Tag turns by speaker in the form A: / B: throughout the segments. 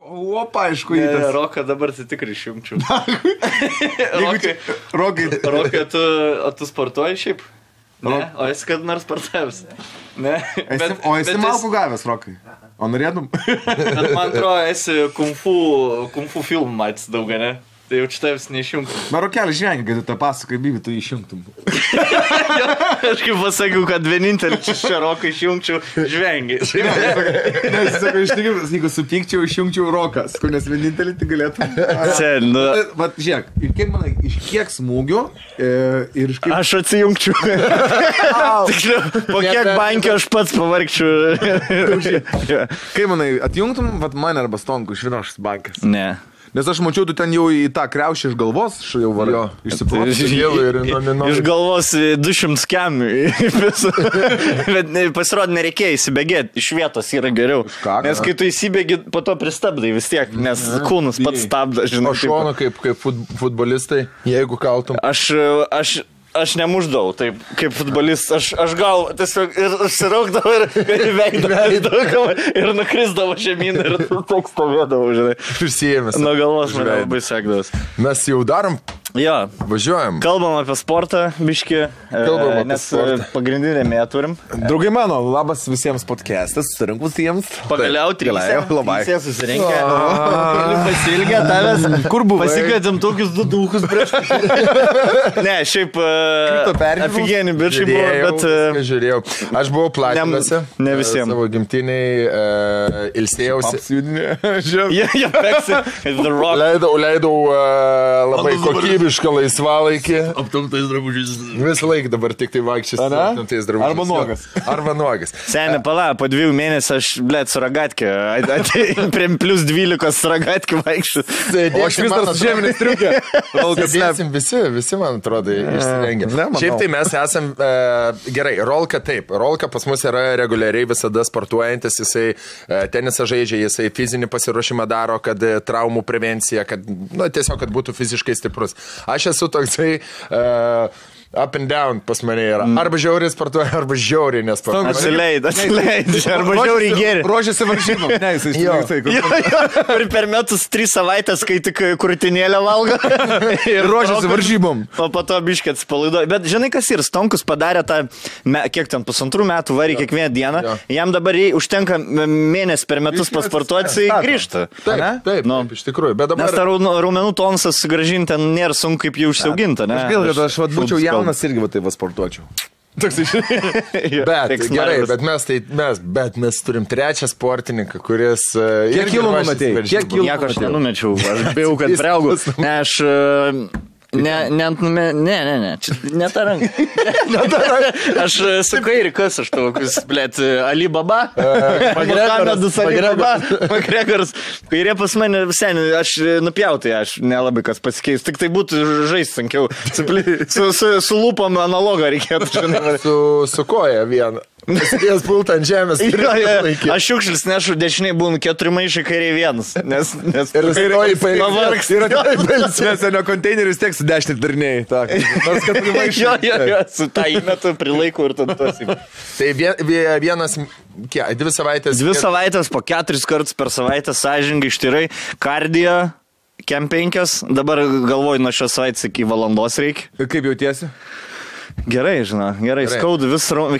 A: Opa, aišku, į tas.
B: Roką dabar tai tikrai išjungčiau.
A: Rokai,
B: tu sportuoji šiaip? Ne, o esi kad nors sportavęs? Ne.
A: O esi malkų gavęs, Rokai? O norėtum?
B: Bet man atrodo, esi kung fu filmų matys daug, ne? Tai jau čia tavęs neišjungtum.
A: Na, Rokelį žvengi, kad tu tą pasakai, Bibi, tu išjungtum.
B: Aš kaip pasakiau, kad vienintelį čia Roką išjungčiau, žvengi.
A: Nes, sakau, iš tikrųjų, jeigu supykčiau, išjungčiau Rokas, nes vienintelį tai galėtum.
B: Sen, nu...
A: Vat, žiūrėk, ir kaip manai, iš kiek smūgių ir iš kiek...
B: Aš atsijungčiau. Tiksliau, po kiek bankio aš pats pavargčiau.
A: Kaip manai, atjungtum, vat mane arba Stonku iš vienos bankės?
B: Ne.
A: Nes aš mačiau, tu ten jau į tą kriaušį iš galvos jau varai.
B: Iš galvos 200 kemių. Bet pasirodė, nereikėjo įsibėgėti. Iš vietos yra geriau. Nes kai tu įsibėgi, po to pristabdai vis tiek, nes kūnus pats stabda.
C: O šono kaip futbolistai, jeigu kaltum.
B: Aš nemuždavau, taip, kaip futbolistas, aš gal tiesiog ir užsiraukdavau ir veikdavau ir nukrisdavau žemyn ir toks stovėdavau, žinai.
C: Prisijėmės.
B: Nuo galvos mane labai sekdavas.
C: Mes jau darom,
B: jo.
C: Važiuojam.
B: Kalbam apie sportą, biškį, nes pagrindinę mėją turim.
A: Draugai mano, labas visiems podcastas, susirinkusiems.
B: Pagaliau trysė susirinkę. Pasilgę tavęs.
A: Kur buvai?
B: Pasikvietėm tokius du duchus prieš. Ne, šiaip aфиgenį bičiai buvo, bet...
C: Žiūrėjau. Aš buvau Platinose.
B: Ne visiems.
C: Savo gimtiniai ilsėjausi.
B: Jie peksi.
C: Leidau labai kokybišką laisvalaikį.
D: Aptamtais drabužiais.
C: Visą laiką dabar tik tai vaikščias aptamtais drabužiais.
A: Arba nuogas.
B: Seniai, pala, po 2 mėnesių aš, blėt, su ragatkė. Prie plus 12 su ragatkė vaikščiu.
A: O aš vis dar su žeminės triukė.
C: Sėdėsim visi, man atrodo, išsirengę. Šiaip tai mes esam, gerai, Rolka taip. Rolka pas mus yra reguliariai visada sportuojantis, jisai tenisą žaidžia, jisai fizinį pasiruošimą daro, kad traumų prevencija, kad, nu, tiesiog, kad būtų fiziškai stiprus. Aš esu toksai... up and down pas mane yra. Arba žiauriai sportuoja, arba žiauriai nesportuoja.
B: Atsileid. Arba žiauriai geri.
A: Ruošiasi varžybom. Ne, jisai
B: Ir per metus 3 savaitės, kai tik krūtinėlę valgo.
A: Ir ruošiasi varžybom.
B: O po to biškį atsipalaiduoja. Bet žinai, kas ir, Stonkus padarė tą, kiek ten 1,5 metų varį kiekvieną dieną. Jam dabar užtenka mėnesį per metus pasportuoti, jisai grįžta.
C: Taip, iš tikrųjų.
B: Nes tą raumenų tonusą sugrąžinti nėra sunku kaip jį užsiauginti.
A: Aš būčiau jaunas irgi va taip sportuočiau.
C: Bet gerai, bet mes turim 3 sportininką, kuris...
A: Kiek kilų numatėjai?
B: Nieko aš nenumečiau, aš bijau, kad priaugau. Ne, aš... Ne, ne ta ranka. Aš su kairi, kas aš tokius, blėt, Alibaba, Makregaras, kairė pas mane seniai, aš nupjautai, aš nelabai kas pasikeis, tik tai būtų žaisti sunkiau, su lūpom analogą reikėtų, žinai.
C: Su koja vieną. Pasidėjęs pultą ant žemės.
B: Aš šiukšlis nešu, dešiniai būnu 4 maišai, kairiai 1. Nes
C: ir kairioji pavargs.
A: Nes nuo konteinerius tiek su 10 darniai. Nors 4 maišai.
B: Jo, su tą įmetu prilaikau ir tada tosi.
C: Tai vienas, 2 savaitės.
B: 2 savaitės po 4 kartus per savaitę sąžiningai ištyrai. Kardio, kem 5. Dabar galvoju, nuo šios savaitės iki valandos reikia.
A: Kaip jautiesi?
B: Gerai, žinau, gerai. Skaudu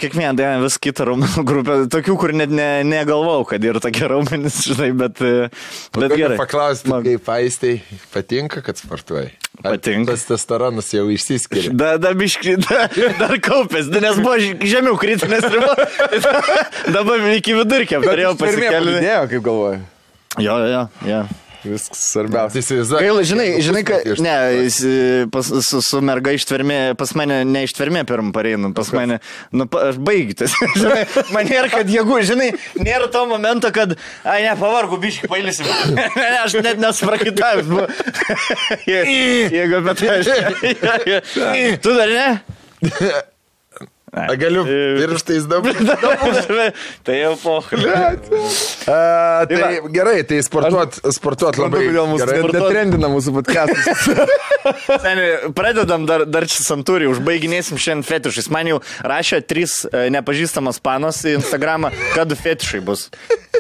B: kiekvieną dieną vis kitą raumenų grupę. Tokių, kur net negalvau, kad yra tokie raumenys, žinai, bet gerai.
C: Paklausti, kaip Aistai patinka, kad sportuoji?
B: Patinka.
C: Tas testosteronas jau išsiskiria.
B: Dar kaupės, nes buvo žemiau kritinės ribos. Dabar iki vidurkio turėjau pasikeliu.
A: Pridėjo, kaip galvoju.
B: Jo.
A: Viskas svarbiausia.
B: Gaila, žinai, kad ne, su merga ištvermė, pas mane ne ištvermė pirmą pareinu, pas mane, aš baigtas. Žinai, man nėra, kad jėgų, žinai, nėra to momento, kad, pavargu, biškį pailėsim. Aš net nesuprakitavęs buvo. Jėgu, bet aš. Tu dar ne?
C: Galiu pirštais dabar.
B: Tai jau pokalbė.
C: Tai gerai, tai sportuot labai
A: gerai. Netrendina mūsų podcastus.
B: Seniai, pradedam dar čia santūrį, užbaiginėsim šiandien fetišais. Man jau rašė 3 nepažįstamas panos į Instagramą, kad fetišai bus.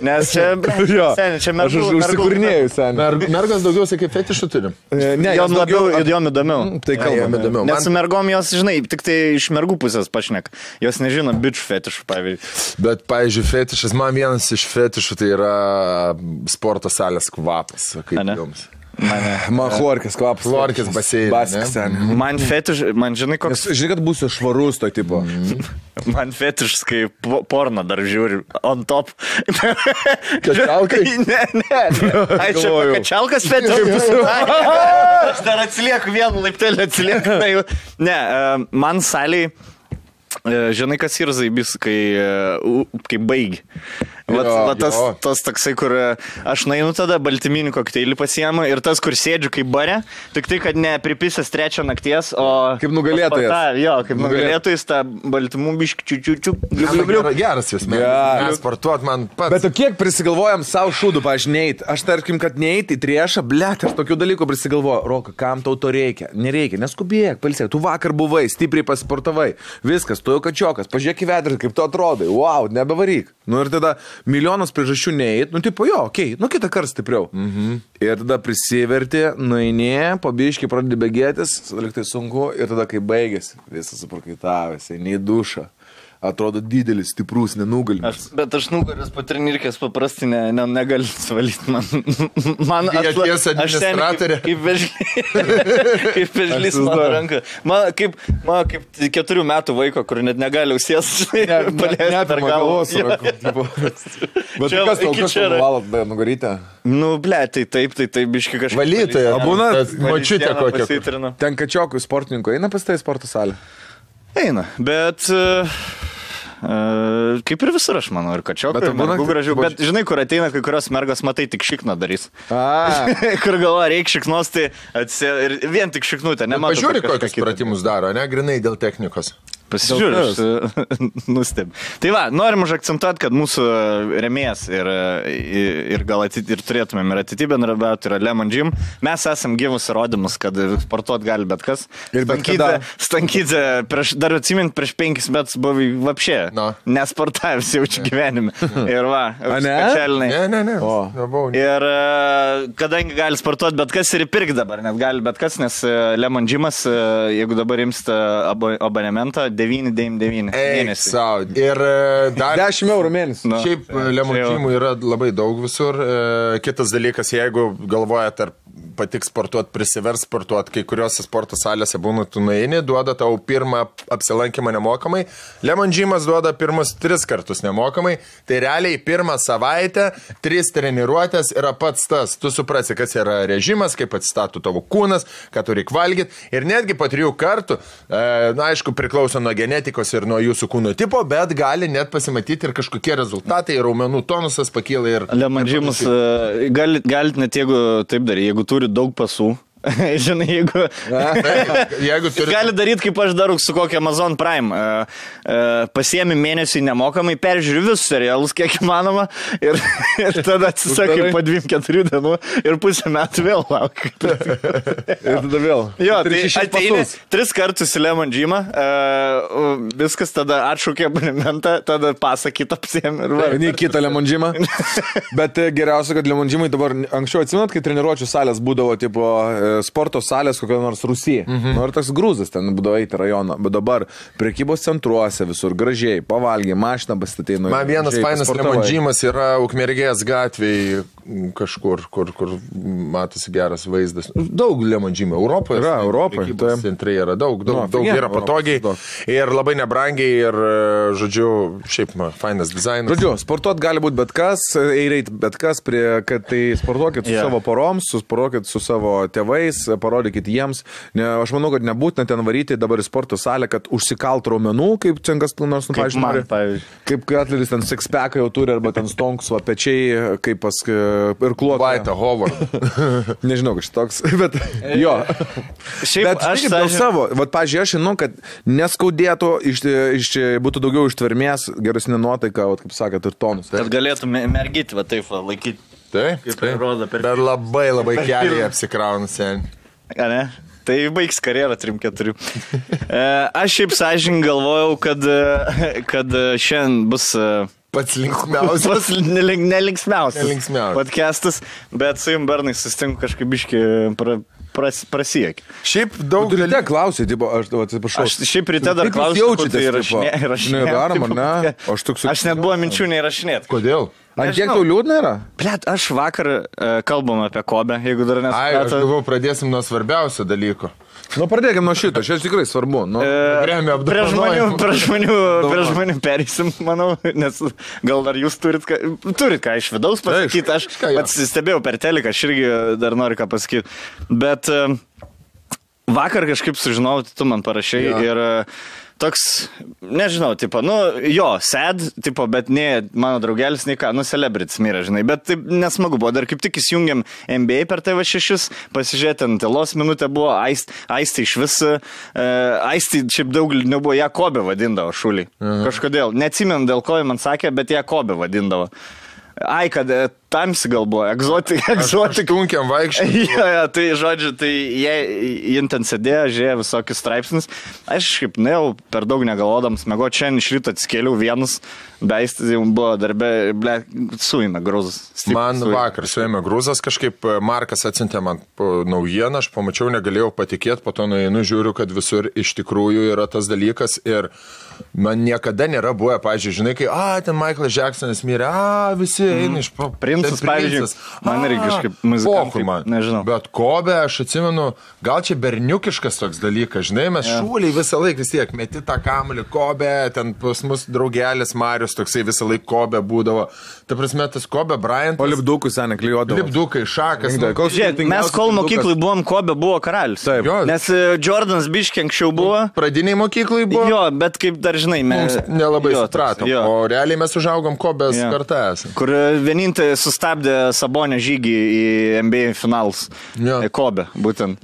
B: Nes čia, seniai, čia
A: Aš užsikūrinėjau, seniai.
C: Mergas daugiausiai kaip fetišų turim.
B: Ne, jom labiau, jom įdomiau.
A: Tai kalbame įdomiau.
B: Nes su mergom jos, žinai, tik tai iš mergų pusės pašnek. Jos nežino bičių fetišų, pavyzdžiui.
C: Bet, pavyzdžiui, fetišas, man vienas iš fetišų tai yra sporto salės kvapas. Kaip jums?
A: Man chlorkės kvapas.
C: Chlorkės baseinas.
A: Baskas, seniai.
B: Man fetiš, man žinai koks...
A: Žinai, kad būsiu švarus to tipo.
B: Man fetišas, kai porno dar žiūri on top.
C: Kačialkai?
B: Ne. Ai, čia kačialkas fetišas. Aš dar atsilieku vienu laiptelį atsilieku. Ne, man saliai, žinai, kas yra zaibis, kai baigi. Tas toksai, kur aš nainu tada baltyminį kokteilį pasiemu ir tas, kur sėdžiu kaip bare, tik tai, kad ne pripisęs 3 nakties, o...
A: Kaip nugalėtojas.
B: Jo, kaip nugalėtojas, tą baltymų biškį čiučiu.
C: Geras jūs, mes sportuot man pats.
A: Bet kiek prisigalvojam savo šūdų, pažinėjt. Aš tarkim, kad neįt į triešą, blėt, aš tokių dalykų prisigalvoju. Roka, kam tau to reikia? Nereikia, neskubėk, palsėk. Tu vakar buvai, stipriai pasisportavai. Viskas, tu jau kačiokas, pažiūrėk į vedrį, kaip tu atrodai. Wow, nebevaryk. Nu ir tada milijonas priežasčių neįt, nu tipo jo, okei, nu kitą kartą stipriau. Ir tada prisiverti, nueini, pabiškai pradedi bėgėtis, liktai sunku, ir tada kai baigėsi, visas suprakaitavęs, eini į dušą. Atrodo didelis, stiprus, nenugalimas.
B: Bet aš nugaras po trenirkės paprastai negaliu suvalyti. Man
C: aš administratorė.
B: Kaip vežlys mano ranka. Man kaip 4 metų vaiko, kur net negali užsies paleisti per galvos.
A: Bet kas tau valot nugarytę?
B: Nu, ble, tai taip, biški kažkaip.
C: Valytoja,
A: būna
C: močiutė kokia.
A: Ten kačiokų sportininkų eina pas tai sporto salę?
B: Eina, bet... kaip ir visur, aš manau, ir kačiokai, ir mergų gražių. Bet žinai, kur ateina kai kurios mergos, matai, tik šikną darys. Kur galvoja, reikia šiknos, tai ir vien tik šiknutę.
C: Pažiūrė, kokius pratimus daro, ne? Grinai dėl technikos.
B: Pasižiūrėjau, nusteb. Tai va, norim užakcentuoti, kad mūsų remėjas ir gal ir turėtumėm ir ateityje bendrabiauti yra Lemon Gym. Mes esam gyvus įrodymus, kad sportuot gali bet kas. Ir Stankydze, dar atsimint, prieš 5 metus buvo vapšė, nesportavęs jaučiu gyvenime. Ir va, specialinai.
C: Ne.
B: Ir kadangi gali sportuoti bet kas ir įpirkti dabar, net gali bet kas, nes Lemon Gymas, jeigu dabar imsite abonementą, 9,99 mėnesį.
C: Ir dar
A: 10 eurų mėnesį.
C: Šiaip Lemon Gymų yra labai daug visur. Kitas dalykas, jeigu galvojate, ar patiks sportuoti, prisivers sportuoti, kai kuriuose sporto salėse būna tu nueini, duoda tau pirmą apsilankymą nemokamai. Lemon Gymas duoda pirmus 3 kartus nemokamai. Tai realiai pirmą savaitę 3 treniruotės yra pats tas. Tu suprasi, kas yra režimas, kaip atsistatų tavo kūnas, ką turi valgyti. Ir netgi po 3 kartų, na aišku, priklauso nuo genetikos ir nuo jūsų kūno tipo, bet gali net pasimatyti ir kažkokie rezultatai, raumenų tonusas pakyla ir...
B: Lemon Gymas galit net jeigu taip daryti, jeigu turi daug pasų. Žinai, jeigu gali daryti, kaip aš darau su kokia Amazon Prime. Pasiemi mėnesį nemokamai, peržiūri visus serialus, kiek įmanoma, ir tada atsisakai po 2-4 dienų ir pusę metų vėl lauk.
A: Ir tada vėl.
B: Jo, tai ateini 3 kartus į Lemon Gymą, viskas tada atšaukė abonementą, tada pasą kitą apsiemi.
A: Ne kitą Lemon Gymą. Bet geriausia, kad Lemon Gymai dabar anksčiau atsimenat, kai treniruočių salės būdavo tipo sporto salės kokio nors Rusija. Nu ir toks grūzas ten būdavo eiti rajoną. Bet dabar prekybos centruose visur gražiai, pavalgiai, mašiną pasistatė.
C: Man vienas fainas Lemon Gymas yra Ukmergės gatvėje kažkur, kur matosi geras vaizdas. Daug Lemon Gymų Europoje.
A: Yra Europoje.
C: Prekybos centrai yra daug yra patogiai ir labai nebrangiai ir, žodžiu, šiaip fainas dizainas.
A: Žodžiu, sportuot gali būti bet kas, eireit bet kas, kad tai sportuokit su savo poroms, sportuokit su savo tėvais, parodykit jiems. Aš manau, kad nebūtina ten varyti dabar į sporto salę, kad užsikalt raumenų, kaip Cengas nors, pavyzdžiui. Kaip atleris ten six-packą jau turi, arba ten stonks, va pečiai, kaip pas ir kluotą.
C: Vaita, Howard.
A: Nežinau, kažkas toks, bet jo. Bet aš dėl savo, pavyzdžiui, aš žinau, kad neskaudėtų, būtų daugiau ištvermės, geresnė nuotaika, kaip sakėt, ir tonus.
B: Kad galėtume mergyti, va taip, laikyti.
C: Taip. Bet labai keliai apsikrauna sen.
B: Ne? Tai baigs karjerą 3-4. Aš šiaip sąžininkai galvojau, kad šiandien bus
C: Pats linksmiausias.
B: Nelinksmiausias podcastas, bet su jums Bernai susitinku kažkaip biški prasiekį.
C: Šiaip daug
A: dalykų klausai, tipo, aš atsiprašau.
B: Aš šiaip ryte dar klausiau, tai įrašinėjau. Aš net buvo minčių neįrašinėti.
C: Kodėl?
A: Ant kiek tau liūdna yra?
B: Blet, aš vakar kalbam apie Kobę, jeigu dar
C: Ai, aš galvoju, pradėsim nuo svarbiausio dalyko.
A: Nu, pradėkim nuo šito, čia tikrai svarbu. Nu,
B: Prie žmonių pereisim, manau, nes gal dar jūs turit ką iš vidaus pasakyti. Aš pats stebėjau per teliką, aš irgi dar noriu ką pasakyti. Bet vakar kažkaip sužinau, tu man parašai ir toks, nežinau, tipo, nu, jo, sad, tipo, bet ne mano draugelis, nei ką, nu, celebrities mirė, žinai, bet taip nesmagu buvo, dar kaip tik įsijungiam NBA per TV6, pasižiūrėti, ant tylos minutę buvo, Aistį iš vis, Aistį šiaip daug nebuvo, ją Kobę vadindavo šulį, kažkodėl, neatsimenu dėl ko man sakė, bet ją Kobę vadindavo. Ai, kad tamsi gal buvo, egzotik.
C: Tunkiam vaikščiai.
B: Ja, tai žodžiu, tai jie ten sėdėjo, žiūrėjo visokius straipsnius. Aš kaip nejau per daug negalvodams, mėgo čia iš ryto atskėliau vienus, beistis jau buvo darbė, ble, suėmė grūzas.
C: Man vakar suėmė grūzas, kažkaip Markas atsintė man naujieną, aš pamačiau, negalėjau patikėti, po to nueinu, žiūriu, kad visur iš tikrųjų yra tas dalykas ir man niekada nėra buvę, pavyzdžiui, žinai, kai, ten Michaelas Jacksonas mirė, visi eina iš
B: Princas, pavyzdžiui, man irgi kažkaip muzikantai, nežinau.
C: Bet Kobė, aš atsimenu, gal čia berniukiškas toks dalykas, žinai, mes šūliai visą laiką vis tiek, meti tą kamuolį Kobė, ten pas mus draugelis Marius toksai visą laiką Kobė būdavo. Ta prasme, tas Kobė Bryantas.
A: O lipdukų seniai klijuodavo.
C: Lipdukai, šakas.
B: Mes kol mokyklai buvom, Kobė buvo karalius.
A: Taip.
B: Nes Jordanas biškiai anksčiau buvo.
C: Pradiniai mokyklai buvo.
B: Jo, bet kaip dar žinai, mes
C: nelabai supratom. O realiai mes užaugom Kobės kartą esame.
B: Kur vienintelį sustabdė Sabonio žygį į NBA finalus. Kobė, būtent.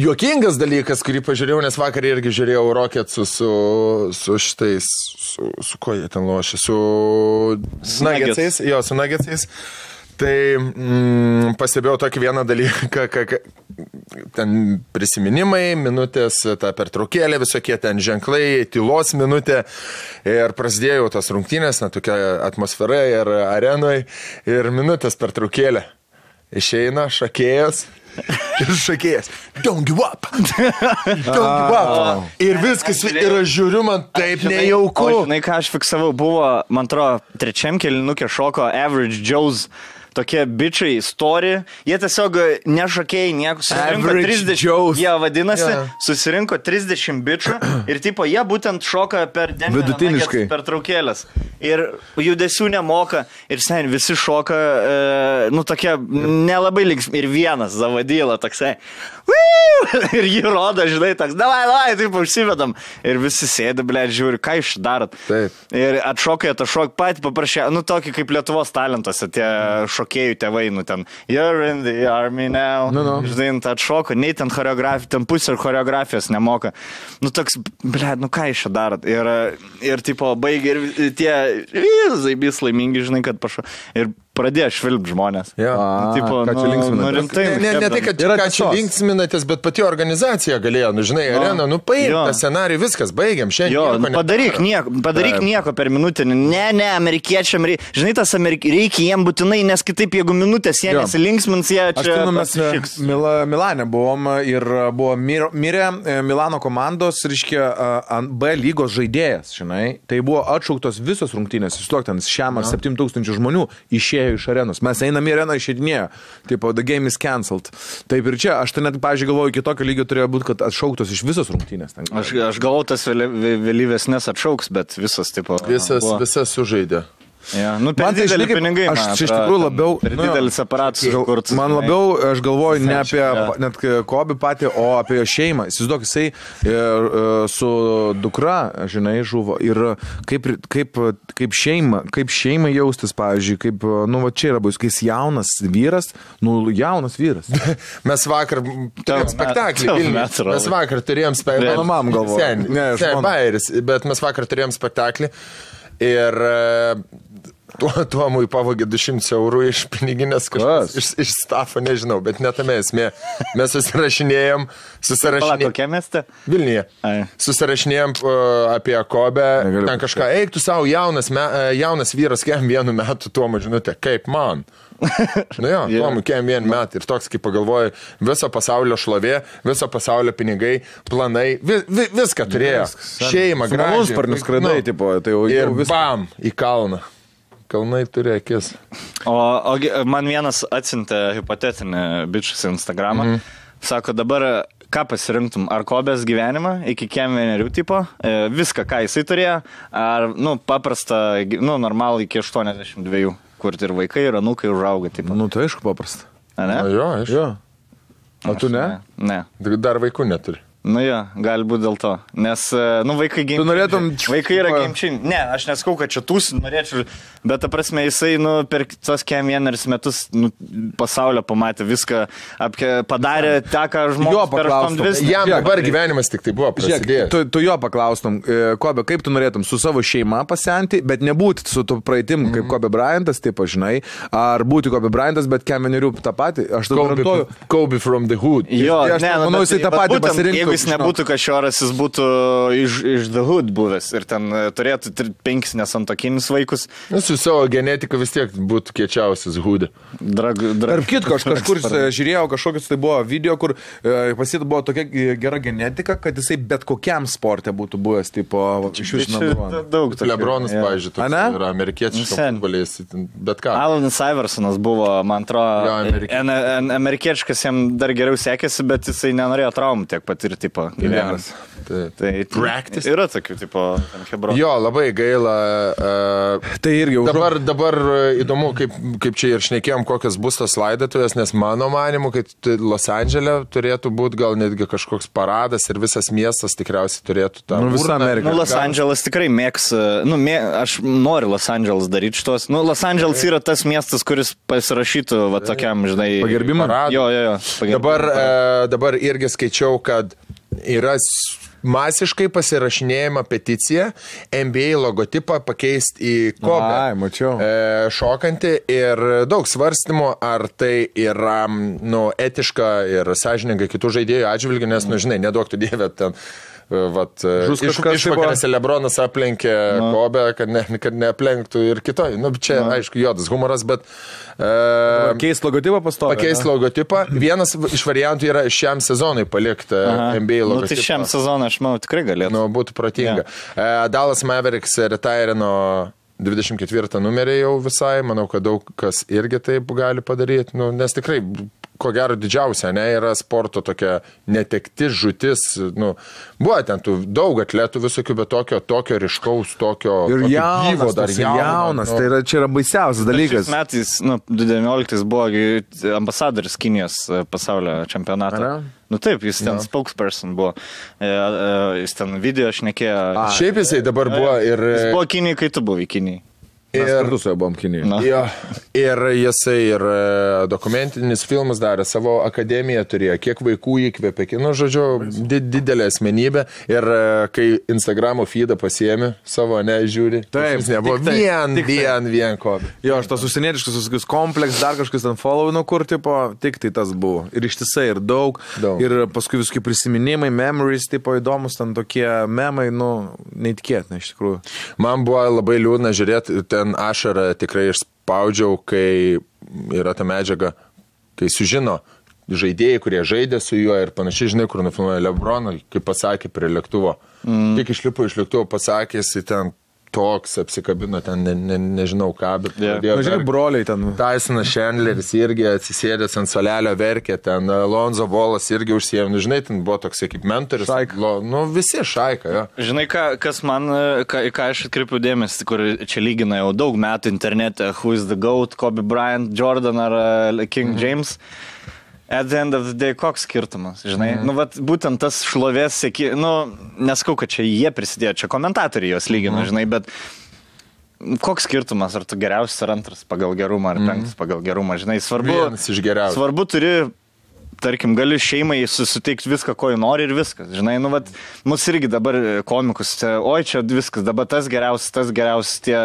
C: Juokingas dalykas, kurį pažiūrėjau, nes vakar irgi žiūrėjau Rockets'u su šitais, su ko jie ten lošia, su Nuggets'ais. Jo, su Nuggets'ais. Tai pastebėjau tokį vieną dalyką, ten prisiminimai, minutės, ta pertraukėlė, visokie ten ženklai, tylos minutė ir prasidėjo tas rungtynės, tokia atmosfera ir arenoje ir minutės pertraukėlė. Išeina šakėjas. Ir šakėjas, don't give up. Don't give up. Ir viskas, ir aš žiūriu, man taip nejauku.
B: O žinai, ką aš fiksavau, buvo, man atrodo, trečiam kėlinukė šoko Average Joe's. Tokie bičiai, story, jie tiesiog nešokėjai nieko, susirinko 30, jie vadinasi, susirinko 30 bičių ir tipo, jie būtent šoka per
A: vidutiniškai
B: per traukėlės ir judesių nemoka ir sen visi šoka, nu tokie nelabai linksmi ir vienas Zavadyla toksai, ir jį rodo, žinai, toks, davai, taip užsivedam ir visi sėdi, ble, žiūri, ką iš darot.
A: Taip.
B: Ir atšokai, patį paprašė, nu tokį kaip Lietuvos talentuose, tie šokėjų tėvai, nu ten, you're in the army now, žinai, atšoko, nei ten choreografija, ten pusė choreografijos nemoka. Nu toks, ble, nu ką iš darot. Ir tipo, baigė ir tie zaibys laimingi, žinai, kad pašo. Ir pradėjo švilpti žmonės.
A: Tipo, ką čia linksminatės?
C: Ne tai, kad ką čia linksminatės, bet pati organizacija galėjo, nu žinai, arena, nu paim tą scenarijų, viskas, baigiam, šiandien.
B: Padaryk nieko per minutę. Ne, amerikiečiam, žinai, tas reikia jiem būtinai, nes kitaip, jeigu minutės jie nesilinksmins, jie čia...
A: Mes Milane buvom ir buvo mirę Milano komandos, reiškia, B lygos žaidėjas, žinai. Tai buvo atšauktos visos rungtynės, ten šiam 7000 žmonių išėjo iš arenos. Mes einam į areną, išėdinėjo. Tipo, the game is cancelled. Taip ir čia, aš tai net, pavyzdžiui, galvoju, iki tokio lygio turėjo būti, kad atšauktos iš visos rungtynės.
B: Aš galvoju, tas vėlyvesnės atšauks, bet visas, tipo...
C: Visas sužaidė.
B: Ja, nu, per didelį pinigai,
A: aš iš tikrųjų labiau...
B: Per didelis aparatas.
A: Man labiau, aš galvoju, ne apie net Kobį patį, o apie jo šeimą. Įsivaizduok, jisai su dukra, žinai, žuvo. Ir kaip šeima jaustis, pavyzdžiui, kaip, nu, va čia yra bus, kai jis jaunas vyras,
C: Mes vakar turėjom spektaklį. Mes vakar turėjom spektaklį.
A: Mano mam galvoju.
C: Bet mes vakar turėjom spektaklį. Ir Tuomui pavogė 200 eurų iš piniginės kažkas, iš stafo, nežinau, bet netame esmė. Mes susirašinėjom.
B: Kokia mieste?
C: Vilniuje. Susirašinėjom apie Kobę, ten kažką, eik tu savo jaunas vyras, kem 1 metų Tuomui žinutė, kaip man. Nu jo, Tuomui kem 1 metų ir toks, kaip pagalvoju, viso pasaulio šlovė, viso pasaulio pinigai, planai, viską turėjo. Šeima, gražiai.
A: Sparnius skraidai, tipo, tai jau
C: ir bam, į kalną. Kalnai turi akis.
B: O man vienas atsiuntė hipotetinį bičius į Instagramą. Sako, dabar ką pasirinktum? Ar Kobės gyvenimą iki kem 1 tipo? Viską, ką jisai turėjo? Ar, paprasta, normalų iki 82, kur ir vaikai, ir anūkai užauga. Tipo.
A: Tai aišku paprasta.
B: A, ne?
C: Jo, aišku.
A: Jo. O tu ne?
B: Ne.
C: Dar vaikų neturi.
B: Nu jo, gali būti dėl to. Nes, vaikai gimčiai.
A: Tu norėtum...
B: Vaikai yra gimčiai. Ne, aš neskau, kad čia tūs norėčiau, bet ta prasme, jisai, per tos kem 1 metus pasaulio pamatė viską, padarė tą, ką žmogus per 2.
C: Jam dabar gyvenimas tik tai buvo prasidėjęs.
A: Tu jo paklaustum, Kobe, kaip tu norėtum su savo šeima pasenti, bet nebūti su tu praeitim, kaip Kobe Bryantas, taip, žinai, ar būti Kobe Bryantas, bet kem 1 tą patį. Aš tu garantuoju.
C: Kobe from the hood.
B: Jo,
A: manau, jisai tą patį pasirinktų.
B: Jis nebūtų kažioras, jis būtų iš The Hood buvęs ir ten turėtų 5 nesantokinis vaikus.
C: Su savo genetika vis tiek būtų kiečiausias Hood.
A: Tarp kitko, aš kažkur žiūrėjau kažkokius, tai buvo video, kur pasita buvo tokia gera genetika, kad jisai bet kokiam sporte būtų buvęs, tipo, iš jūsų
B: daug.
C: Lebronas, pavyzdžiui, yra amerikiečiškas futbolis, bet ką.
B: Alanas Iversonas buvo, man atrodo, amerikiečiškas jam dar geriau sekėsi, bet jisai nenorėjo traumų tiek patirti. Tipo, gyvenimas.
C: Tai practice.
B: Yra tokių, tipo, hebronų.
C: Jo, labai gaila.
A: Tai irgi
C: dabar įdomu, kaip čia ir šnekėjom, kokios bus tos laidotuvės, nes mano manimu, kad Los Andžele turėtų būti gal netgi kažkoks paradas ir visas miestas tikriausiai turėtų tą.
A: Visą Ameriką.
B: Los Andželas tikrai mėgs, aš noriu Los Andželas daryti šitos. Los Andželas yra tas miestas, kuris pasirašytų tokiam, žinai,
A: pagerbimą.
B: Jo.
C: Dabar irgi skaičiau, kad yra masiškai pasirašinėjama peticija NBA logotipą pakeisti į Kobe. Šokantį ir daug svarstymų, ar tai yra etiška ir sąžininga kitų žaidėjų atžvilgių, nes, žinai, neduok tu dievę ten. Išvakarėse Lebronas aplenkė Kobe, kad neaplenktų ir kitoj. Čia, aišku, juodas humoras, bet...
A: Keist logotipą pastovi.
C: Pakeist logotipą. Vienas iš variantų yra šiam sezonui palikti NBA logotipą.
B: Tai šiam sezonui, aš manau, tikrai galėtų.
C: Būtų protinga. Dallas Mavericks retirino 24 numerį jau visai. Manau, kad daug kas irgi taip gali padaryti. Nes tikrai... Ko gero didžiausia, yra sporto tokia netektis, žūtis, buvo ten daug atletų visokių, bet tokio ryškaus, tokio
A: gyvo dar jaunas, tai čia yra baisiausias dalykas.
B: Šiais metais, 2019 buvo ambasadoris Kinijos pasaulio čempionato. Taip, jis ten spokesperson buvo, jis ten video šnekėjo.
C: Šiaip jisai dabar buvo ir...
B: Jis buvo Kinijai, kai tu buvai Kinijai.
A: Mes kartu su juo buvom Kinijoje.
C: Ir jisai ir dokumentinis filmas darė, savo akademiją turėjo, kiek vaikų įkvėpė, žodžiu, didelė asmenybė. Ir kai Instagramo feedą pasiėmė savo, žiūri,
A: taip,
C: nebuvo vien Kobe.
A: Jo, aš tas užsienietiškas visokius kompleks, dar kažkas ten follow, kur, tipo, tik tai tas buvo. Ir ištisai, ir daug. Ir paskui visokie prisiminimai, memories, tipo, įdomus, ten tokie memai, neįtikėtina iš tikrųjų.
C: Man buvo labai liūdna žiūrėti, ten ašarą tikrai išspaudžiau, kai yra ta medžiaga, kai sužino žaidėjai, kurie žaidė su juo ir panašiai, žinai, kur nufilmuoja Lebroną, kaip pasakė prie lėktuvo. Tik išlipo iš lėktuvo, pasakė, jis ten toks apsikabino, ten nežinau ką, bet
A: žiūrėk, broliai ten.
C: Tysonas Chandleris irgi atsisėdęs ant solelio verkė, ten Lonzo Ballas irgi užsiėmė, žinai, ten buvo toks kaip mentorius. Visi šaika, jo.
B: Žinai, kas man, ką aš atkreipiu dėmesį, kur čia lygina jau daug metų internete, who is the GOAT, Kobe Bryant, Jordan ar King James. At the end of the day, koks skirtumas, žinai? Būtent tas šlovės sėki, neskau, kad čia jie prisidėjo, čia komentatoriai jos lygino, žinai, bet koks skirtumas, ar tu geriausias ar antras pagal gerumą, ar penktas pagal gerumą, žinai, svarbu.
C: Vienas iš geriausių.
B: Svarbu turi tarkim, gali šeimai susitikti viską, ko jį nori ir viskas. Žinai, nu, vat, mus irgi dabar komikus, oi, čia viskas, dabar tas geriausias, tie,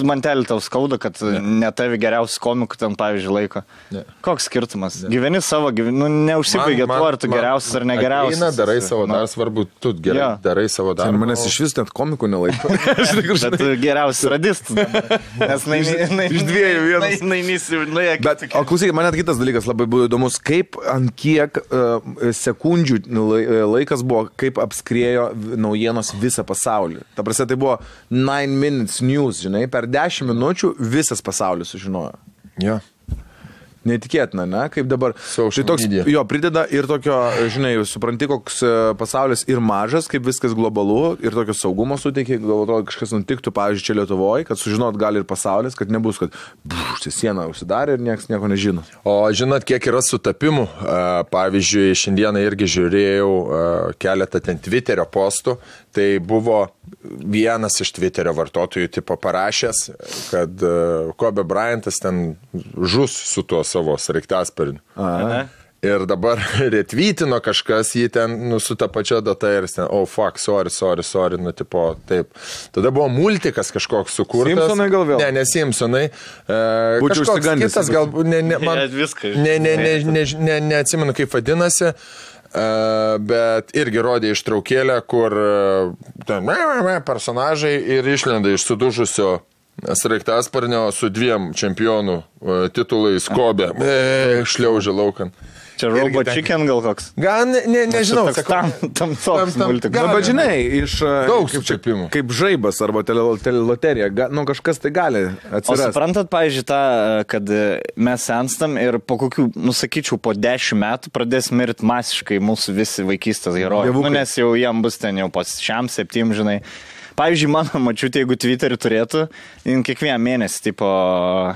B: man telį tau skauda, kad ne tavi geriausias komikų ten, pavyzdžiui, laiko. Koks skirtumas? Gyveni savo, nu, neužsibaigė tuo, ar tu geriausias ar negeriausias.
C: Eina, darai savo darbą, svarbu, tu gerai darai savo darbą.
A: Manęs iš vis net komikų nelaiko.
B: Bet tu geriausias radistas. Nes
A: iš dviejų vienas. Bet, o klausykit, man net kitas dalykas labai buvo įdomus, kaip ant kiek sekundžių laikas buvo, kaip apskriejo naujienos visą pasaulį. Ta prasme, tai buvo 9 minutes news, žinai, per 10 minučių visas pasaulis sužinojo.
C: Jo.
A: Neįtikėtina, ne? Kaip dabar. Tai toks, jo, prideda ir tokio, žinai, supranti, koks pasaulis ir mažas, kaip viskas globalu, ir tokio saugumo suteikia, gal atrodo, kažkas nutiktų, pavyzdžiui, čia Lietuvoje, kad sužinot gali ir pasaulis, kad nebus, kad siena užsidarė ir niekas nieko nežino.
C: O žinot, kiek yra sutapimų? Pavyzdžiui, šiandieną irgi žiūrėjau keletą ten Twitterio postų, tai buvo vienas iš Twitterio vartotojų tipo parašęs, kad Kobe Bryantas ten žus su tuo savo sraigtasparniu. Ir dabar retvytino kažkas jį ten, nu, su ta pačia data ir ten, oh fuck, sorry, nu, tipo, taip. Tada buvo multikas kažkoks sukurtas.
A: Simpsonai gal vėl?
C: Ne Simpsonai.
A: Būčiau užsigandęs.
C: Kitas gal, neatsimenu, kaip vadinasi. Bet irgi rodė ištraukėlę, kur ten personažai ir išlenda iš sudužusio sraigtasparnio su 2 čempionų titulais Kobe. Šliaužia laukan.
B: Čia Robot Chicken gal koks?
C: Gal, nežinau.
B: Tam toks multikas.
A: Bet žinai, iš
C: daug sutapimų.
A: Kaip žaibas arba teleloterija, nu kažkas tai gali atsirasti.
B: O suprantat, pavyzdžiui, tą, kad mes senstam ir po kokių, nusakyčiau, po 10 metų pradės mirti masiškai mūsų visi vaikystės herojai. Nu, nes jau jam bus ten jau po 6-7, žinai. Pavyzdžiui, mano mačiutė, jeigu Twitterį turėtų, kiekvieną mėnesį, tipo,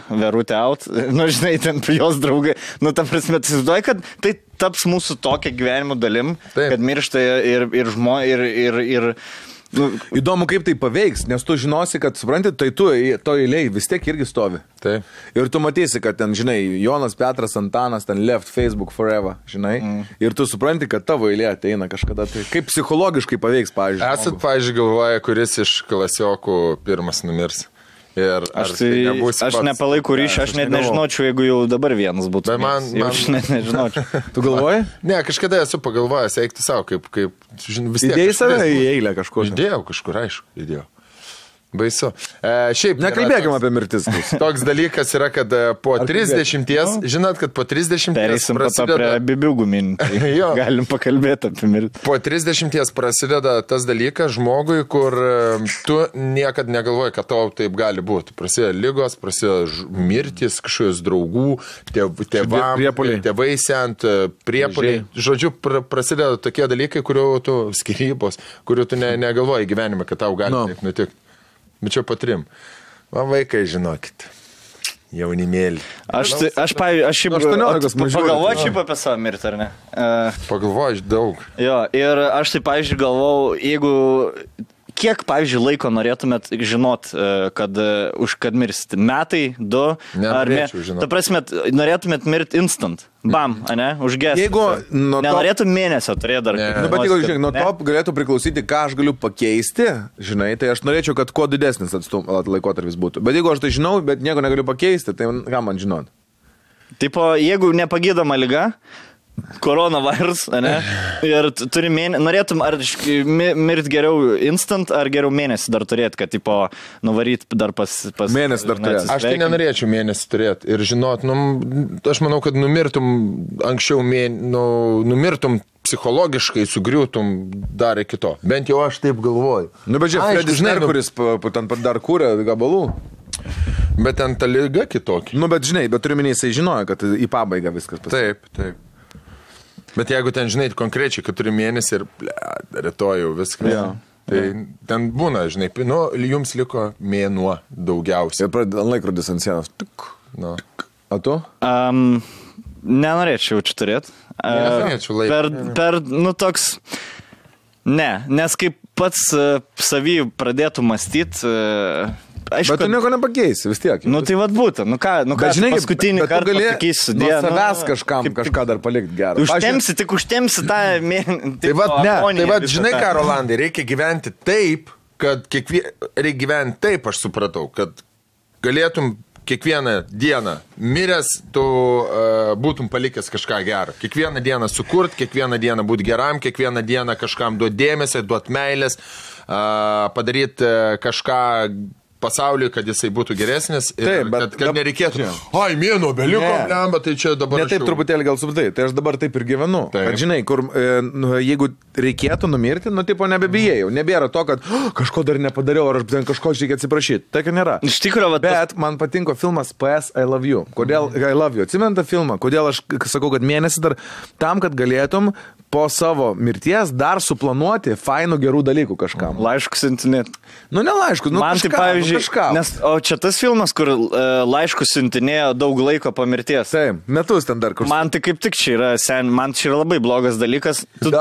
B: verutė out, nu, žinai, ten jos draugai, nu, ta prasme, tu įsivaizduoji, kad tai taps mūsų tokia gyvenimo dalim, taip, kad miršta ir žmonės, ir
A: nu, įdomu, kaip tai paveiks, nes tu žinosi, kad, supranti, tai tu to eilėj vis tiek irgi stovi.
C: Taip.
A: Ir tu matysi, kad ten, žinai, Jonas, Petras, Antanas, ten left Facebook forever, žinai. Ir tu supranti, kad tavo eilė ateina kažkada. Tai kaip psichologiškai paveiks, pavyzdžiui.
C: Esat, pavyzdžiui, galvoja, kuris iš klasiokų pirmas numirs.
B: Aš nepalaikau ryšį, aš net nežinočiau, jeigu jau dabar vienas būtų. Aš net nežinočiau.
A: Tu galvoji?
C: Ne, kažkada esu pagalvojęs, eikti savo, kaip vis tiek.
A: Įdėjai save į eilę kažkur.
C: Įdėjau kažkur, aišku, įdėjau. Baisu. Šiaip
A: nekalbėkime apie mirtis.
C: Toks dalykas yra, kad po 30, žinot, kad po 30
B: prasideda... prie bibiugų minti. Galim pakalbėti apie mirtį.
C: Po 30 prasideda tas dalykas žmogui, kur tu niekad negalvoji, kad tau taip gali būti. Prasideda lygos, prasideda mirtis, kažkokios draugų, tėvai sent, priepuoliai. Žodžiu, prasideda tokie dalykai, kurių tu skyrybos, kurių tu negalvoji gyvenime, kad tau gali taip nutikti. Bet čia po 3. Man vaikai, žinokit, jaunimėlį.
B: Aš pagalvoju šiaip apie savo mirtį, ar ne?
C: Pagalvoju daug.
B: Jo, ir aš tai, pavyzdžiui, galvau, jeigu... Kiek, pavyzdžiui, laiko norėtumėt žinot, kad mirsit? Metai, 2?
C: Nenorėčiau žinot.
B: Ta prasme, norėtumėt mirti instant? Bam, ane? Užgesti.
A: Jeigu...
B: Nenorėtum mėnesio turėti dar.
A: Nu, bet jeigu, žiūrėk, nuo to galėtų priklausyti, ką aš galiu pakeisti, žinai, tai aš norėčiau, kad kuo didesnis laikotarpis būtų. Bet jeigu aš tai žinau, bet nieko negaliu pakeisti, tai ką man žinot?
B: Tipo, jeigu nepagydoma liga, koronavirus, ne? Ir turi norėtum ar mirti geriau instant, ar geriau mėnesį dar turėti, kad, tipo, nuvaryt dar pas
A: mėnesį dar turėti.
C: Aš tai nenorėčiau mėnesį turėti ir žinot, aš manau, kad numirtum anksčiau, numirtum psichologiškai, sugriūtum dar iki to. Bent jau aš taip galvoju.
A: Nu, bet žiūrėk, Fredis Merkuris ten dar kūrė gabalų.
C: Bet ten ta liga kitokia.
A: Nu, bet žinai, bet turiu minėti, jisai žinojo, kad į pabaigą viskas pasakė.
C: Taip. Bet jeigu ten, žinai, konkrečiai, kad turi mėnesį ir rytoj jau viską, tai ten būna, žinai, jums liko mėnuo daugiausiai.
A: Ir pradeda laikrodis ant sienos. A tu?
B: Nenorėčiau čia turėti.
C: Nenorėčiau laiką.
B: Toks... Ne, nes kaip pats savį pradėtų mąstyti, aišku,
A: bet tu nieko nepakeisi, vis tiek.
B: Nu tai vad būtų,
A: žinai,
B: paskutinį kartą pasakysiu.
A: Nuo savęs kažką dar palikti gerą.
B: Užtemsi tą
C: Tai vad, žinai ką, Rolandai, reikia gyventi taip, kad reikia gyventi taip, aš supratau, kad galėtum kiekvieną dieną miręs, tu būtum palikęs kažką gerą. Kiekvieną dieną sukurt, kiekvieną dieną būti geram, kiekvieną dieną kažkam duoti dėmesį, duoti meilės, padaryti kažką pasauliui, kad jisai būtų geresnis ir taip, kad nereikėtų. Ai, mėno beliko, bet tai čia dabar...
A: Ne taip truputėlį gal subtai, tai aš dabar taip ir gyvenu. Taip. Kad žinai, kur jeigu reikėtų numirti, tipo nebebijėjau. Nebėra to, kad kažko dar nepadariau, ar aš kažko reikia atsiprašyti. Tai, kad nėra.
B: Iš tikrųjų,
A: bet man patinko filmas PS I Love You. Kodėl I Love You? Atsimenu tą filmą. Kodėl aš sakau, kad mėnesį dar tam, kad galėtum po savo mirties dar suplanuoti fainų gerų dalykų kažkam.
B: Laiškus siuntinėti.
A: Nu, ne laiškus,
B: man tai pavyzdžiui, nes, o čia tas filmas, kur laiškus siuntinėjo daug laiko po mirties.
A: Taip, metus ten dar kur.
B: Man tai kaip tik čia yra, man čia yra labai blogas dalykas. Tu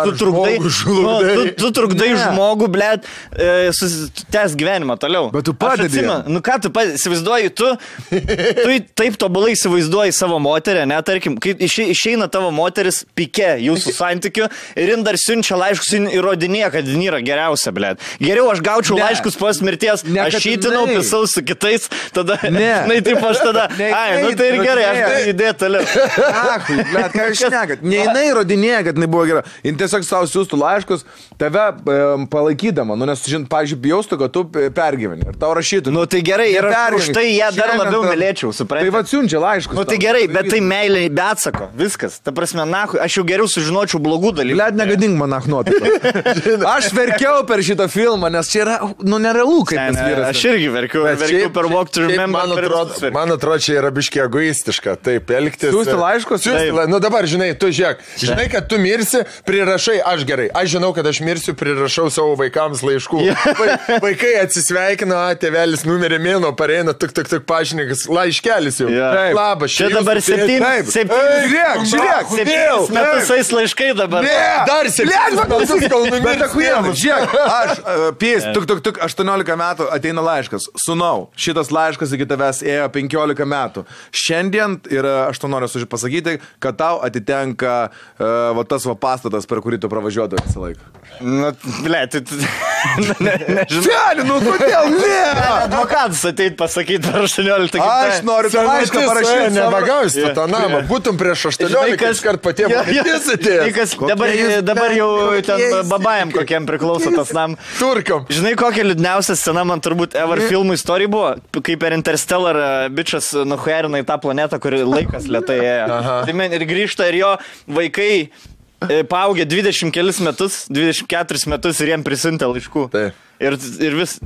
B: trukdai žmogų, blėt, tęs gyvenimą toliau.
A: Bet tu padedi.
B: Nu ką tu padedi, įsivaizduoji, tu taip tobulai įsivaizduoji savo moterį, ne, tarkim, kai išeina tavo moteris pike jūsų santykių ir jin dar siunčia laiškus ir įrodinėja, kad jin yra geriausia, blėt. Geriau aš gaučiau laiškus po mirties, aš šytinau, pisau su kitais, tada, žinai, taip aš tada, nu tai ir gerai, aš tai įdėt toliau.
A: Bet ką aš nekat, ne jinai įrodinėja, kad jinai buvo gera, jin tiesiog savo siūstų laiškus, tave palaikydama, nes, pavyzdžiui, bijaustų, kad tu pergyveni ir tau rašytų.
B: Nu tai gerai, ir už tai ją dar labiau mylėčiau, supranti.
A: Tai va siunčia laiškus.
B: Nu tai gerai, bet tai meilė be atsako, viskas. Ta prasme, aš jau geriau sužinočiau blogų dalykų.
A: Liet negadink man nuotaiką. Aš verkiau per šitą filmą, nes čia yra, nerealu, kaip tas vyras.
B: Aš irgi verkiau per Walk to Remember.
C: Man atrodo, čia yra biškiai egoistiška, taip elgtis.
A: Siūsti laiškus?
C: Nu dabar, žinai, tu žiūrėk, žinai, kad tu mirsi, prirašai, aš gerai, aš žinau, kad aš mirsiu, prirašau savo vaikams laiškų. Vaikai atsisveikina, tėvelis numerė mėno, pareina, tik pažinikas, laiškelis jau. Labas,
B: čia dabar 7 metus eis laiškai dabar.
C: Dar 7 metus kol numirsi.
A: Žiūrėk, aš, 18 metų ateina laiškas. Sūnau, šitas laiškas iki tavęs ėjo 15 metų. Šiandien, ir aš to noriu pasakyti, kad tau atitenka tas pastatas, per kurį tu pravažiuodavai visą laiką.
B: Nu, blėt,
A: nežinau. Nu, kodėl ne?
B: Advokatas ateit pasakyti per 18
A: Aš noriu tą laišką parašyti.
C: Nebagausi tu tą namą. Būtum prieš 18 iškart patiem mirtis atėjęs.
B: Dabar jau ten babajam kokiam priklauso tas nam.
C: Turkam.
B: Žinai, kokia liūdniausia scena man turbūt ever filmų istorijai buvo, kai per Interstellar bičas nuhuerina į tą planetą, kur laikas lėtai ėjo. Tai ir grįžta ir jo vaikai paaugė 20 kelis metus, 24 metus ir jiem prisiuntė laiškų. Ir vis,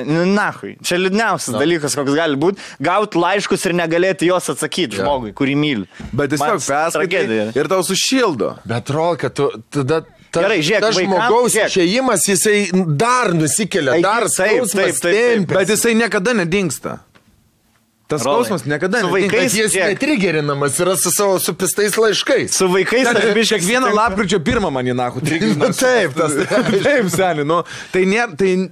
B: nahui, čia liūdniausias dalykas, koks gali būti, gauti laiškus ir negalėti jos atsakyti žmogui, kurį myli.
A: Bet tiesiog perskaitai ir tau sušildo.
C: Bet rol, kad tu tada...
B: Gerai, žiūrėk,
C: tas žmogaus išėjimas, jisai dar nusikelia, dar skausmas tempia.
A: Bet jisai niekada nedingsta. Tas skausmas niekada nedingsta.
C: Jis netrigerinamas yra su savo supistais laiškais.
B: Su vaikais aš biškai
A: kiekvieną lapkričio 1 man į nahu trigerina.
C: Taip,
A: taip, seni, nu. Tai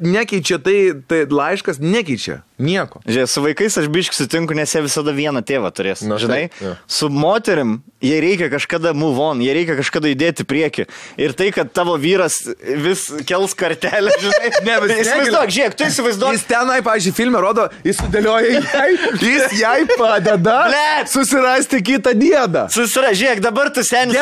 A: nekeičia, tai laiškas nekeičia. Nieko.
B: Žiūrėk, su vaikais aš biškai sutinku, nes jie visada vieną tėvą turės. Žinai, su moterim jie reikia kažkada move on, jie reikia kažkada įdėti priekį. Ir tai, kad tavo vyras vis kels kartelę, žinai. Įsivaizduok, žiūrėk, tu įsivaizduok.
A: Jis tenai, pavyzdžiui, filme rodo, jis sudėlioja jis jai padeda susirasti kitą diedą.
B: Žiūrėk, dabar tu senis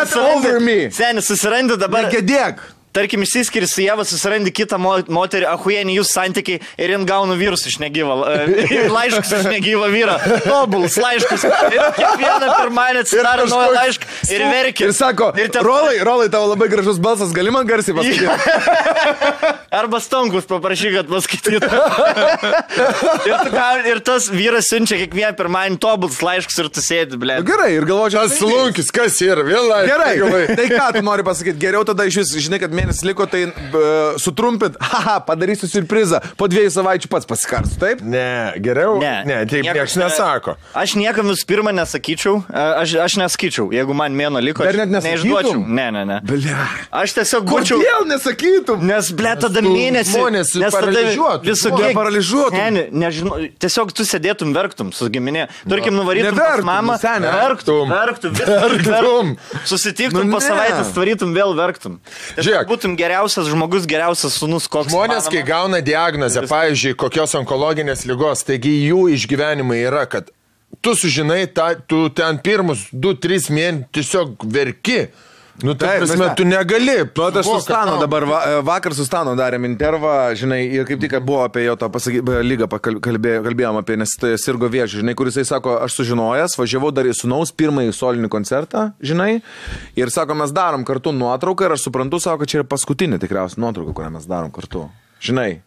B: susirandi dabar.
A: Negedėk.
B: Tarkim, išsiskiri su Jeva, susirandi kitą moterį, ahuienį jūsų santykiai ir jin gauna vyrus iš negyvą, laiškus iš negyvą vyrą, tobuls laiškus. Ir kiekvieną pirmąjį atsidaro naują laišką ir verkia.
A: Ir sako, Rolai, tavo labai gražus balsas, gali man garsiai pasakyti?
B: Arba Stonkus paprašy, kad paskaitytų. Ir tas vyras siunčia kiekvieną pirmąjį tobuls laiškus ir tu sėdi, blė.
A: Gerai, ir galvočiau,
C: Slunkis, kas yra, vėl laiškas.
A: Gerai, tai ką tu nori pasakyti? Geriau tada iš vis, žinai, kad mėnesį liko, tai sutrumpint, padarysiu surprizą, po 2 savaičių pats pasikarsiu, taip?
C: Ne, geriau. Ne, taip niekas nesako.
B: Aš niekam visų pirma nesakyčiau, aš nesakyčiau, jeigu man mėno liko,
A: Dar net
B: neišduočiau. Ne.
A: Blia.
B: Aš tiesiog būčiau.
A: Kodėl nesakytum?
B: Nes, ble, tada mėnesį.
C: Žmonės paralyžiuotų.
A: Paralyžiuotų.
B: Nežinau, tiesiog tu sėdėtum verktum su giminė. Tarkim, nuvarytum pas mamą, verktum. Susitiktum po savaitės, tvarytum vėl verktum. Žiūrėk, būtum geriausias žmogus, geriausias sūnus, koks.
C: Žmonės, kai gauna diagnozę, pavyzdžiui, kokios onkologinės ligos, taigi jų išgyvenimai yra, kad tu sužinai, tu ten pirmus 2-3 mėnesius tiesiog verki. Nu, tai prasme, tu negali.
A: Nu, aš su Stano dabar, vakar su Stano darėm intervą, žinai, ir kaip tik buvo apie jo tą lygą kalbėjom apie, nes tai sirgo vėžį, žinai, kuris jisai sako, aš sužinojęs, važiavau dar į sūnaus pirmąjį solinį koncertą, žinai, ir sako, mes darom kartu nuotrauką ir aš suprantu, sako, kad čia yra paskutinė tikriausiai nuotrauka, kurią mes darom kartu, žinai.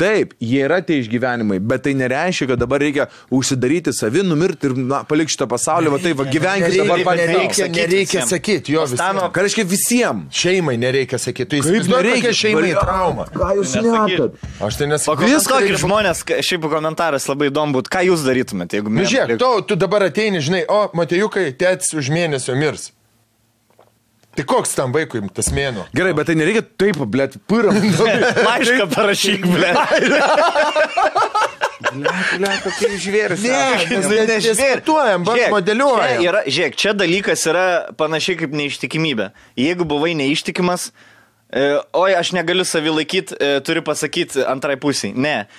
A: Taip, jie yra tie išgyvenimai, bet tai nereiškia, kad dabar reikia užsidaryti savi, numirti ir palikti šitą pasaulį, va taip, gyvenkite dabar patys.
C: Nereikia sakyti, jo visiems.
A: Ką reiškia visiems?
C: Šeimai nereikia sakyti, tu nereikia šeimai traumą.
A: Ką jūs nekat?
C: Aš tai nesakau.
B: Pakomentuokit žmonės, šiaip komentaras labai įdomu būtų, ką jūs darytumėte, jeigu mes...
C: Žiūrėk, tu dabar ateini, žinai, Matejukai, tėtis už mėnesio mirs. Tai koks tam vaikui tas mėnuo?
A: Gerai, bet tai nereikia taip, blėt, pyram.
B: Laišką parašyk, blėt.
A: Blėt, kokie žvėris.
C: Ne, diskutuojam, modeliuojam.
B: Žiūrėk, čia dalykas yra panašiai kaip neištikimybė. Jeigu buvai neištikimas, oi, aš negaliu savį laikyti, turiu pasakyti antrai pusiai. Ne,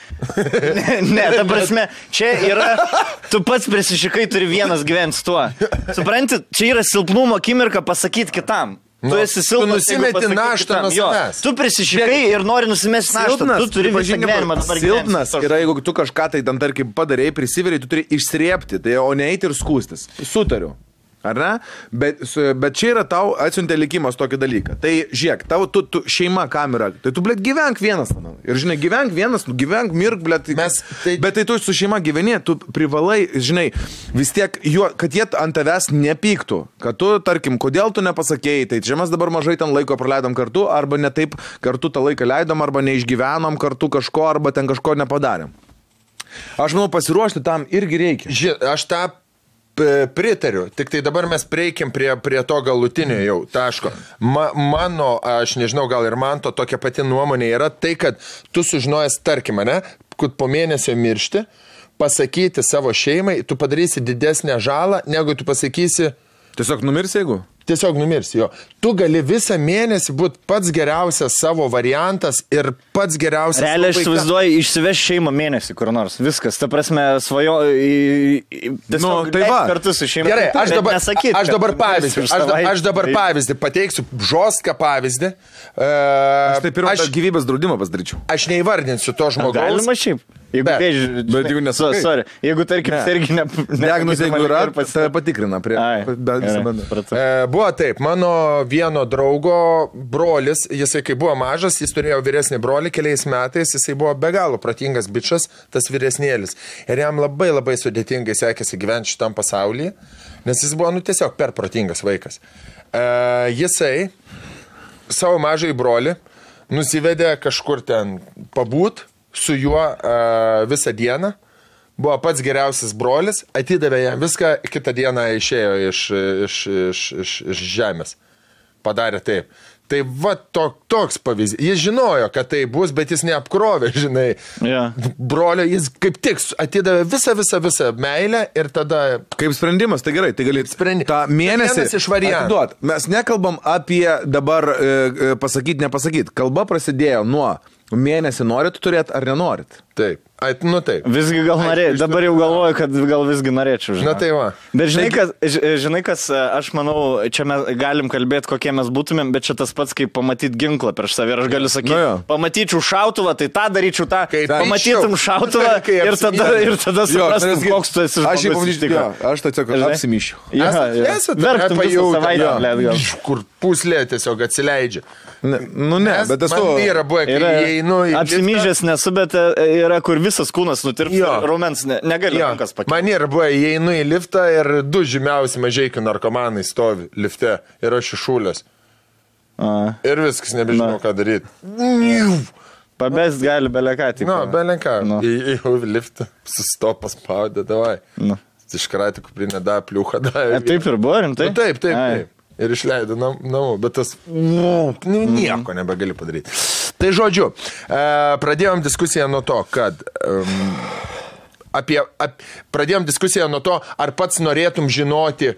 B: ta prasme, čia yra, tu pats prisišikai, turi vienas gyventi su tuo. Supranti, čia yra silpnumo akimirka pasakyti kitam. Tu esi silpnas,
C: tu nusimeti naštą nuo savęs.
B: Tu prisišikai ir nori nusimesti naštą. Tu turi visą gyvenimą dabar gyventi.
A: Silpnas yra, jeigu tu kažką tai tam, tarkim, padarėjai, prisiveriai, tu turi išsrėpti, tai, o ne eiti ir skūstis. Sutariu. Ar ne? Bet čia yra tau atsiuntė likimas tokį dalyką. Tai žiūrėk, tavo tu šeima kamera. Tai tu, blėt, gyvenk vienas. Ir žinai, gyvenk vienas, gyvenk, mirk, blėt. Bet tai tu su šeima gyveni, tu privalai, žinai, vis tiek, kad jie ant tavęs nepyktų. Kad tu, tarkim, kodėl tu nepasakėjai, tai čia mes dabar mažai ten laiko praleidom kartu, arba ne taip kartu tą laiką leidom, arba neišgyvenom kartu kažko, arba ten kažko nepadarėm. Aš manau, pasiruošti tam irgi reikia.
C: Aš tą pritariu, tik tai dabar mes prieikim prie to galutinio jau taško. Mano, aš nežinau, gal ir man to tokia pati nuomonė yra tai, kad tu sužinojęs, tarkim, ne, kad po mėnesio miršti, pasakyti savo šeimai, tu padarysi didesnę žalą, negu tu pasakysi...
A: Tiesiog numirsi, jeigu?
C: Tiesiog numirsi, jo. Tu gali visą mėnesį būti pats geriausias savo variantas ir pats geriausias...
B: Realiai aš įsivaizduoju, išsiveš šeimą mėnesį kur nors. Viskas, ta prasme, svajo...
A: Tai va.
B: Kartu su šeima.
C: Gerai, aš dabar pavyzdį pateiksiu, žostką pavyzdį.
A: Aš tai pirmą gyvybės draudimą pasidaryčiau.
C: Aš neįvardinsiu to žmogaus.
B: Galima šiaip. Jeigu tarkim, serginė...
A: Diagnozė, jeigu yra, tave patikrina prie...
C: Buvo taip, mano vieno draugo brolis, jisai kai buvo mažas, jis turėjo vyresnį brolį keliais metais, jisai buvo be galo protingas bičas, tas vyresnėlis. Ir jam labai labai sudėtingai sekėsi gyventi šitam pasaulyje, nes jis buvo, tiesiog per protingas vaikas. Jisai savo mažai brolį nusivedė kažkur ten pabūt su juo visą dieną. Buvo pats geriausias brolis, atidavė jam viską, kitą dieną išėjo iš žemės. Padarė taip. Tai va toks pavyzdys. Jis žinojo, kad tai bus, bet jis neapkrovė, žinai.
B: Yeah.
C: Brolio, jis kaip tik atidavė visą meilę ir tada...
A: Kaip sprendimas, tai gerai, tai gali tą mėnesį atiduot. Mes nekalbam apie dabar pasakyti, nepasakyti. Kalba prasidėjo nuo mėnesį norit turėti ar nenorit.
C: Taip. Taip.
B: Visgi gal norėčiau. Dabar jau galvoju, kad gal visgi norėčiau. Žinai.
C: Tai va.
B: Bet žinai, kas, aš manau, čia mes galim kalbėti, kokie mes būtumėm, bet čia tas pats, kaip pamatyti ginklą prieš save. Ir aš galiu sakyti, pamatyčiau šautuvą, tai tą daryčiau tą. Pamatytum šautuvą ir tada suprastum, koks tu esi žmogus.
A: Aš tai tiesiog apsimyšiu.
B: Verktum visą savaitę, blėt, gal.
C: Kur puslė tiesiog atsileidžia.
A: Bet esu...
C: Man yra buvo, kai įeinu į...
B: Apsimyžęs nesu, bet yra, kur visas kūnas nutirps ir raumens negali rankas pakeisti.
C: Man yra buvo, įeinu į liftą ir 2 žymiausi mažeikių narkomanai stovi lifte ir aš iššūlės. Ir viskas, nebežinau, ką daryti.
B: Pabest gali beleką.
C: Beleką. Į liftą, sustopas spaudė, davai. Iškratė kuprinę, pliuchą,
B: Taip ir buvo, rimtai?
C: Taip. Ir išleido namų, bet tas nieko nebegali padaryti. Tai žodžiu, pradėjom diskusiją nuo to, kad pradėjom diskusiją nuo to, ar pats norėtum žinoti,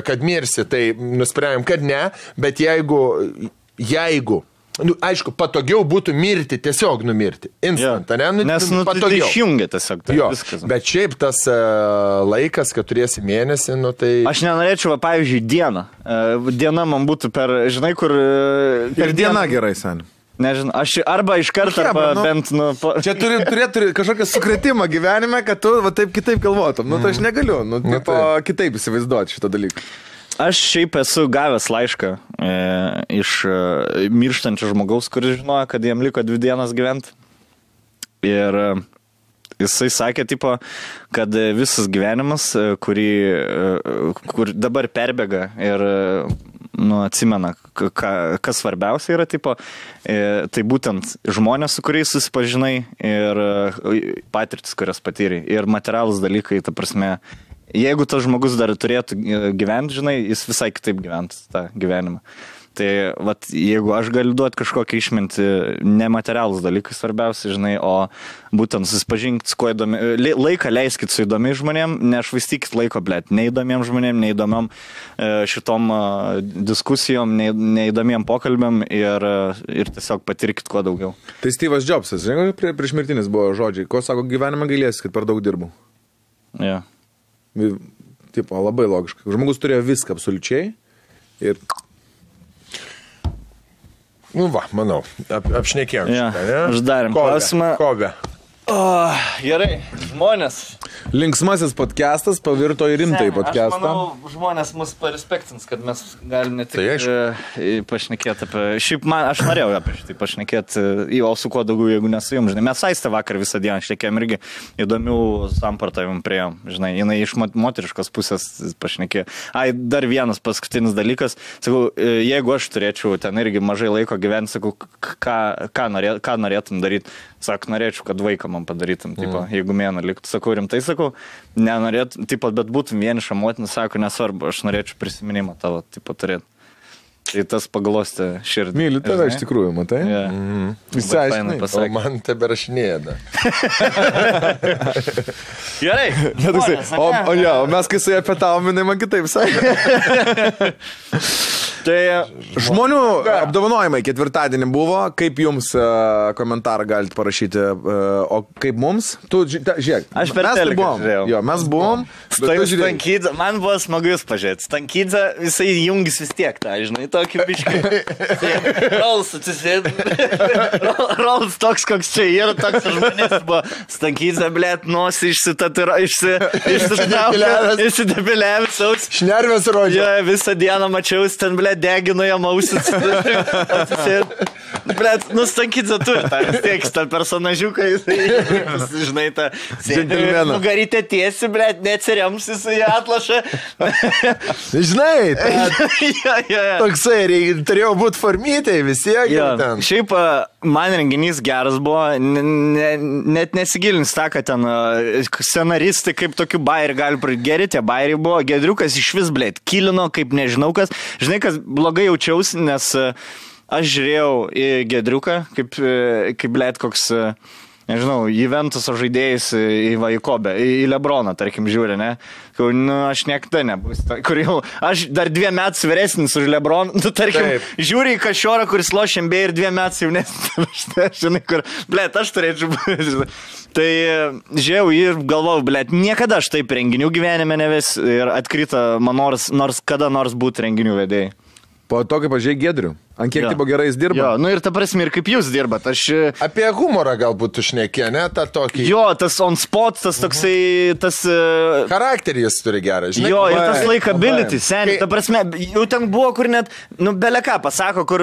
C: kad mirsi, tai nusprendėm, kad ne, bet jeigu aišku, patogiau būtų mirti, tiesiog numirti. Instant, ne?
B: Nes tai išjungia tiesiog.
C: Viskas. Bet šiaip tas laikas, kad turėsi mėnesį, tai...
B: Aš nenorėčiau, pavyzdžiui, dieną. Diena man būtų žinai, kur...
A: Per dieną gerai, sen.
B: Nežinau, aš arba iš karto, bent...
A: Čia turėtų kažkokią sukretimą gyvenime, kad tu taip kitaip galvotum. Tai aš negaliu, kitaip įsivaizduoti šitą dalyką.
B: Aš šiaip esu gavęs laišką iš mirštančio žmogaus, kuris žinojo, kad jam liko 2 dienas gyventi. Ir jisai sakė, kad visas gyvenimas, kur dabar perbėga ir atsimena, kas svarbiausia yra, tai būtent žmonės, su kuriais susipažinai ir patirtis, kurias patyrė. Ir materialūs dalykai, ta prasme, jeigu tas žmogus dar turėtų gyventi, žinai, jis visai kitaip gyventų tą gyvenimą. Tai, jeigu aš galiu duoti kažkokią išmintį, nematerialus dalykai svarbiausia, žinai, o būtent susipažinkit su kuo įdomi, laiką leiskit su įdomiais žmonėm, nešvaistykit laiko, neįdomiem žmonėm, neįdomiam šitom diskusijom, neįdomiem pokalbėm ir tiesiog patirkit kuo daugiau.
A: Tai Steve'as Jobsas, žinai, prieš mirtinis buvo žodžiai, ko sako, gyvenime gailėsi, kad per daug dirbau.
B: Ja.
A: Labai logiškai. Žmogus turėjo viską absoliučiai ir...
C: Manau, apšnekėjom šitą, ne?
B: Uždarėm klausimą.
C: Kove.
B: Gerai, žmonės.
A: Linksmasis podcastas pavirto į rimtai podcastą.
B: Aš manau, žmonės mus parespektins, kad mes galim ne tik pašnekėti apie... Šiaip aš norėjau apie šitą pašnekėti, o su kuo daugiau, jeigu nesu jums, žinai. Mes Aistę vakar visą dieną šnekėjom irgi įdomių sampartavimų priėjom, žinai. Jinai iš moteriškos pusės pašnekėjo. Dar vienas paskutinis dalykas. Sakau, jeigu aš turėčiau ten irgi mažai laiko gyventi, sakau, ką norėtum daryti? Sako, norėčiau, kad vaiką man padarytum, jeigu mėną liktų. Sakau, rimtai sakau, nenorėtum, bet būtum vieniša motina, sako, nesvarbu, aš norėčiau prisiminimą tavo, turėti. Tai tas paglostė širdį.
A: Myliu tave iš tikrųjų, matai?
C: Išsiaiškinai. O man tebe rašinėja.
B: Gerai.
A: O mes kai su jie pietavom, jinai man kitaip sakė.
B: Tai
A: žmonių apdovanojimai ketvirtadienį buvo. Kaip jums komentarą galite parašyti? O kaip mums? Tu, žiūrėk.
B: Aš per teleką žiūrėjau.
A: Jo, mes buvom.
B: Stankydza, man buvo smagu jūs pažiūrėti. Stankydza, jisai jungis vis tiek tą, žinai, tokį biškį. Rolls atsisėd. Rolls toks, koks čia yra, toks žmonės buvo. Stankydza, blėt, nosi išsidepiliavęs aus.
C: Šnervės rodžia.
B: Jo, visą dieną mačiausi ten, blėt, degino jam ausis. Blėt, Stankydza turi tą, vis tiek, tą personažiuką, žinai, tą nugarytę tiesi, blėt, neatsirems jisai atlašą.
C: Žinai, toksai, turėjau būti formytai visiek.
B: Šiaip man renginys geras buvo, net nesigilins tą, kad ten scenaristai kaip tokių bairių gali pradėti. Geri tie bairiai buvo, Gedriukas iš vis, blėt, kilino, kaip nežinau kas. Žinai, kas blogai jaučiausi, nes aš žiūrėjau į Gedriuką, kaip blėt, koks... Nežinau, Juventuso žaidėjais į Kobę, į Lebroną, tarkim, žiūri, ne? Aš niekada nebus. Kur jau, aš dar 2 metus vyresnis už Lebroną, tarkim, žiūri į Kašiorą, kuris lošia NBA ir 2 metus jaunesnis. Žinai, kur, blėt, aš turėčiau būti. Tai žiūrėjau ir galvojau, blėt, niekada aš taip renginių gyvenime neves ir atkrito man nors kada nors būti renginių vedėjai.
A: Po to, kaip pažiūrėjai Gedrių. Ant kiek tipo gerai jis dirba?
B: Jo, ir ta prasme, ir kaip jūs dirbat.
C: Apie humorą galbūt tu šnekė, ne? Ta tokį...
B: Jo, tas on spot, tas toksai, tas...
C: Charakterį jis turi gerą, žinai.
B: Jo, ir tas likability, seniai. Ta prasme, jau ten buvo, kur net, beleką pasako, kur,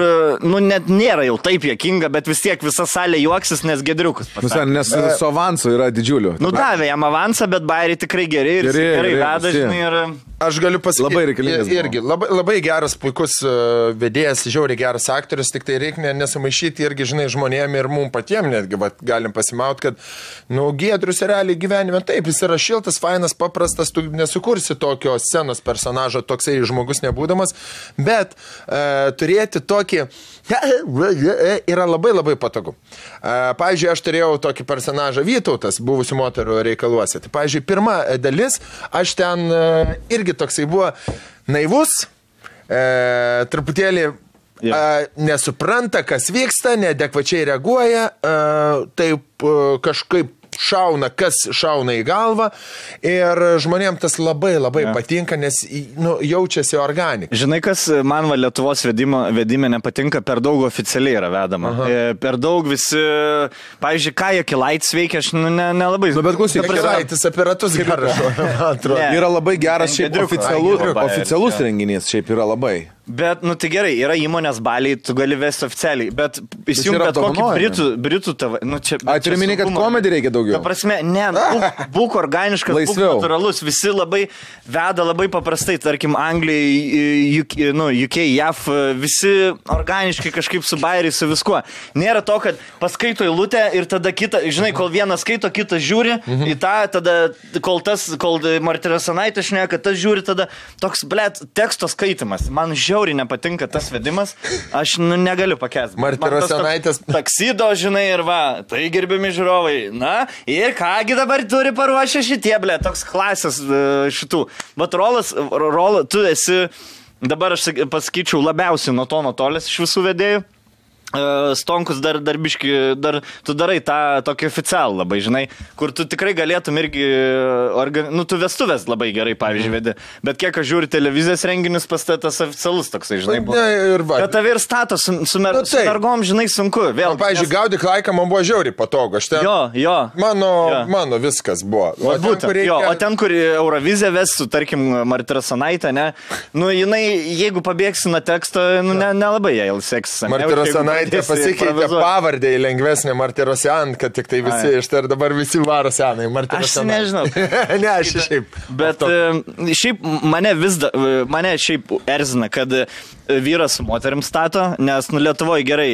B: net nėra jau taip juokinga, bet vis tiek visa salė juoksis, nes Gedriukas pasako.
A: Nes su avansu yra didžiulių.
B: Davė jam avansą, bet bairiai tikrai geri ir gerai veda, žinai, ir...
C: Aš galiu pasakyti,
A: labai reikalingas.
C: Irgi, labai geras, puikus vedėjas, žiauriai geras aktorius, tik tai reikia nesamaišyti irgi, žinai, žmonėm ir mums patiems netgi galim pasimauti, kad, Giedrius realiai gyvenime, taip, jis yra šiltas, fainas, paprastas, tu nesukursi tokio scenos personažo, toksai žmogus nebūdamas, bet turėti tokį yra labai labai patogu. Pavyzdžiui, aš turėjau tokį personažą Vytautas, buvusių moterų reikaluose. Tai, pavyzdžiui, pirma dalis, aš ten irgi toksai buvo naivus, truputėlį nesupranta, kas vyksta, neadekvačiai reaguoja, taip kažkaip šauna, kas šauna į galvą ir žmonėms tas labai labai patinka, nes jaučiasi organika.
B: Žinai, kas man Lietuvos vedime nepatinka, per daug oficialiai yra vedama. Per daug visi, pavyzdžiui, ką Jakilaitis veikia, aš nelabai.
A: Bet klausyk,
C: Jakilaitis apie ratus geras.
A: Yra labai geras šiaip oficialus renginys, šiaip yra labai.
B: Bet, tai gerai, yra įmonės baliai, tu gali vesti oficialiai, bet įsijung bet kokį britų tavo.
A: Turiu minėti, kad komedį reikia daugiau.
B: Ta prasme, būk organiškas, būk natūralus, visi labai veda labai paprastai, tarkim, Anglijai, UK, JAV, visi organiškai kažkaip su bairiai, su viskuo. Nėra to, kad paskaito eilutę ir tada kita, žinai, kol vienas skaito, kitas žiūri į tą, tada kol Martynas Anaitis šneka, tas žiūri, tada toks, teksto skaitimas. Man žiauriai nepatinka tas vedimas, aš negaliu pakęsti.
C: Martynas Anaitis.
B: Taksido, žinai, ir tai gerbiami žiūrovai. Ir kągi dabar turi paruošę šitie, toks klasės šitų. Bet Rolas, tu esi, dabar aš pasakyčiau, labiausiai nuo to nutolęs iš visų vedėjų. Stonkus dar biški, tu darai tą tokį oficialų labai, žinai, kur tu tikrai galėtum irgi, tu vestuvės labai gerai, pavyzdžiui, vedi, bet kiek aš žiūriu televizijos renginius, pas tas oficialus toksai, žinai, buvo. Bet tave ir stato su mergom, žinai, sunku. Vėl,
C: pavyzdžiui, Gaudyk laiką man buvo žiauriai patogu.
B: Jo.
C: Mano viskas buvo.
B: O ten, kur Eurovizija vestų, tarkim, Martynas Anaitė, ne, jinai, jeigu pabėgsi nuo teksto, nelabai jai seksis.
C: Martynas Anaitė pasikeitė pavardę į lengvesnę Martirosian, kad tik tai visi ir dabar visi varo senai Martirosian.
B: Aš nežinau.
C: Ne, aš šiaip.
B: Bet šiaip mane šiaip erzina, kad vyras su moterim stato, nes Lietuvoje gerai,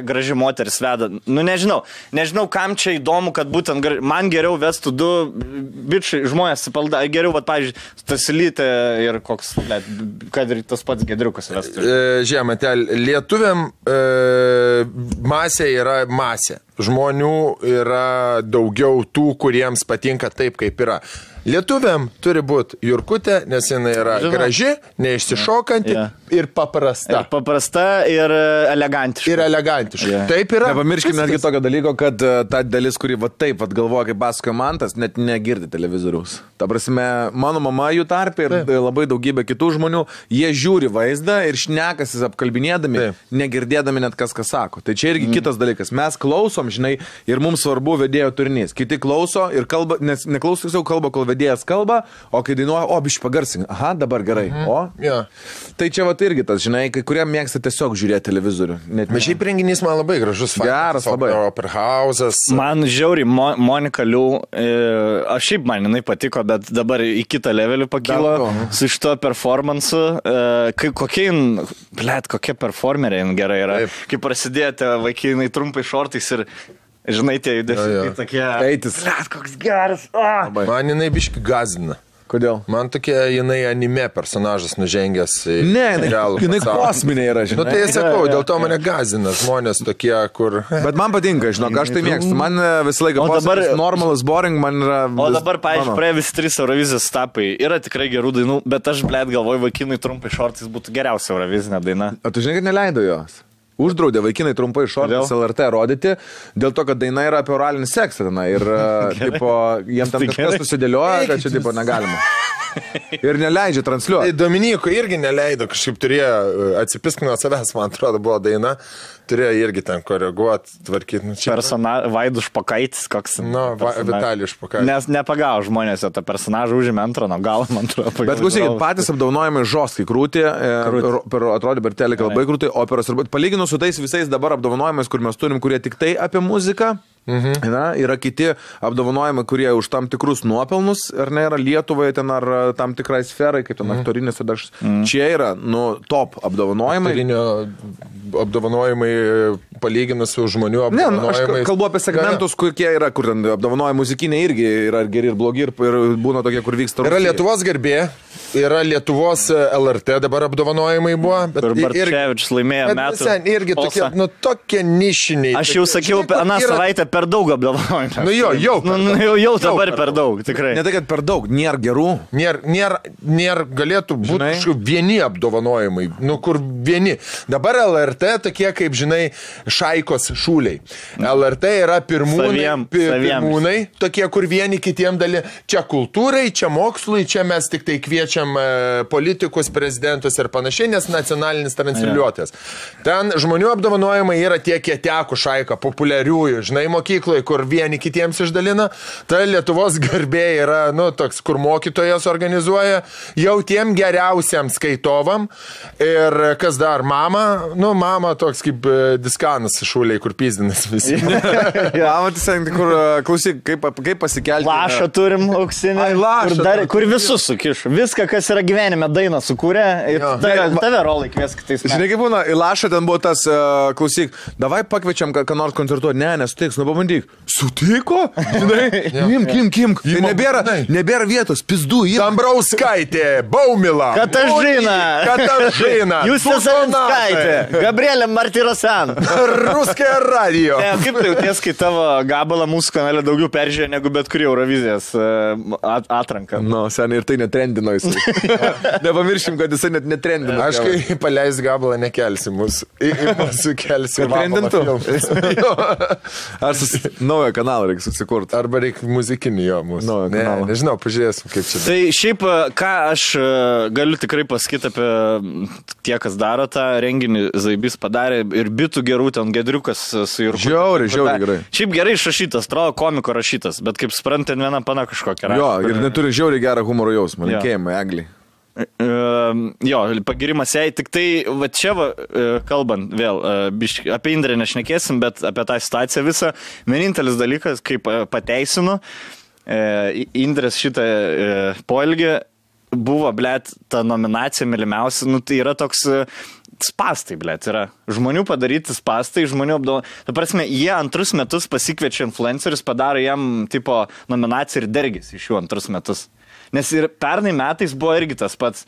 B: graži moteris veda. Nežinau, kam čia įdomu, kad būtent man geriau vestų du bičiai žmonės supalda, geriau, pavyzdžiui, Stasilytė ir koks, kad ir tas pats Gedriukas vestų.
C: Žiemate, lietuviam masė yra masė. Žmonių yra daugiau tų, kuriems patinka taip, kaip yra. Lietuviam turi būti Jurkutė, nes jinai yra graži, neišsišokanti ir paprasta.
B: Ir paprasta ir elegantiška.
C: Taip yra.
A: Nepamirškime netgi tokio dalyko, kad ta dalis, kuri taip galvoja, kaip pasakoja Mantas, net negirdi televizoriaus. Ta prasme, mano mama jų tarpė ir labai daugybė kitų žmonių, jie žiūri vaizdą ir šnekasis apkalbinėdami, negirdėdami net kas sako. Tai čia irgi kitas dalykas. Mes klausom, žinai, ir mums svarbu vedėjo turinys. Kiti klauso ir kalba, nes neklauso tiesiog kalba, kol vedėjas kalba, o kai dainuoja, biškai pagarsink. Dabar gerai. Tai čia irgi tas, žinai, kai kurie mėgsta tiesiog žiūrėti televizorių.
C: Bet šiaip renginys man labai gražus.
A: Geras, labai.
C: Operhausas.
B: Man žiauriai Monika Liu, aš šiaip man jinai patiko, bet dabar į kitą levelį pakilo su šito performansu. Kokia performerė gerai yra. Kai prasidėjote vaikinai trumpai šortais ir žinai, tie judesiai tokie.
A: Eitis.
B: Koks geras.
C: Man jinai biškai gazina.
A: Kodėl?
C: Man tokia jinai anime personažas nužengęs į
A: realų. Jinai kosminė yra, žinai.
C: Tai sakau, dėl to mane gazina žmonės tokie, kur...
A: Bet man patinka, žinok, aš tai mėgstu. Man visą laiką normalus, boring, man yra...
B: O dabar, pavyzdžiui, praėjo visi 3 Eurovizijos etapai. Yra tikrai gerų dainų, bet aš, galvoju, vaikinai trumpai šortais būtų geriausia Eurovizinė daina.
A: O tu žinai, kad neleido jos? Uždraudė vaikinai trumpai šortais LRT rodyti, dėl to, kad daina yra apie oralinį seksą. Ir jiems tam kažkas susidėlioja, kad čia negalima. Ir neleidžia transliuoti.
C: Tai Dominyko irgi neleido, kažkaip turėjo atsipisk nuo savęs, man atrodo, buvo daina. turėjo irgi ten koreguoti, tvarkyti. Nu,
B: Vaidus Špokaitis, koks.
C: Vitalijus Špokaitis.
B: Nes nepagavo žmonės, tą personažą užėmė antrą, nuo galo, man atrodo.
A: Bet klausykit, patys apdovanojimai žostkai krūti, atrodo, per teleką labai krūti, operos ir palyginus su tais visais dabar apdovanojimais, kur mes turim, kurie tik tai apie muziką. Na, yra kiti apdovanojimai, kurie už tam tikrus nuopelnus, ar ne, yra Lietuvoje ten, ar tam tikrai sferai, kaip ten aktorinės, čia yra, top apdovanojimai.
C: Apdovanojimai palyginus su žmonių apdovanojimais.
A: Ne, aš kalbu apie segmentus, kokie yra, kur ten apdovanojimai muzikiniai irgi yra geri ir blogi, ir būna tokie, kur vyksta.
C: Yra Lietuvos garbė, yra Lietuvos LRT dabar apdovanojimai buvo.
B: Ir Bartševičius laimėjo metų.
C: Irgi tokie, tokie nišiniai.
B: Aš jau sakiau, aną savaitę per daug apdovanojimų. Jau dabar per daug, tikrai.
A: Ne tai, kad per daug, nėra gerų.
C: Nėra galėtų būti vieni apdovanojimai, kur vieni. Dabar LRT tokie, kaip žinai, Šaikos šūliai. LRT yra pirmūnai, tokie, kur vieni kitiem dalį. Čia kultūrai, čia mokslui, čia mes tik tai kviečiam politikus, prezidentus ir panašiai, nes nacionalinis transliuotojas. Ten žmonių apdovanojimai yra tie kietekų Šaika, populiariųjų, žinai, mokykloje, kur vieni kitiems išdalina. Ta Lietuvos garbė yra, toks, kur mokytojas organizuoja jau tiem geriausiam skaitovam. Ir kas dar, mama toks kaip diskanas šūliai, kur pizdinas visi.
A: Kur, klausyk, kaip pasikelti.
B: Lašą turim auksinį, kur visus sukiš. Viską, kas yra gyvenime, dainą sukūrė. Tave rolai kvies kitais.
A: Žinai, kaip būna, į Lašą ten buvo tas, klausyk, davai pakviečiam, ką nors koncertuoti. Ne, nesutiks, pabandyk. Sutiko? Žinai, kim. Tai nebėra vietos, pizdų.
C: Dambrauskaitė, Baumila. Katažina.
B: Jūs Savinskaitė. Gabrielė Martirosian.
C: Ruskė radio.
B: Kaip tai jauties, kai tavo gabalą mūsų kanale daugiau peržiūrė negu bet kurį Eurovizijos atranką?
A: Seniai ir tai netrendino jisai. Nepamiršim, kad jisai net netrendino.
C: Aš kai paleis gabalą nekelsi mūsų. Mūsų kelsi.
A: Trendintų. Ar naują kanalą reikia susikurti.
C: Arba reikia muzikinį jo mūsų. Nežinau, pažiūrėsim, kaip čia.
B: Tai šiaip, ką aš galiu tikrai pasakyti apie tie, kas daro tą renginį, Zaibys padarė ir bitų gerų, ten Gedriukas su Jurku.
A: Žiauriai gerai.
B: Šiaip gerai išrašytas, atrodo komiko rašytas, bet kaip suprantate, viena pana kažkokia rašyta.
A: Jo, ir neturi žiauriai gerą humoro jausmą, linkėjimai, Eglį.
B: Jo, pagirimas jai, tik tai, va čia kalbant vėl, apie Indrę nešnekėsim, bet apie tą situaciją visą, vienintelis dalykas, kaip pateisinu, Indrės šitą poelgį buvo, blėt, ta nominacija mylimiausia, tai yra toks spastai, blėt, yra žmonių padaryti spastai, žmonių apdovanojimai. Ta prasme, jie antrus metus pasikviečia influencerius, padaro jam tipo nominaciją ir dergis iš jų antrus metus. Nes ir pernai metais buvo irgi tas pats,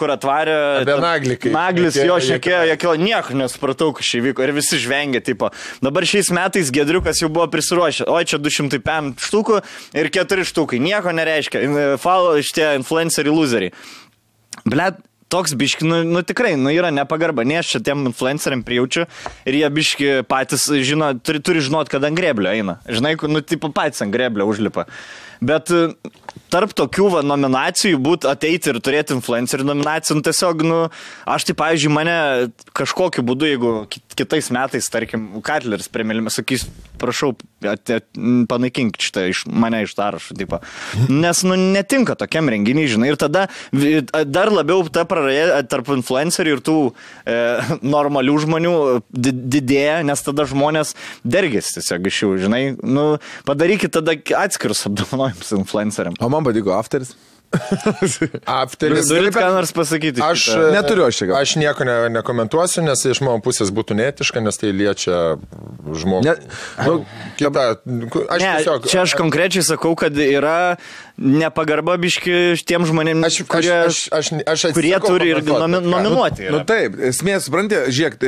B: kur atvarė...
C: Apie Naglį.
B: Naglis jo šnekėjo, nieko nesupratau, kas čia vyko ir visi žvengė, tipo. Dabar šiais metais Gedriukas jau buvo prisiruošę, oi čia 205 štukų ir 4 štukai, nieko nereiškia, šitie influenceriai loseriai. Blet, toks biški, tikrai, yra nepagarba, ne aš čia tiem influenceriam prijaučiu ir jie biški patys žino, turi žinot, kad ant greblio eina. Žinai, tipo patys ant greblio užlipa. Bet tarp tokių nominacijų ateiti ir turėti influencerių nominacijų, tiesiog, aš tai, pavyzdžiui, mane kažkokiu būdu, jeigu kitais metais, tarkim, Katleris premilime, sakys, prašau, panaikink šitą mane iš sąrašo, tipo. Nes, netinka tokiam renginiai, žinai, ir tada dar labiau ta praraja tarp influencerių ir tų normalių žmonių didėja, nes tada žmonės dergės tiesiog iš jų, žinai, padarykit tada atskirus apdovanojimus influenceriam.
A: O man patiko Afteris.
C: Afteris.
B: Turit ką nors pasakyti?
A: Neturiu aš čia.
C: Aš nieko nekomentuosiu, nes iš mano pusės būtų neetiška, nes tai liečia žmogų.
B: Čia aš konkrečiai sakau, kad yra nepagarba biški tiem žmonėms, kurie turi ir nominuoti.
A: Taip, esmė, supranti, žiūrėk,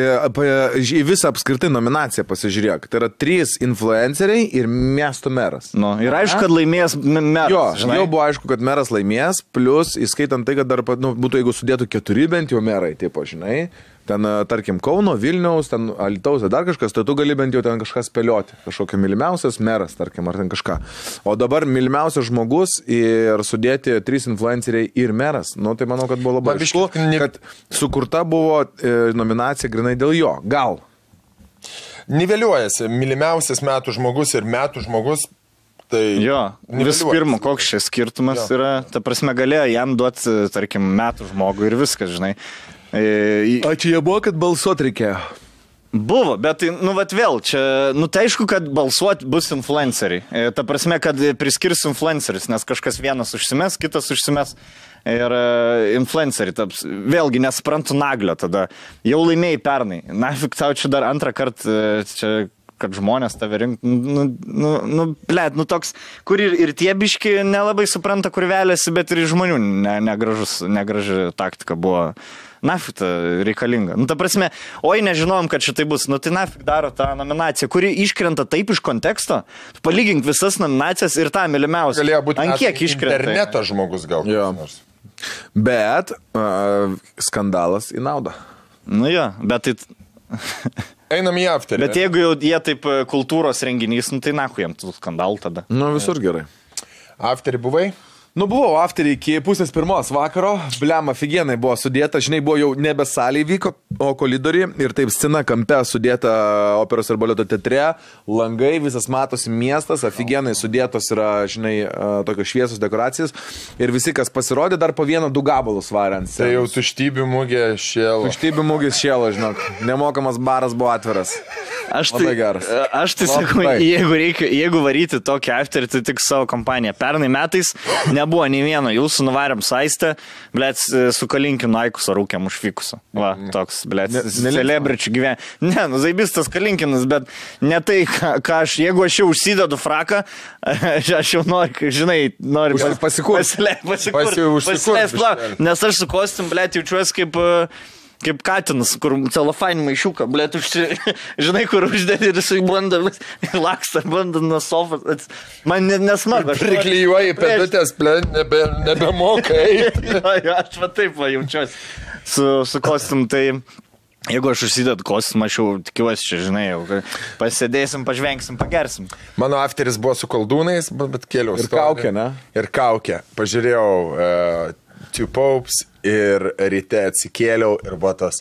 A: į visą apskritai nominaciją pasižiūrėk. Tai yra 3 influenceriai ir miesto meras.
B: Ir aišku, kad laimės meras.
A: Jau buvo aišku, kad meras laimės, plus įskaitant tai, kad dar būtų, jeigu sudėtų 4 bent jau merai, taip, žinai. Ten, tarkim, Kauno, Vilniaus, ten Alytaus, dar kažkas, tai tu gali bent jau ten kažką spėlioti. Kažkokia mylimiausias meras, tarkim, ar ten kažką. O dabar mylimiausias žmogus ir sudėti 3 influenceriai ir meras. Tai manau, kad buvo labai aišku, kad sukurta buvo nominacija grinai dėl jo. Gal.
C: niveliuojasi mylimiausias metų žmogus ir metų žmogus. Tai
B: jo, vis pirma, koks šis skirtumas yra, ta prasme, galėjo jam duoti, tarkim, metų žmogų ir viskas, žinai.
A: O čia jie buvo, kad balsuot reikėjo?
B: Buvo, bet, nu, vat vėl, čia, nu, tai aišku, kad balsuoti bus influenceriai. Ta prasme, kad priskirs influenceris, nes kažkas vienas užsimes, kitas užsimes ir influenceriai taps. Vėlgi, nesuprantu naglio tada. Jau laimėjai pernai. Nafik tau čia dar antrą kartą, čia, kad žmonės tave rink, nu, toks, kur ir tie biški nelabai supranta, kur vėlėsi, bet ir žmonių negraži taktika buvo. Nafik reikalinga. Nu, ta prasme, oi, nežinojom, kad šitai bus. Nu, tai nafik daro tą nominaciją, kuri iškrenta taip iš konteksto. Palygink visas nominacijas ir tą mylimiausią.
C: Galėjo būti
B: ant kiek iškrenta.
C: Interneto žmogus gal.
A: Bet skandalas į naudą.
B: Nu jo, bet tai...
C: Einam į afterį.
B: Bet jeigu jau jie taip kultūros renginys, nu, tai naku jam tų skandalų tada.
A: Nu, visur gerai.
C: Afterį buvai?
A: Nu, buvau afterį iki 1:30 vakaro, blema, figienai buvo sudėta, žinai, buvo jau nebe salėje vyko, o koridoriai ir taip scena kampe sudėta operos ir baleto teatre, langai, visas matosi miestas, afigienai sudėtos yra, žinai, tokios šviesos dekoracijas ir visi, kas pasirodė, dar po 1-2 gabalus varė ant scenos.
C: Tai jau tuštybių mūgė šėlo.
A: Tuštybių mūgis šėlo, žinok, nemokamas baras buvo atviras. Labai geras.
B: Aš tai sakau, jeigu varyti tokį afterį, tai tik savo kompaniją. Pernai metais nebuvo nei vieno, jūsų nuvarėm saistę, blėt, su Kalinkinu Aikuso rūkėm užvykusiu. Va, toks, blėt, celebričių gyvenimą. Ne, nu, zaibistas Kalinkinas, bet ne tai, ką aš, jeigu aš jau užsidedu fraką, aš jau noriu, žinai, noriu pasileist, nes aš su kostim, blėt, jaučiuosi kaip katinas, kur celofainį maišiuką, blėt, žinai, kur uždėti ir jisai banda, laksta, banda nuo sofas. Man nesmagu.
C: Priklijuoji pedutės, blėt, nebemokai.
B: Aš va taip va jaučiuosi su kostum, tai jeigu aš užsidedu kostumą, aš jau tikiuosi čia, žinai, jau pasėdėsim, pažvengsim, pagersim.
C: Mano afteris buvo su koldūnais, bet kėliau.
A: Ir kaukė, ne?
C: Ir kaukė. Pažiūrėjau Two Popes ir ryte atsikėliau ir buvo tas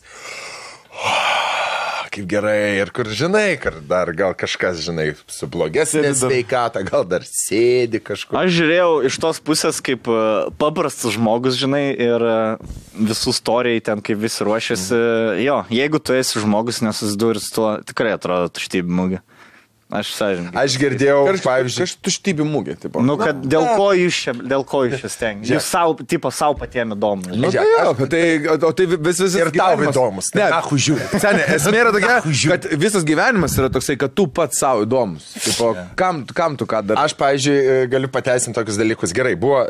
C: kaip gerai ir kur, žinai, kur dar gal kažkas, žinai, su blogesnė sveikata, gal dar sėdi kažkur.
B: Aš žiūrėjau iš tos pusės kaip paprastas žmogus, žinai, ir visų istorijai ten, kaip visi ruošiasi. Jo, jeigu tu esi žmogus nesusidūri su tuo, tikrai atrodo tuštybė mūgė. Aš
C: girdėjau, pavyzdžiui,
A: tuštybė mūgė.
B: Nu, kad dėl ko jūs čia stengiate? Jūs savo patiem įdomu.
A: Nu, tai vis
C: ir tau įdomus.
A: Ne, žiūrėk. Senė, esmė yra tokia, kad visas gyvenimas yra toksai, kad tu pats savo įdomus. Tipo, kam tu ką dar?
C: Aš, pavyzdžiui, galiu pateisinti tokius dalykus. Gerai, buvo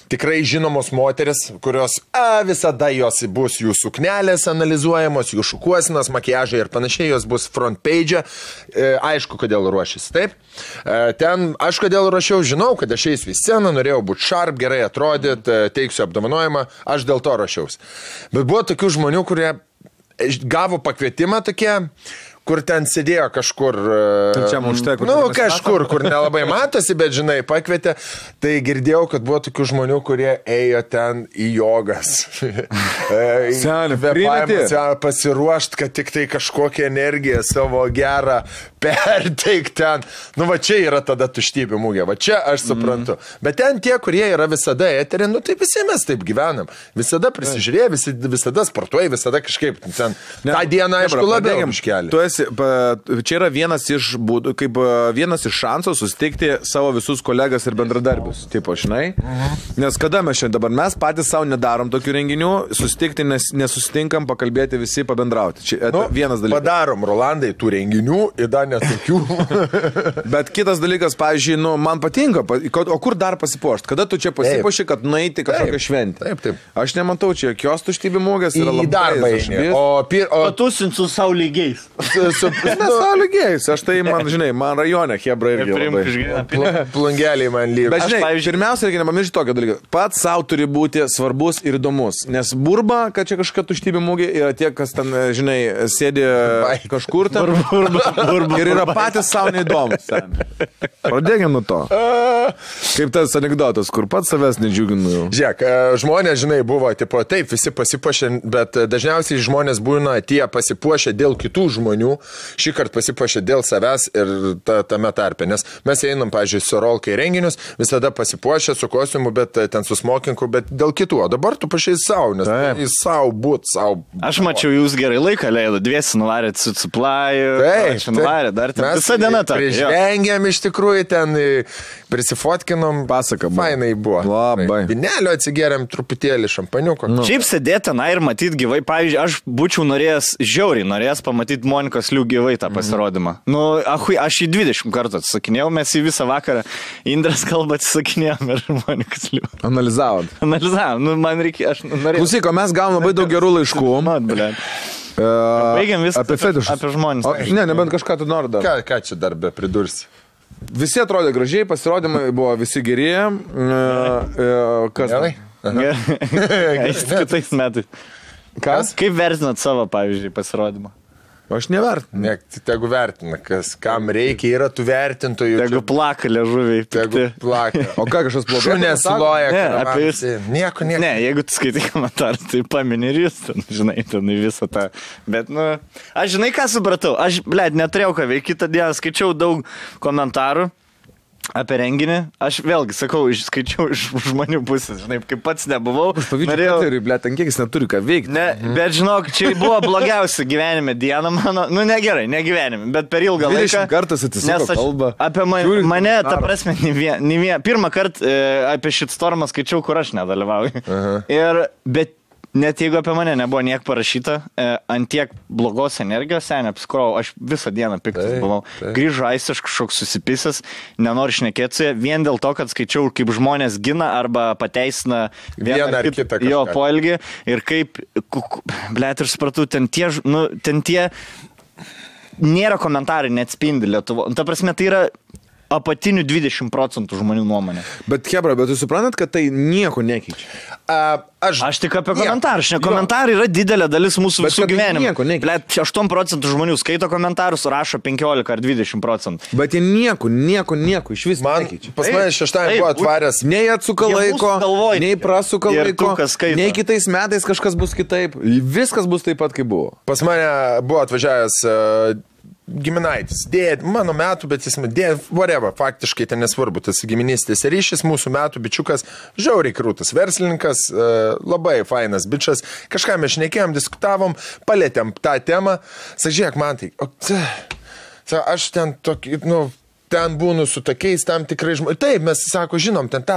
C: tikrai žinomos moteris, kurios visada jos bus jų suknelės analizuojamos, jų šukuosinas, makiažai ir panašiai, jos bus front page. Aišku, kodėl ruošėsi, taip. Ten aš kodėl ruošiau, žinau, kad aš eisiu į sceną, norėjau būti sharp, gerai atrodyti, teiksiu apdovanojimą, aš dėl to ruošiausi. Bet buvo tokių žmonių, kurie gavo pakvietimą tokie, kur ten sėdėjo kažkur, kažkur, kur nelabai matosi, bet, žinai, pakvietė, tai girdėjau, kad buvo tokių žmonių, kurie ėjo ten į jogas. Pasiruošt, kad tik tai kažkokią energiją savo gerą perteik ten. Nu, va čia yra tada tuštybė mūgė, va čia aš suprantu. Bet ten tie, kurie yra visada eterė, nu, tai visi mes taip gyvenam. Visada prisižiūrėję, visada sportuoja, visada kažkaip ten. Ta diena, aišku, labiau iškelia.
A: Čia yra vienas iš būdų, kaip vienas iš šansų susitikti savo visus kolegas ir bendradarbius, tipo, žinai. Nes kada mes šiandien dabar, mes patys savo nedarom tokių renginių, susitikti, nesusitinkam, pakalbėti visi, pabendrauti. Čia vienas dalykas.
C: Padarom, Rolandai, tų renginių ir dar netokių.
A: Bet kitas dalykas, pavyzdžiui, nu, man patinka, o kur dar pasipuošti? Kada tu čia pasipuoši, kad nueiti kažkokią šventę?
C: Taip.
A: Aš nematau, čia jokios tuštybė mūgės yra labai.
C: Į darbą eini.
B: Patusint su savo lygiais.
A: Nesąlygėjus, aš tai, man, žinai, man rajone hebra irgi labai.
C: Plungeliai man lyg.
A: Bet, žinai, pirmiausia, reikia nepamiršti tokio dalyko. Pats savo turi būti svarbus ir įdomus. Nes burba, kad čia kažkokia tuštybė mūgė, yra tie, kas ten, žinai, sėdi kažkur ten. Ir yra patys savo neįdomus. Pradėkime nuo to. Kaip tas anekdotas, kur pats savęs nedžiuginu.
C: Žiūrėk, žmonės, žinai, buvo, tipo, taip, visi pasipuošė, bet dažniausiai žmonės būna tie pasipuošę dėl kitų žmonių. žmonių šį kartą pasipuošė dėl savęs ir tame tarpe. Nes mes einam, pavyzdžiui, su Rolka į renginius, visada pasipuošę su kostiumu, bet ten su smokinku, bet dėl kitų. O dabar tu pašiai savo, nes į savo būt, savo.
B: Aš mačiau, jūs gerai laiką leido, dviesi nuvarėt su suplaju, nuvarėt, dar ten visą dieną tą.
C: Prižengėm iš tikrųjų ten, prisifotkinom,
A: pasaka.
C: Fainai buvo.
A: Labai.
C: Vinelio atsigėrėm truputėlį šampaniuko.
B: Šiaip sėdėti ten ir matyti gyvai. Pavyzdžiui, aš būčiau norėjęs pamatyti Monikos Liu gyvai tą pasirodymą. Nu, aš į 20 kartų atsisakinėjau, mes į visą vakarą Indras kalbą atsisakinėjom ir Monikos Liu.
A: Analizavom.
B: Nu, man reikia, aš norėjau.
A: Klausyk, mes gavom labai daug gerų laiškų.
B: Baigiam viską
A: apie fetišus.
B: Apie žmonės.
A: Ne, nebent kažką tu nori dar.
C: Ką čia dar be pridursi?
A: Visi atrodė gražiai, pasirodymai buvo visi geri. Kas?
B: Kitais metais.
A: Kas?
B: Kaip vertinat savo, pavyzdžiui, pasirodymą?
A: Aš nevertinu.
C: Ne, tegu vertina, kam reikia, yra tų vertintojų.
B: Tegu plaka liežuviai.
C: Tegu plaka.
A: O ką kažkas blogai?
C: Šunės loja.
B: Ne, apie jūs.
C: Nieko.
B: Ne, jeigu tu skaitai komentarą, tai pamini ir jūs, ten, žinai, ten visą tą. Bet, nu, aš žinai, ką supratau. Aš, neturėjau ką veikti. Kitą dieną skaičiau daug komentarų apie renginį. Aš vėlgi sakau, skaičiau iš žmonių pusės, žinai, kaip pats nebuvau.
A: Norėjau, ten kiek jis neturi ką veikti.
B: Ne, bet žinok, čia buvo blogiausia gyvenime diena mano, nu negerai, ne gyvenime, bet per ilgą laiką.
A: 20 kartus atsisuko kalbą.
B: Apie mane, ta prasme, pirmą kartą apie shitstormą skaičiau, kur aš nedalyvauju. Bet net jeigu apie mane nebuvo niek parašyta, ant tiek blogos energijos, neapskrojau, aš visą dieną piktas buvau. Grįžo Aistis kažkoks susipisęs, nenori šnekėti su jie, vien dėl to, kad skaičiau, kaip žmonės gina arba pateisina vieną ar kitą jo poelgį ir kaip, ir supratau, ten tie nėra komentarai, neatspindi Lietuvo. Ta prasme, tai yra apatinių 20% žmonių nuomonė.
A: Bet, Hebra, bet jūs suprantat, kad tai nieko nekeičia?
B: Aš tik apie komentarus. Komentarai yra didelė dalis mūsų visų gyvenimo. 8% žmonių skaito komentarus, rašo 15 ar 20%.
A: Bet jie nieko iš vis nekeičia.
C: Pas mane šeštąjį buvo atvaręs.
A: Nei atsuka laiko, nei prasuka laiko, nei kitais metais kažkas bus kitaip. Viskas bus taip pat, kaip buvo.
C: Pas mane buvo atvažiavęs giminaitis, mano metų, bet jis whatever, faktiškai ten nesvarbu, tas giminystės ryšys, mūsų metų bičiukas, žiauriai krūtas verslininkas, labai fainas bičias, kažką mes šnekėjom, diskutavom, palėtėm tą temą, sažiek man tai, aš ten tokį, ten būnu su tokiais tam tikrai žmonės. Taip, mes, sako, žinom, ten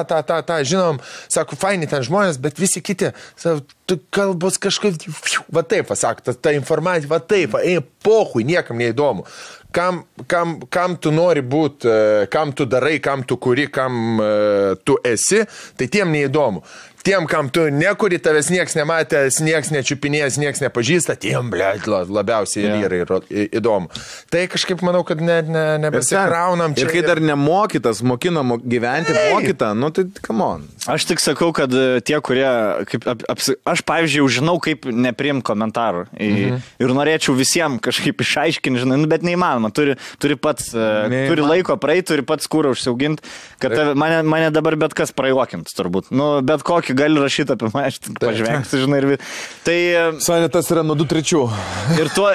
C: žinom, sako, faini ten žmonės, bet visi kiti, sako, tu kalbos kažkaip, va taip, sako, ta informacija, va taip, pohui, niekam neįdomu. Kam tu nori būti, kam tu darai, kam tu kuri, kam tu esi, tai tiem neįdomu. Tiem, kam tu nekuri, tavęs nieks nematęs, nieks nečiupinėjęs, nieks nepažįsta, tiem, labiausiai yra įdomu. Tai kažkaip manau, kad nebesikraunam čia.
A: Ir kai dar nemokytas, mokinam gyventi, mokytą, tai come on.
B: Aš tik sakau, kad tie, kurie, aš pavyzdžiui, žinau, kaip nepriimti komentarų. Ir norėčiau visiems kažkaip išaiškinti, žinai, bet neįmanoma. Turi pats, turi laiko praeiti, turi pats kūrą užsiauginti, kad mane dabar bet kas prajuokinti, turbūt. Bet kokį gali rašyti apie mane, aš pažvengsiu, žinai. Tai...
A: Sanitas yra nuo 2-3.
B: Ir tuo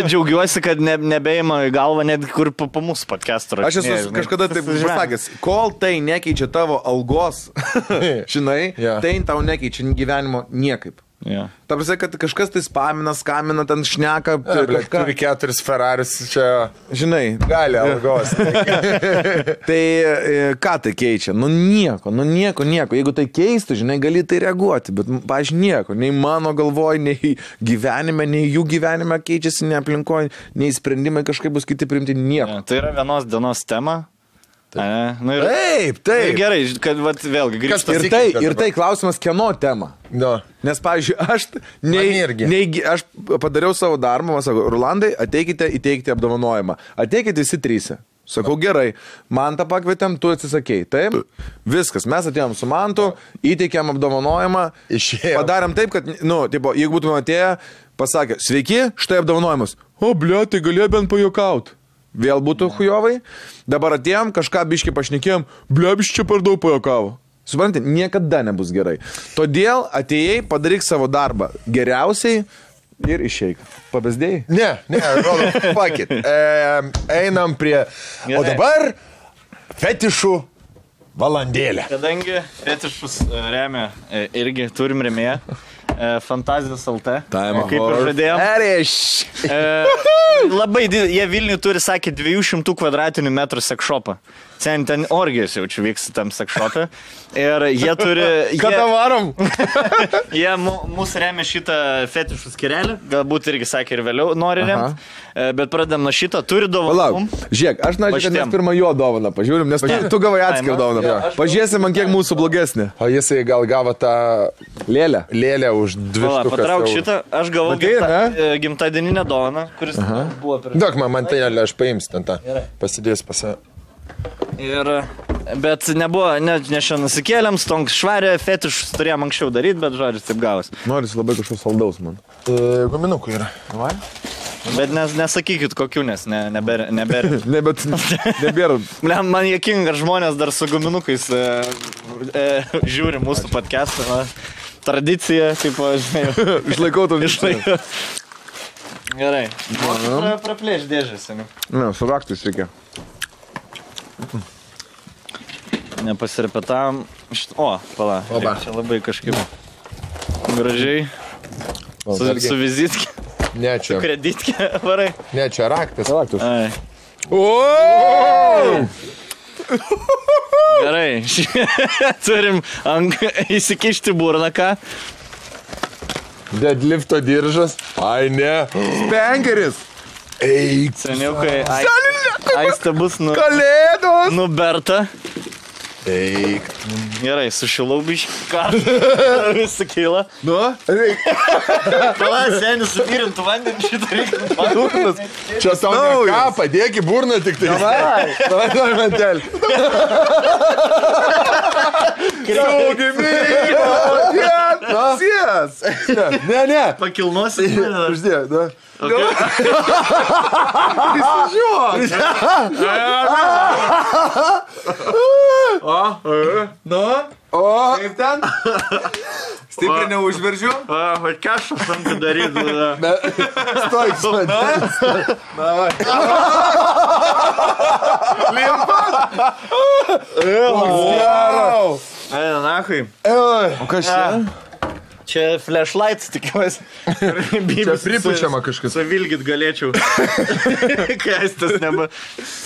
B: džiaugiuosi, kad nebeima į galvą net kur po mūsų podcast'o.
A: Aš esu kažkada taip pasakęs, kol tai nekeičia tavo algos, žinai, tai tau nekeičia gyvenimo niekaip. Ta prasme, kad kažkas tai spamina, skamina, ten šneka.
C: Turi 4 Ferraris čia.
A: Žinai.
C: Gali algos.
A: Tai ką tai keičia? Nieko. Jeigu tai keistų, žinai, gali tai reaguoti, bet, pavyzdžiui, nieko. Nei mano galvoj, nei gyvenime, nei jų gyvenime keičiasi, nei aplinkoje, nei sprendimai kažkaip bus kiti priimti, nieko.
B: Tai yra vienos dienos tema.
C: Taip.
B: Gerai, kad vėlgi grįžtų.
A: Ir tai klausimas, kieno tema. Nes, pavyzdžiui, aš padariau savo darbą, man sako, Rolandai, ateikite įteikti apdovanojimą. Ateikite visi 3. Sakau, gerai, Mantą pakvietėm, tu atsisakei. Taip, viskas, mes atėjom su Mantu, įteikėm apdovanojimą, padarėm taip, kad, jeigu būtume atėję, pasakė, sveiki, štai apdovanojimas. O, tai galėjo bent pajokauti. Vėl būtų hujovai. Dabar atėjom, kažką biškį pašnekėjom, čia per daug pajokavo. Suprantate, niekada nebus gerai. Todėl atėjai, padaryk savo darbą geriausiai, ir išeik. Pabesdėjai?
C: Ne, rodo, fuck it. Einam prie... O dabar fetišų valandėlė.
B: Kadangi fetišus remia, irgi turim remėją. Fantazijos LT. Kaip ir žadėjom. Labai jie Vilniui turi, sakė, 200 kvadratinių metrų sekšopą. Ten orgijos jaučiu vyksta tam sekšopė. Ir jie turi...
C: Kada varom?
B: Jie mūsų remia šitą fetišų skirelį. Galbūt irgi, sakė, ir vėliau nori remti. Bet pradedam nuo šito. Turi dovaną.
A: Žiūrėk, aš norėčiau, kad mes pirmą jo dovaną pažiūrim, nes tu gavai atskirą dovaną. Pažiūrėsim, man kiek mūsų blogesnė.
C: O jisai gal gavo tą lėlę už 2 štukas.
B: Patrauk šitą. Aš gavau gimtadieninę dovaną, kuris buvo per...
C: Duok man tai nelė, aš paimsiu ten tą. Pasidės pasą.
B: Bet nebuvo, ne šiandien nusikėlėm, stonk švarė, fetišus turėjom anksčiau daryti, bet žodžiu, taip gavos.
A: Noris labai kažkoks saldaus, man.
C: Guminukų yra.
B: Bet nesakykit kokių, nes nebėra.
A: Ne, bet nebėra.
B: Man juokinga, ar žmonės dar su guminukais žiūri mūsų podcastą. Tradicija, kaip, žinai.
A: Išlaikau to
B: išlaikau. Gerai. Praplėš dėžės, seniai.
A: Ne, su raktais reikia.
B: Nepasirepetavom. O, pala. Čia labai kažkaip gražiai. Su vizitkė.
C: Ne, čia.
B: Su kreditkė varai.
C: Ne, čia raktas.
B: Gerai. Turim įsikišti burną, ką?
C: Deadlifto diržas. Ai, ne.
A: Spengeris.
C: Eik.
B: Seniukai. Aistė bus
A: Kalėdos.
B: Nuberta.
C: Eik.
B: Gerai, sušilau biškį. Ką? Visi kyla.
A: Nu?
B: Pala, senis, supyrintų vandenį šitą reikia.
C: Čia tau ne ką, padėk į burną tik tai.
A: Davai, mantelį. Saugi mygo. Sies. Ne.
B: Pakilnosi.
A: Uždėk, da. O, kaip ten? Stipriai neužveržiu?
B: O, kažkas tam daryti.
C: Stoik, mantelis.
A: Limpas.
B: Eina, nahui.
A: O kas čia?
B: Čia flashlights, tikiuosi.
C: Čia pripučiama kažkas.
B: Savilgit galėčiau. Kai aistas neba.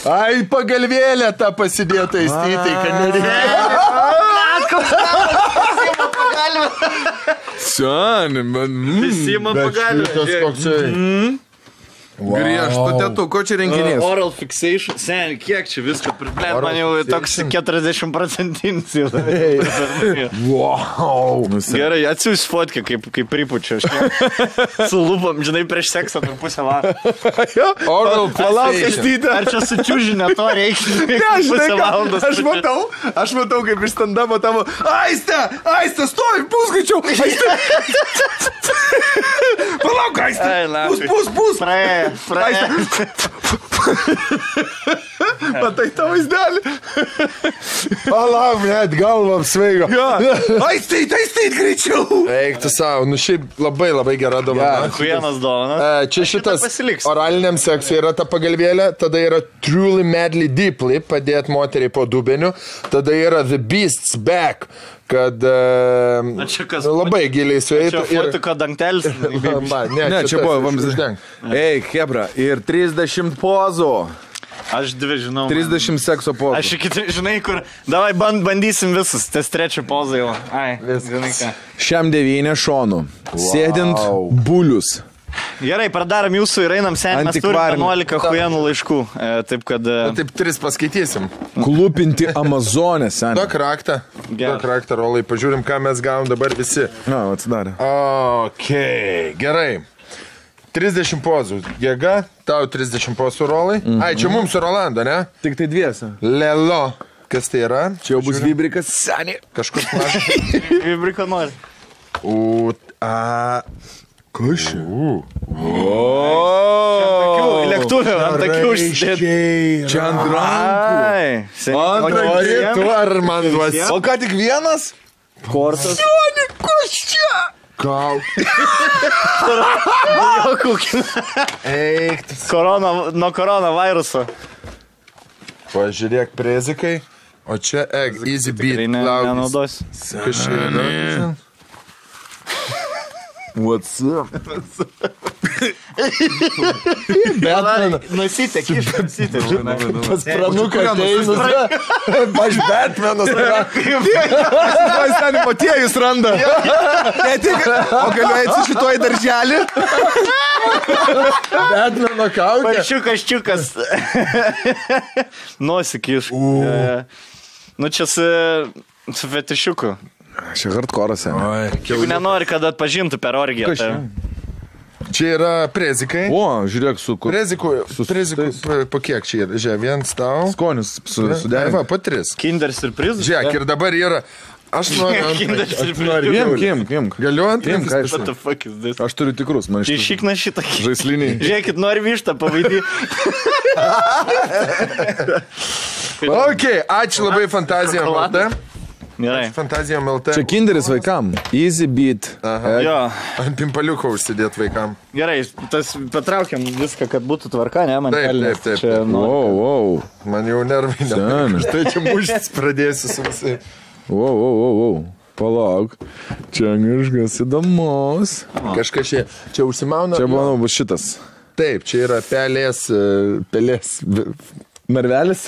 C: Ai, pagalvėlę tą pasidėtą įstytai, kad nereikia.
B: Prisima pagalvę.
A: Seni, man.
B: Prisima pagalvę.
A: Griežtų tėtų, ko čia renginys?
B: Oral fixation. Seni, kiek čia visko priplėt, man jau toks 40% jau.
C: Wow.
B: Gerai, atsiūs fotkę, kaip pripučia. Su lūpom, žinai, prieš seksą per pusę valandą.
C: Oral
A: fixation.
B: Ar čia sučiūžinę to reikia?
A: Ne, žinai, aš matau, kaip iš stand-upo tavo. Aiste, stovi, pusgaičiau. Palauk, Aiste. Pus.
B: Praėjo.
A: Matai tą vaizdelį?
C: Palauk, net galva apsveigo.
A: Aistait, greičiau.
C: Eik tu savo, nu šiaip labai gera dovana.
B: Vienas dovana.
C: Čia šitas oraliniam seksui yra ta pagalvėlė, tada yra Truly Madly Deeply, padėt moteriai po dubeniu, tada yra The Beast's Back, kad labai giliai sueitų.
B: Čia fotiko dangtelis.
C: Ne,
A: čia buvo vamzdis. Ei, hebra, ir 30 pozų.
B: Aš 2 žinau.
A: 30 sekso pozų.
B: Aš iki, žinai, kur... Davai, bandysim visus. Tas 3 pozą jau. Ai, žinai ką.
A: Šiam 9 šonų. Sėdint bulius.
B: Gerai, pradarom jūsų ir einam sen. Mes turim 11 huienų laiškų. Taip, kad...
C: Taip, 3 paskaitysim.
A: Klūpinti Amazonę, sen.
C: Duok raktą, Rolai. Pažiūrim, ką mes gavom dabar visi.
A: Na, atsidarė.
C: Okei, gerai. 30 pozų. Jėga, tau 30 pozų, Rolai. Ai, čia mums su Rolando, ne?
A: Tik tai 2.
C: Lelo. Kas tai yra?
A: Čia jau bus vibrikas. Seni.
C: Kažkur panašus.
B: Vibrika nori.
C: Kas čia?
B: Lėktuvė, ant takių užsidėti.
A: Čia ant rankų.
C: Nori tu ar man duosi?
A: O ką tik vienas?
B: Kortas.
A: Sioni, kas čia?
C: Kaukė. Eik.
B: Nuo koronaviruso.
C: Pažiūrėk, prezikai. O čia easy beat.
B: Nenaudos.
C: Kas čia yra?
A: What's up?
B: Nusitek, išnusitek.
C: Pas pranuką ateinus. Aš Batmanas.
A: Aš ten motiejus randa. Ne tik, o galiu eiti šitoj darželį.
C: Batmano kaukė.
B: Paršiukas. Nosikiš. Nu čia su fetišiuku.
A: Čia hardcore'as.
B: Jeigu nenori, kad atpažintų per orgiją.
C: Čia yra prezikai.
A: O, žiūrėk, su kur.
C: Prezikų, po kiek čia yra? Žiūrėk, vienas tau.
A: Skonis sudėrė.
C: Va, po 3.
B: Kinder surprizas.
C: Žiūrėk, ir dabar yra... Aš noriu
B: Kinder surprizas.
A: Kim.
C: Galiu antras?
B: What the fuck is this?
A: Aš turiu tikrus, man iš
B: Išikna šitą.
A: žaisliniai.
B: Žiūrėkit, nori vištą pavaidį.
C: Ok, ačiū labai Fantazijom LT.
B: Gerai.
C: Fantazijom LT.
A: Čia kinderis vaikam. Easy beat.
B: Jo.
C: Ant pimpaliuko užsidėt vaikam.
B: Gerai, tas patraukiam viską, kad būtų tvarka, ne? Man
C: Taip.
A: Wow.
C: Man jau nervai ne. Štai čia muštis pradėsiu su visai.
A: Wow. Palauk. Čia kažkas įdomus.
C: Kažkas čia užsimauna.
A: Čia, manau, bus šitas.
C: Taip, čia yra pelės.
A: Narvelis.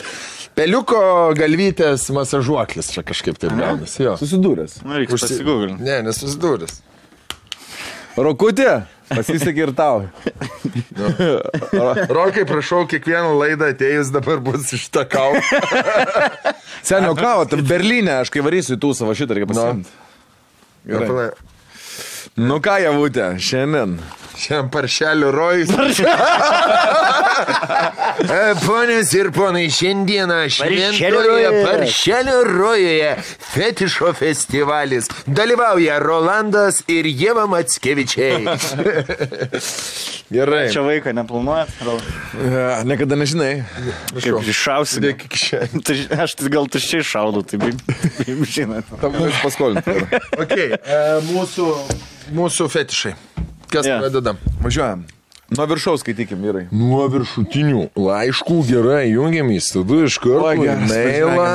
C: Peliuko galvytės masažuoklis čia kažkaip taip gaunasi.
A: Susidūręs.
B: Reikia pasigūglinti.
C: Ne, nesusidūręs.
A: Rokutė, pasisekė ir tau.
C: Rokai, prašau, kiekvieną laidą atėjus dabar bus iš tą kavą.
A: Senio kavą, tai Berlyne, aš kai varysiu į tų savo šitą, reikia pasimti. Gerai. Nu ką, Javutė, šiandien.
C: Šiandien paršelių rojus. Ponios ir ponai, šiandieną šventoje paršelių rojuje fetišo festivalis. Dalyvauja Rolandas ir Ieva Mackevičiai.
A: Gerai.
B: Čia vaiką neplanuojat?
A: Niekada nežinai.
B: Kaip iššausi. Aš gal tuščiai šaudau, tai žinot.
A: Tam mums paskolinti.
C: Ok, mūsų fetišai. Kas pradedam?
A: Važiuojam. Nuo viršaus skaitykim, vyrai.
C: Nuo viršutinių laiškų gerai jungiamės, tada iš karto mailą.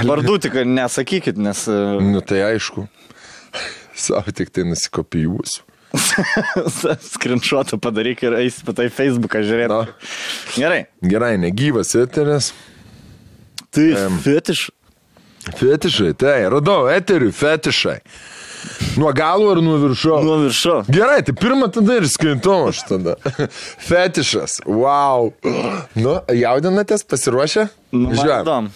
B: Vardų tik nesakykit, nes...
C: Nu tai aišku. Savo tik tai nusikopijuosiu.
B: Screenshotą padaryk ir eisi patai Facebooką žiūrėti. Gerai.
C: Gerai, negyvas eteris.
B: Tai fetiš.
C: Fetišai, tai radau eterių fetišai. Nuo galo ar nuo viršo?
B: Nuo viršo.
C: Gerai, tai pirmą tada ir skaitau aš tada. Fetišas, wow. Nu, jaudinatės, pasiruošę?
B: Žiūrėjom.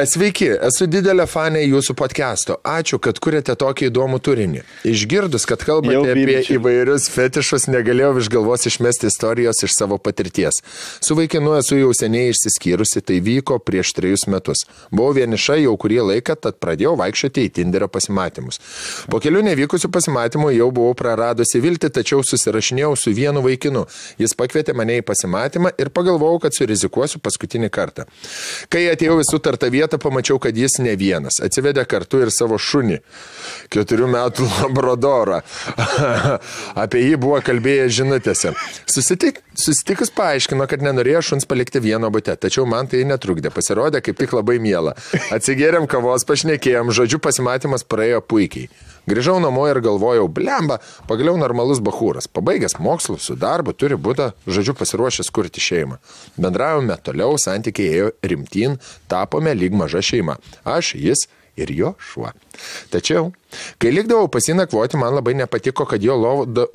C: Sveiki, esu didelė fanė jūsų podcast'o. Ačiū, kad kuriate tokį įdomų turinį. Išgirdus, kad kalbate apie įvairius fetišus, negalėjau iš galvos išmesti istorijos iš savo patirties. Su vaikinu esu jau seniai išsiskyrusi, tai vyko prieš 3 metus. Buvau vieniša jau kurį laiką, tad pradėjau vaikščioti į Tinderio pasimatymus. Po kelių nevykusių pasimatymų jau buvau praradusi viltį, tačiau susirašinėjau su vienu vaikinu. Jis pakvietė mane į pasimatymą ir pagalvojau, kad surizikuosiu paskutinį kartą. Kai atėjau į sutartą vietą, pamačiau, kad jis ne vienas. Atsivedė kartu ir savo šunį, 4 metų labradorą. Apie jį buvo kalbėję žinutėse. Susitikus paaiškino, kad nenorėjo šuns palikti vieno bute, tačiau man tai netrukdė. Pasirodė kaip tik labai miela. Atsigėrėm kavos, pašnekėjom, žodžiu pasimatymas praėjo puikiai. Grįžau namo ir galvojau, blemba, pagaliau normalus bachūras. Pabaigęs mokslus su darbu, turi būti, žodžiu, pasiruošęs kurti šeimą. Bendravome toliau, santykiai ėjo rimtyn, tapome lyg maža šeima. Aš, jis ir jo šuo. Tačiau, kai likdavau pasinakvoti, man labai nepatiko, kad jo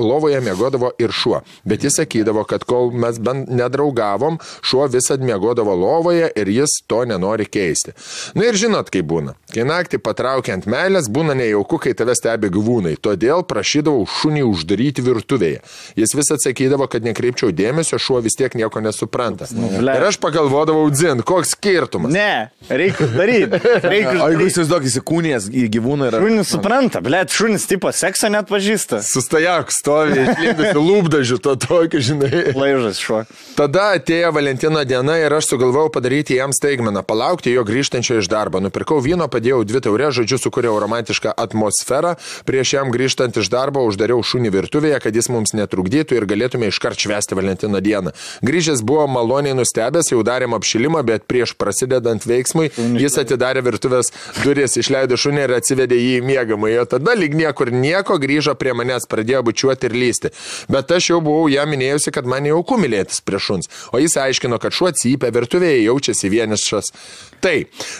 C: lovoje miegodavo ir šuo. Bet jis sakydavo, kad kol mes bent nedraugavom, šuo visad miegodavo lovoje ir jis to nenori keisti. Na ir žinot, kaip būna. Kai naktį patraukiant meilės, būna nejauku, kai tave stebi gyvūnai. Todėl prašydavau šunį uždaryti virtuvėje. Jis vis atsakydavo, kad nekreipčiau dėmesio, šuo vis tiek nieko nesupranta. Ir aš pagalvodavau, dzin, koks skirtumas.
B: Ne, reikia daryti.
A: O jeigu įsivaizduok, įsikūnijas į gyvūną ir...
B: Šunis nesupranta, blėt, šunis tipo sekso net pažįsta.
C: Sustajak, stovi, išlėdusi lūpdažių, to tokio, žinai.
B: Laižas šuo.
C: Tada atėjo Valentino diena ir aš sugalvojau padaryti jam staigmeną, palaukti jo grįžtančio iš darbo. Nupirkau vyno, padėjau 2 taures, žodžiu, sukūriau romantišką atmosferą. Prieš jam grįžtant iš darbo uždariau šunį virtuvėje, kad jis mums netrukdytų ir galėtume iškart švęsti Valentino dieną. Grįžęs buvo maloniai nustebęs, jau darėm apšilimą, bet prieš prasidedant veiksmui jis atidarė virtuvės duris, išleido šunį ir atsivedė jį į miegamąjį. Tada lyg niekur nieko grįžo prie manęs, pradėjo bučiuoti ir lysti. Bet aš jau buvau jam minėjusi, kad man jau kumilėtis prie šuns, o jis aiškino, kad šuo cypia, virtuvėje jaučiasi vienišas. Tai,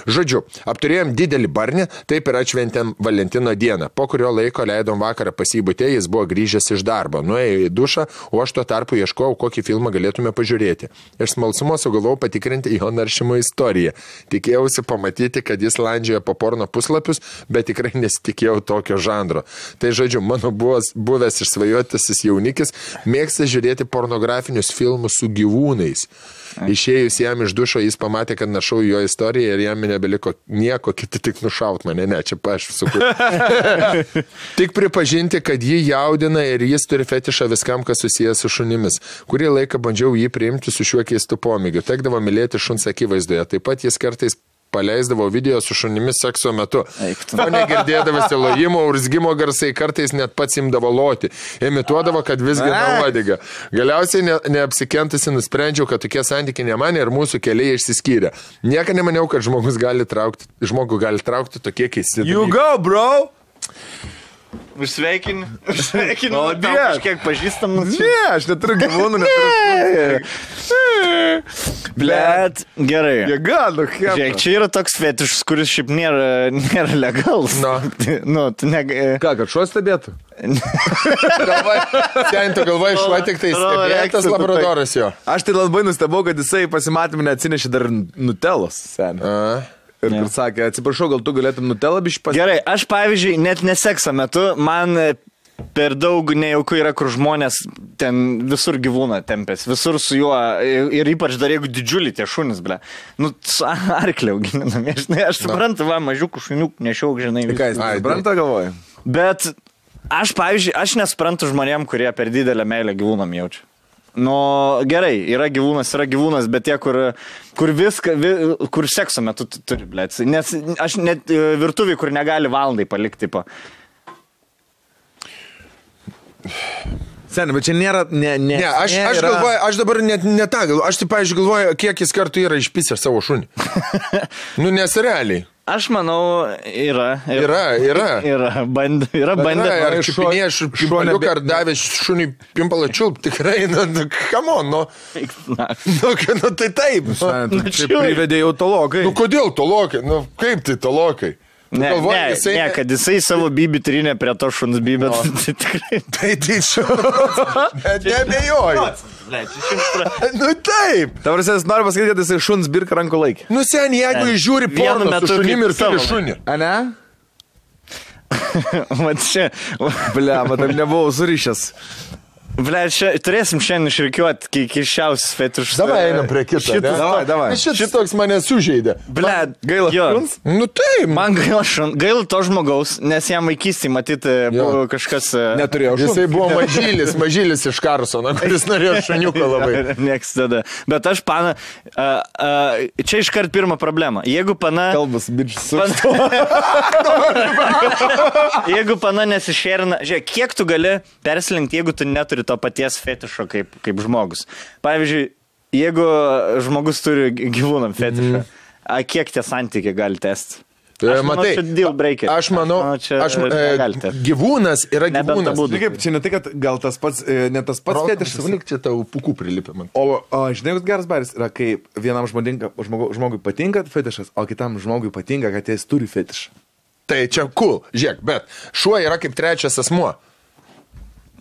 C: žodžiu, apturėjom didelį barnį, taip ir atšventėm Valentino dieną. Po kurio laiko leidom vakarą pasibūtė, jis buvo grįžęs iš darbo, nuėjo į dušą, o aš tuo tarpu ieškojau, kokį filmą galėtume pažiūrėti. Iš smalsumo sugalvojau patikrinti jo naršymo istoriją. Tikėjausi pamatyti, kad jis landžioja po porno puslapius, bet tikrai nesitikėjau tokio žanro. Tai, žodžiu, mano buvęs išsvajotasis jaunikis mėgsta žiūrėti pornografinius filmus su gyvūnais. Išėjus jam iš dušo, jis pamatė, kad našau jo istoriją ir jam nebeliko nieko kiti tik nušaut mane. Ne, čia aš sukūriau. Tik pripažinti, kad jį jaudina ir jis turi fetišą viskam, kas susijęs su šunimis. Kurį laiką bandžiau jį priimti su šiuo keistu pomėgiu. Tekdavo mylėti šuns akivaizdoje. Taip pat jis kartais paleisdavo video su šunimis sekso metu. O negirdėdavasi lojimo, urzgimo garsai, kartais net pats imdavo loti. Imituodavo, kad visgina uodegą. Galiausiai neapsikentusi nusprendžiau, kad tokie santykiai ne man ir mūsų keliai išsiskyrė. Niekada nemaniau, kad žmogus gali traukti tokie keisti.
A: You go, bro!
B: Užsveikin. O, kažkiek pažįstamas.
A: Ne, aš neturiu gyvūnų, neturiu.
B: Blet, gerai.
A: Jėga, nu, kaip.
B: Žiūrėk, čia yra toks fetišas, kuris šiaip nėra legalus.
A: Ką, kad šuo stebėtų?
C: Ten tu galvoji, šuo tik tai stebėtas labradoras jo.
A: Aš tai labai nustebau, kad jisai pasimatymą neatsinešė dar nutelos, seniai. Ir kur sakė, atsiprašau, gal tu galėtum nutelą bišį pasiekti?
B: Gerai, aš pavyzdžiui, net nesekso metu, man per daug nejauku yra, kur žmonės ten visur gyvūną tempės, visur su juo, ir ypač dar jeigu didžiulį tie šunis, ble. Nu, su arkliau gilinami, aš suprantu, va, mažiukų šuniukų nešiauk, žinai.
A: Ką jis supranta, galvoju?
B: Bet aš, pavyzdžiui, aš nesuprantu žmonėm, kurie per didelę meilę gyvūnam jaučia. Nu, gerai, yra gyvūnas, bet tie, kur viską, kur sekso metu turi, blėt. Nes aš net virtuvį, kur negali valandai palikti, tipo.
A: Seniai, bet čia nėra,
C: Ne, aš galvoju, aš dabar net ne tą galvoju, aš tai, pavyzdžiui, galvoju, kiek jis kartų yra išpisęs savo šunį. Nu, nes realiai.
B: Aš manau, yra. Bandė.
C: Ar čiupinėje šuniuką ar davė šunį pimpalą čiulp, tikrai, nu, come on, nu. Nu, tai taip.
A: Čia privedė jau tolokai.
C: Nu, kodėl tolokai? Nu, kaip tai tolokai?
B: Ne, kad jisai savo bybį trinė prie to šuns bybę. Tai tikrai.
C: Tai bet neabejoju. Nu taip.
A: Tavars, jis nori pasakyti, kad jisai šuns birka rankų laikį.
C: Nu sen, jeigu jis žiūri porno su šunim ir turi šunį.
A: A ne?
B: Mat čia.
A: Blia, matam nebuvau surišęs.
B: Ble, turėsim šiandien išrikiuoti keiščiausius fetišus.
C: Davai einam prie kito.
A: Davai.
C: Šitas toks mane sužeidė.
B: Ble,
A: gaila šuns?
C: Nu taip.
B: Man gaila to žmogaus, nes jam vaikystėje matyti buvo kažkas...
A: Neturėjo šuns.
C: Jisai buvo mažylis iš Karsono, kuris norėjo šuniuką labai.
B: Nieks tada. Bet aš, pana, čia iškart pirma problema. Jeigu pana...
A: Kalbas, bičias.
B: Jeigu pana nesišerina... Žiūrėk, kiek tu gali perslinkti, jeigu tu neturi to paties fetišo kaip žmogus. Pavyzdžiui, jeigu žmogus turi gyvūnam fetišą, kiek tie santykiai gali tęsti?
C: Matai, aš manau, gyvūnas yra gyvūnas.
A: Čia ne tai, kad gal tas pats, ne tas pats fetišas.
C: Valik čia tau pukų prilipė man.
A: O žinai, kad geras baris yra, kai vienam žmogui patinka fetišas, o kitam žmogui patinka, kad jis turi fetišą.
C: Tai čia cool, žiūrėk, bet šuo yra kaip trečias asmuo.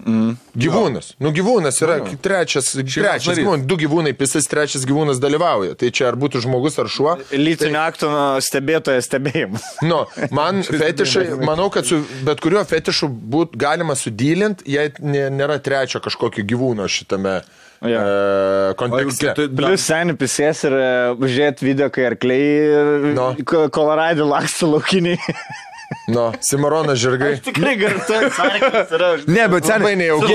C: Gyvūnas. Nu, gyvūnas yra trečias gyvūnas. 2 gyvūnai pisas, trečias gyvūnas dalyvauja. Tai čia ar būtų žmogus ar šuo.
B: Lytinio akto stebėtojas stebėjimas.
C: Nu, man fetišai, manau, kad su bet kuriuo fetišu galima sudylinti, jei nėra trečio kažkokio gyvūno šitame kontekste.
B: Plius seniai pisės ir žiūrėt video, kai arkliai Koloradė laksto laukiniai.
C: Nu, Cimarono žirgai.
B: Tikrai gartuoju, sarkas yra.
A: Ne, bet
C: Labai
A: seniai,
C: nejauku.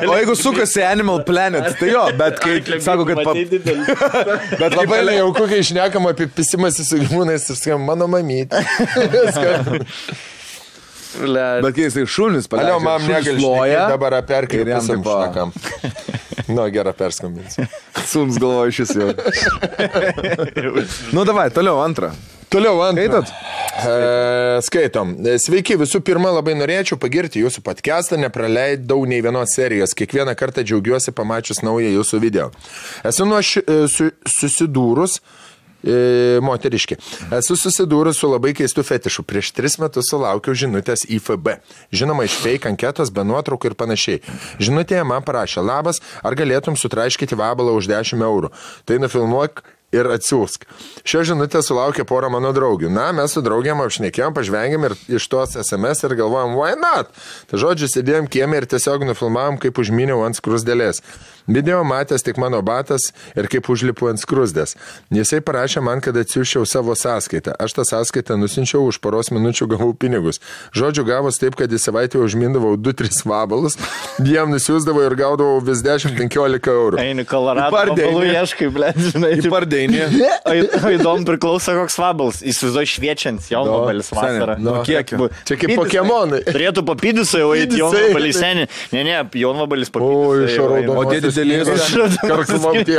A: o jeigu sukasi Animal Planet, tai jo, bet kai sako, kad...
C: Bet labai nejauku, kai išnekam apie pisimąsi su gyvūnais ir skam, mano mamytė.
A: Bet kai jisai šunis paleidžia,
C: Alio, mam negali šnekėti, dabar perkai ir jam
A: taip
C: šnekam. Nu, gerą perskambinsiu.
A: Sums galvoju šis jau. Nu, davai, toliau antrą. Skaitot?
C: Skaitom. Sveiki, visų pirma, labai norėčiau pagirti jūsų podcastą, nepraleidau nei vienos serijos. Kiekvieną kartą džiaugiuosi pamačius naują jūsų video. Esu susidūrus moteriškė. Esu susidūrus su labai keistu fetišu. Prieš 3 metus sulaukiau žinutės į FB. Žinoma, iš fake anketos, be nuotraukų ir panašiai. Žinutėje man parašė, labas, ar galėtum sutraiškyti vabalą už 10 eurų. Tai nufilmuok ir atsiųsk. Šio žinutę sulaukė porą mano draugių. Na, mes su draugiam apšnekėjom, pažvengėm ir iš tos SMS ir galvojom, why not? Tai žodžiu, sėdėjom kieme ir tiesiog nufilmavom, kaip užminiau ant skrusdėlės. Video matęs tik mano batas ir kaip užlipu ant skrusdės. Jisai parašė man, kad atsiųščiau savo sąskaitą. Aš tą sąskaitą nusinčiau, už poros minučių gavau pinigus. Žodžiu, gavos taip, kad į savaitę užmindavau 2-3 vabalus, jiem nusiųsdavau ir gaudavau vis 10-15 eurų.
B: Eini Kolorado, vabalų ieškai, blėt, žinai.
A: Į pardeinį.
B: O įdomu priklauso koks vabals. Įsivaizduoju šviečiant, jau vabalis vasarą.
A: Nu, kiekio.
C: Čia kaip Pokemonai.
B: Turėtų papydusai, o įt jau vabalis seni. Ne, jau vabalis papydusai.
C: Karklom tie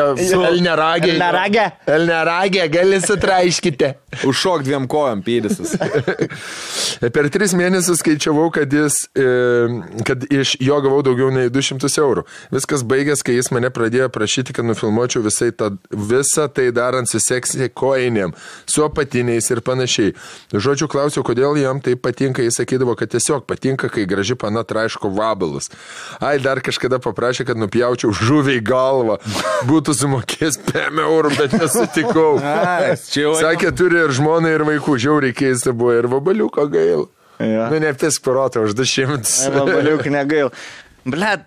C: Elneragė, gali sutraiškite.
A: Užšok 2 kojom pėdisas.
C: Per 3 mėnesius skaičiavau, kad iš jo gavau daugiau nei 200 eurų. Viskas baigės, kai jis mane pradėjo prašyti, kad nufilmuočiau visą tai darant su seksy koinėm, su apatiniais ir panašiai. Žodžiu, klausiau, kodėl jam tai patinka. Jis sakydavo, kad tiesiog patinka, kai graži pana traiško vabalus. Ai, dar kažkada paprašė, kad nupjaučiau žuviai galvą. Būtų sumokės 5 eurų, bet nesutikau. Sakė, turi ir žmoną, ir vaikų. Žiauriai keista buvo, ir vabaliuko gail.
B: Ja.
C: Nu, nepisk pirotą už 200.
B: Vabaliuk negail. Blet.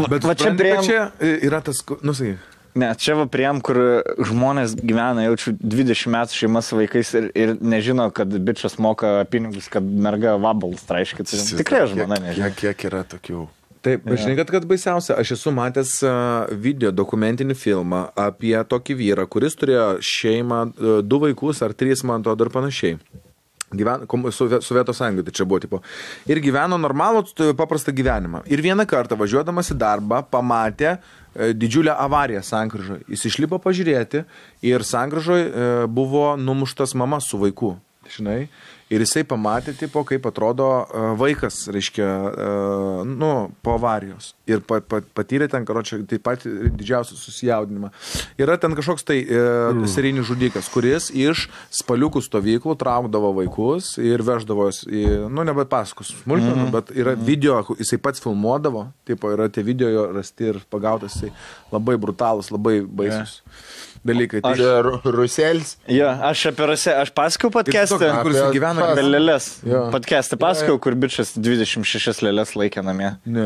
A: Bet va čia prieim... Čia yra tas... Nusakai.
B: Ne, čia va prieim, kur žmonės gyvena, jaučiu 20 metų šeima su vaikais ir nežino, kad bičias moka pinigus, kad merga vabalus traiškit. Tikrai žmona nežino.
C: Kiek yra tokių...
A: Taip, žinai, kad baisiausia, aš esu matęs video dokumentinį filmą apie tokį vyrą, kuris turėjo šeimą, 2 vaikus ar 3, man to dar panašiai. Sovietų sąjungai, tai čia buvo tipo. Ir gyveno normalų, paprastą gyvenimą. Ir vieną kartą važiuodamas į darbą pamatė didžiulę avariją sankryžoje. Jis išlipo pažiūrėti ir sankryžoje buvo numuštas mama su vaiku. Žinai, ir jisai pamatė, tipo, kaip atrodo vaikas, reiškia, po avarijos. Ir patyrė ten, karočią, taip pat didžiausią susijaudinimą. Yra ten kažkoks tai serijinis žudikas, kuris iš spaliukų stovyklų traukdavo vaikus ir veždavo, nebet pasakos smulkmenų, bet yra video, jisai pats filmuodavo, tipo, yra tie video jo rasti ir pagautas, jisai labai brutalus, labai baisus. Dalykai.
C: Ruselis.
B: Jo, aš apie Ruselį, aš pasakiau podcast'ą.
A: Kur jis gyvena.
B: Apie lėlės. Podcast'ą pasakiau, kur bičias 26 lėlės laikė namie.
A: Ne.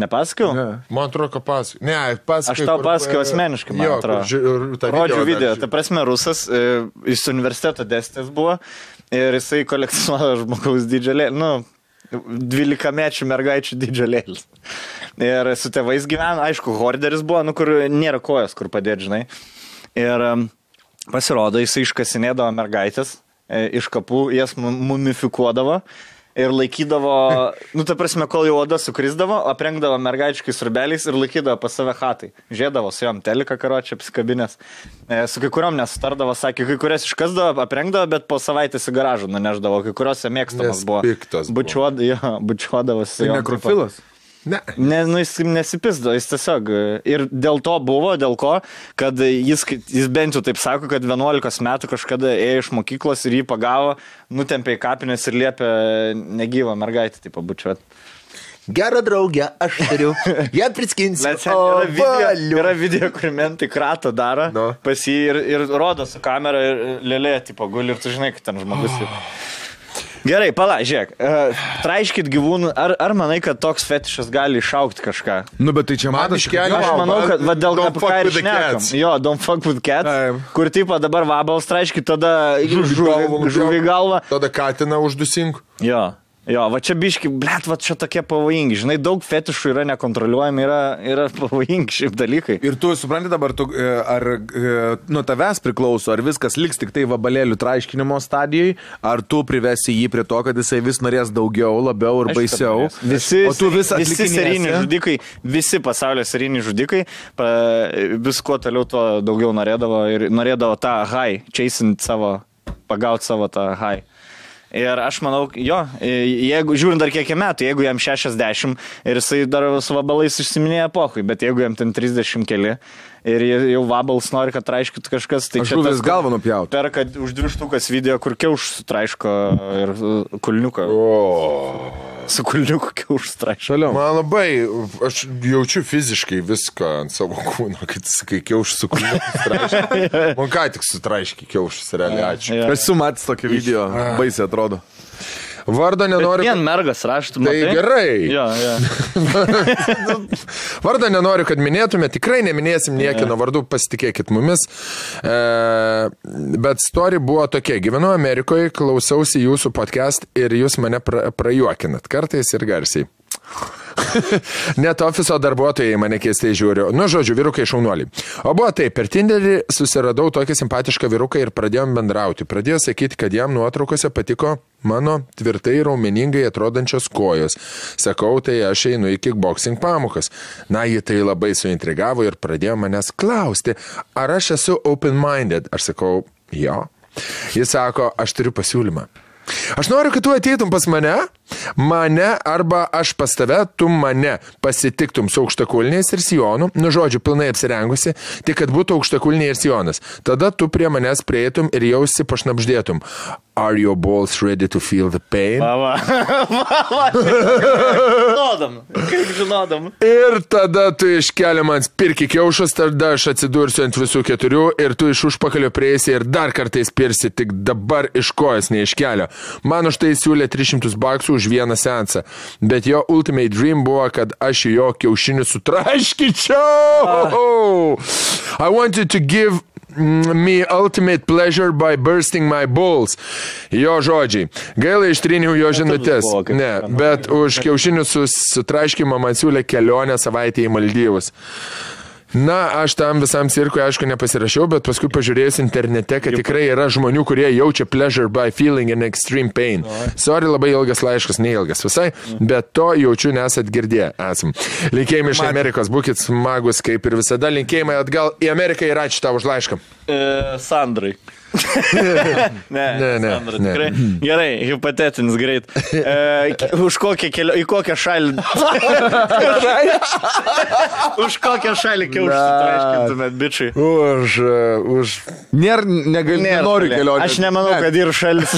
B: Nepasakiau?
C: Ne. Man atrodo, kad pasakiau. Ne, pasakiau.
B: Aš tau pasakiau asmeniškai, man atrodo. Rodžiu video. Ta prasme, rusas, iš universiteto dėstytojas buvo ir jisai kolekcionuoja žmogaus dydžio lėlį. 12-mečių mergaičių dydžio lėlis. Ir su tėvais gyvena, aišku, horderis buvo, kur nėra kojas, kur padėti, žinai. Ir pasirodo, jisai iškasinėdavo mergaitės, iš kapų jas mumifikuodavo ir laikydavo, ta prasme, kol jau oda sukrisdavo, aprengdavo mergaičiais rubeliais ir laikydavo pas save chatai. Žiedavo su jom teliką karočią apsikabinės. Su kai kuriuom nesutardavo, sakė, kai kurias iškasdavo, aprengdavo, bet po savaitės į garažą nuneždavo, kai kuriuose mėgstamas buvo. Bučiuodavo su jom.
A: Tai nekrofilas?
C: Ne.
B: Jis nesipisdo, jis tiesiog. Ir dėl to buvo, dėl ko, kad jis bent jau taip sako, kad 11 metų kažkada ėjo iš mokyklos ir jį pagavo, nutempė į kapines ir liepė negyvą mergaitę taip pabučiuoti.
C: Gerą draugę, aš turiu. Ją priskinsiu.
B: Yra video, kur mentai kratą daro pas jį ir rodo su kamera ir lėlė tipo guli ir tu žinai, kad ten žmogus. Gerai, žiūrėk, traiškit gyvūnų, ar manai, kad toks fetišas gali išaukti kažką?
A: Nu, bet tai čia man
B: Aš manau, kad dėl ką ir šnekam. Jo, don't fuck with cats, kur tipo dabar vabals traiškit, tada žuvį galvą.
C: Tada katiną uždusink.
B: Jo. Jo, va čia biški, blet, va čia tokie pavojingi. Žinai, daug fetišų yra nekontroliuojami, yra pavojingi šiaip dalykai.
A: Ir tu supranti dabar, ar nuo tavęs priklauso, ar viskas liks tik tai vabalėlių traiškinimo stadijai, ar tu privesi jį prie to, kad jisai vis norės daugiau, labiau ir baisiau.
B: Visi seriniai žudikai, visi pasaulio seriniai žudikai, vis kuo toliau tuo daugiau norėdavo ir norėdavo tą high, pagauti savo tą high. Ir aš manau, jo, jeigu, žiūrint dar kiek metų, jeigu jam 60 ir jisai dar su vabalais išsiminėja epochai, bet jeigu jam ten 30 keli ir jau vabals nori, kad traiškit kažkas, tai
A: čia žuvis galvą nupjauti.
B: Perka už 2 štukas video, kur kiauš sutraiško ir kulniuką. Su kulniuku kiauš sutraiško.
C: Man labai, aš jaučiu fiziškai viską ant savo kūno, kad sakai kiauš su kulniuku sutraiško. Man ką tik sutraiški kiaušus, realiai, ačiū.
A: Aš esu matęs tokį video, baisiai atrodo.
C: Vardą nenoriu...
B: Vien mergas raštų,
C: matai? Tai gerai.
B: Jo.
C: Vardą nenoriu, kad minėtume, tikrai neminėsim niekino vardų, pasitikėkit mumis. Bet story buvo tokia. Gyvenu Amerikoje, klausausi jūsų podcast ir jūs mane prajuokinat. Kartais ir garsiai. Net ofiso darbuotojai mane keistai žiūri. Nu, žodžiu, vyrukai šaunuoliai. O buvo taip, per Tinderį susiradau tokį simpatišką vyruką ir pradėjom bendrauti. Pradėjo sakyti, kad jam nuotraukose patiko mano tvirtai raumeningai atrodančios kojos. Sakau, tai aš einu į kickboxing pamokas. Na, jį tai labai suintrigavo ir pradėjo manęs klausti, ar aš esu open-minded. Aš sakau, jo. Jis sako, aš turiu pasiūlymą. Aš noriu, kad tu ateitum pas mane arba aš pas tave, tu mane pasitiktum su aukštakulniais ir sijonu, nu žodžiu, pilnai apsirengusi, tik kad būtų aukštakulniai ir sijonas. Tada tu prie manęs prieitum ir jausi pašnapždėtum. Are your balls ready to feel the pain?
B: Žinodam.
C: Ir tada tu iškeli man spirki kiaušus, tada aš atsidursiu ant visų 4 ir tu iš užpakalio prieisi ir dar kartais pirsi, tik dabar iš kojas neiškelio. Man už tai siūlė $300 už vieną seansą, bet jo ultimate dream buvo, kad aš jo kiaušinių sutraškyčiau. I wanted to give me ultimate pleasure by bursting my balls. Jo žodžiai. Gaila ištryniau jo žinutės. Ne, bet už kiaušinių sutraškimą man siūlė kelionę savaitę į Maldyvus. Na, aš tam visam cirkui, aišku, nepasirašiau, bet paskui pažiūrėjus internete, kad tikrai yra žmonių, kurie jaučia pleasure by feeling an extreme pain. Sorry, labai ilgas laiškas, neilgas visai, bet to jaučiu nesat girdėję esam. Linkėjimai iš Amerikos, būkit smagus, kaip ir visada. Linkėjimai atgal į Ameriką ir ačiū tau už laišką.
B: Sandrai. Ne. Tikrai. Gerai, hipotetinis greit. Į kokią šalį Už kokią šalį kiaušų traiškintumėt, bičiai?
A: Nenoriu kelionės.
B: Aš nemanau, kad ir šalis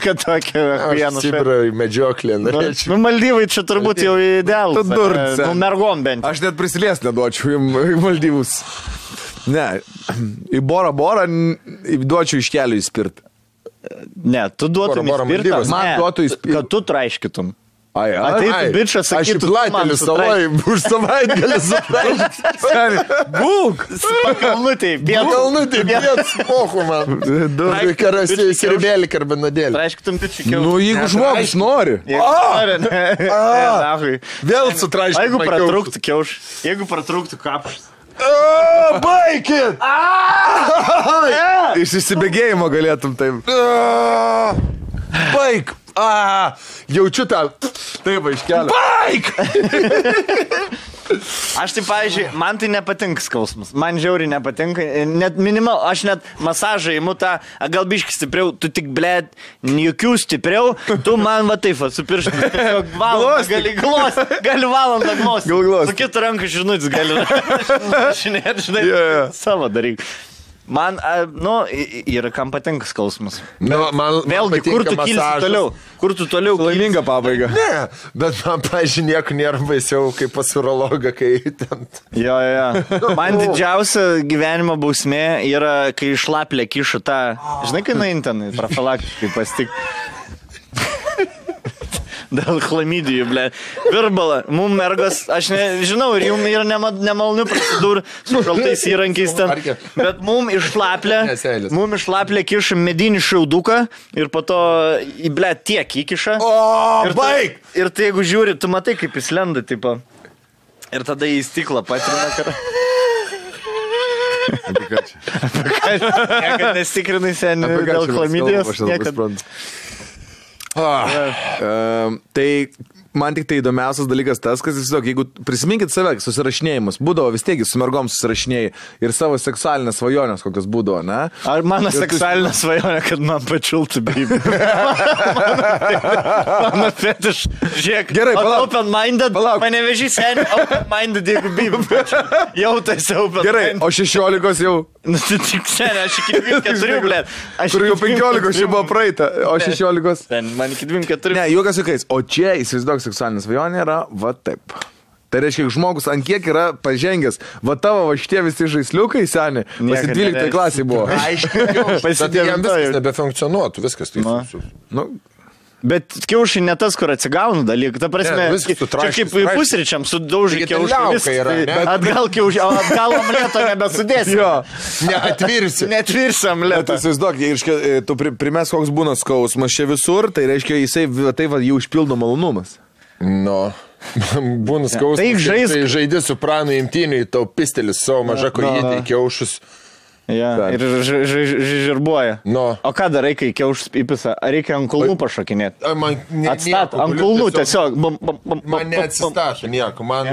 B: kad tokia vieną
C: šalį. Medžioklė.
B: Nu, Maldyvai čia turbūt jau idealus. Nu, mergom bent.
A: Aš net prisilies neduočiau į Maldyvus. Ne, į Borą duočiau iš kelių įspirt.
B: Ne, tu duotum įspirtą.
A: Man duotų įspirtą.
B: Kad tu traiškytum.
A: Ai,
B: bičas sakytų,
C: aš į Platėlį saloj už savaitgalį sutraiškytum.
B: Būk! Pakalnutėj,
C: piet spochu man. Karasiai, sirbėlį, karbinadėlį.
B: Traiškytum bičių kiaušų.
A: Nu, jeigu žmogus nori.
C: Vėl sutraiškytum
B: kiaušų. Jeigu pratrūktų kapšas.
C: Baikit!
A: Iš įsibėgėjimo galėtum taip.
C: Baik! Jaučiu tą. Taip, iškelio. Baik!
B: Aš tai, pavyzdžiui, man tai nepatinka skausmas. Man žiauriai nepatinka. Net minimal, aš net masažą įimu tą, gal biškį stipriau, tu tik, blėt, jokių stipriau, tu man va taip, su pirštu. Gali valandą glosti. Su kitų rankų žinutis gali. Žinai, savo daryk. Man, yra kam patinka skausmas. Vėlgi, kur tu kilsi toliau? Kur tu toliau?
A: Laiminga pabaiga.
C: Ne, bet man, pažiūrėjau, nieko nėra baisiau, kaip pas urologą, kai ten...
B: Jo. Man didžiausia gyvenimo bausmė yra, kai šlaplė kiša tą... Žinai, kai nuein ten, profilaktiškai pastik. dėl chlamidijų, ble. Virbala, mum mergos, aš nežinau, ir jum yra nemalonių procedūrų su šaltais įrankiais ten, bet mum išlaplė kiša medinį šiauduką ir po to, ble, tiek įkiša.
C: O, baig!
B: Ir tai jeigu žiūri, tu matai, kaip jis lenda, tipo. Ir tada į stiklą patrina karą. Niekad nesitikrinai seniai dėl chlamidijos.
A: Tai man tik tai įdomiausias dalykas tas, kad jeigu prisiminkit save, susirašinėjimus, būdavo vis tiek su mergom susirašinėjai ir savo seksualinės svajonės kokios būdavo, ne?
B: Ar mano seksualinė svajonė, kad man pačiltų bybį? Mano fetiš, žiūrėk, gerai, open-minded, mane vežį seniai, open-minded, jeigu bybį. Jau tai open-minded.
A: Gerai, o 16 jau?
B: Nu, tai tik seniai, aš iki 24, blėt.
A: Kur jau 15 čia buvo praeita, o 16?
B: Man iki 24.
A: Ne, juokas juokais, o čia įsivaizduok seksualinė svajonė yra va taip. Tai reiškia, žmogus ant kiek yra pažengęs, va tavo va šitie visi žaisliukai seni, pasi 12 klasiai buvo.
C: Aiškiai, jam viskas nebefunkcionuotų, viskas tai.
B: Bet kiaušai ne tas, kur atsigauna dalykai. Ta prasme, čia kaip pusryčiam sudaužai kiaušai. Atgal omleto nebesudėsi. Netvirsi omleto.
A: Tai įsivaizduok, tu primes, koks būna skausmas čia visur, tai reiškia, jisai tai va jų užpildo malonumas.
C: Būna skausmas, tai žaidė su pranu imtiniui, tau pistelis savo maža kojytė į kiaušus.
B: Ja, ir žirbuoja. O ką darai, kai kiaušus įpisa? Ar reikia ant kulnų pašokinėti? Atstat, ant kulnų tiesiog.
C: Man neatsistašo nieko. Man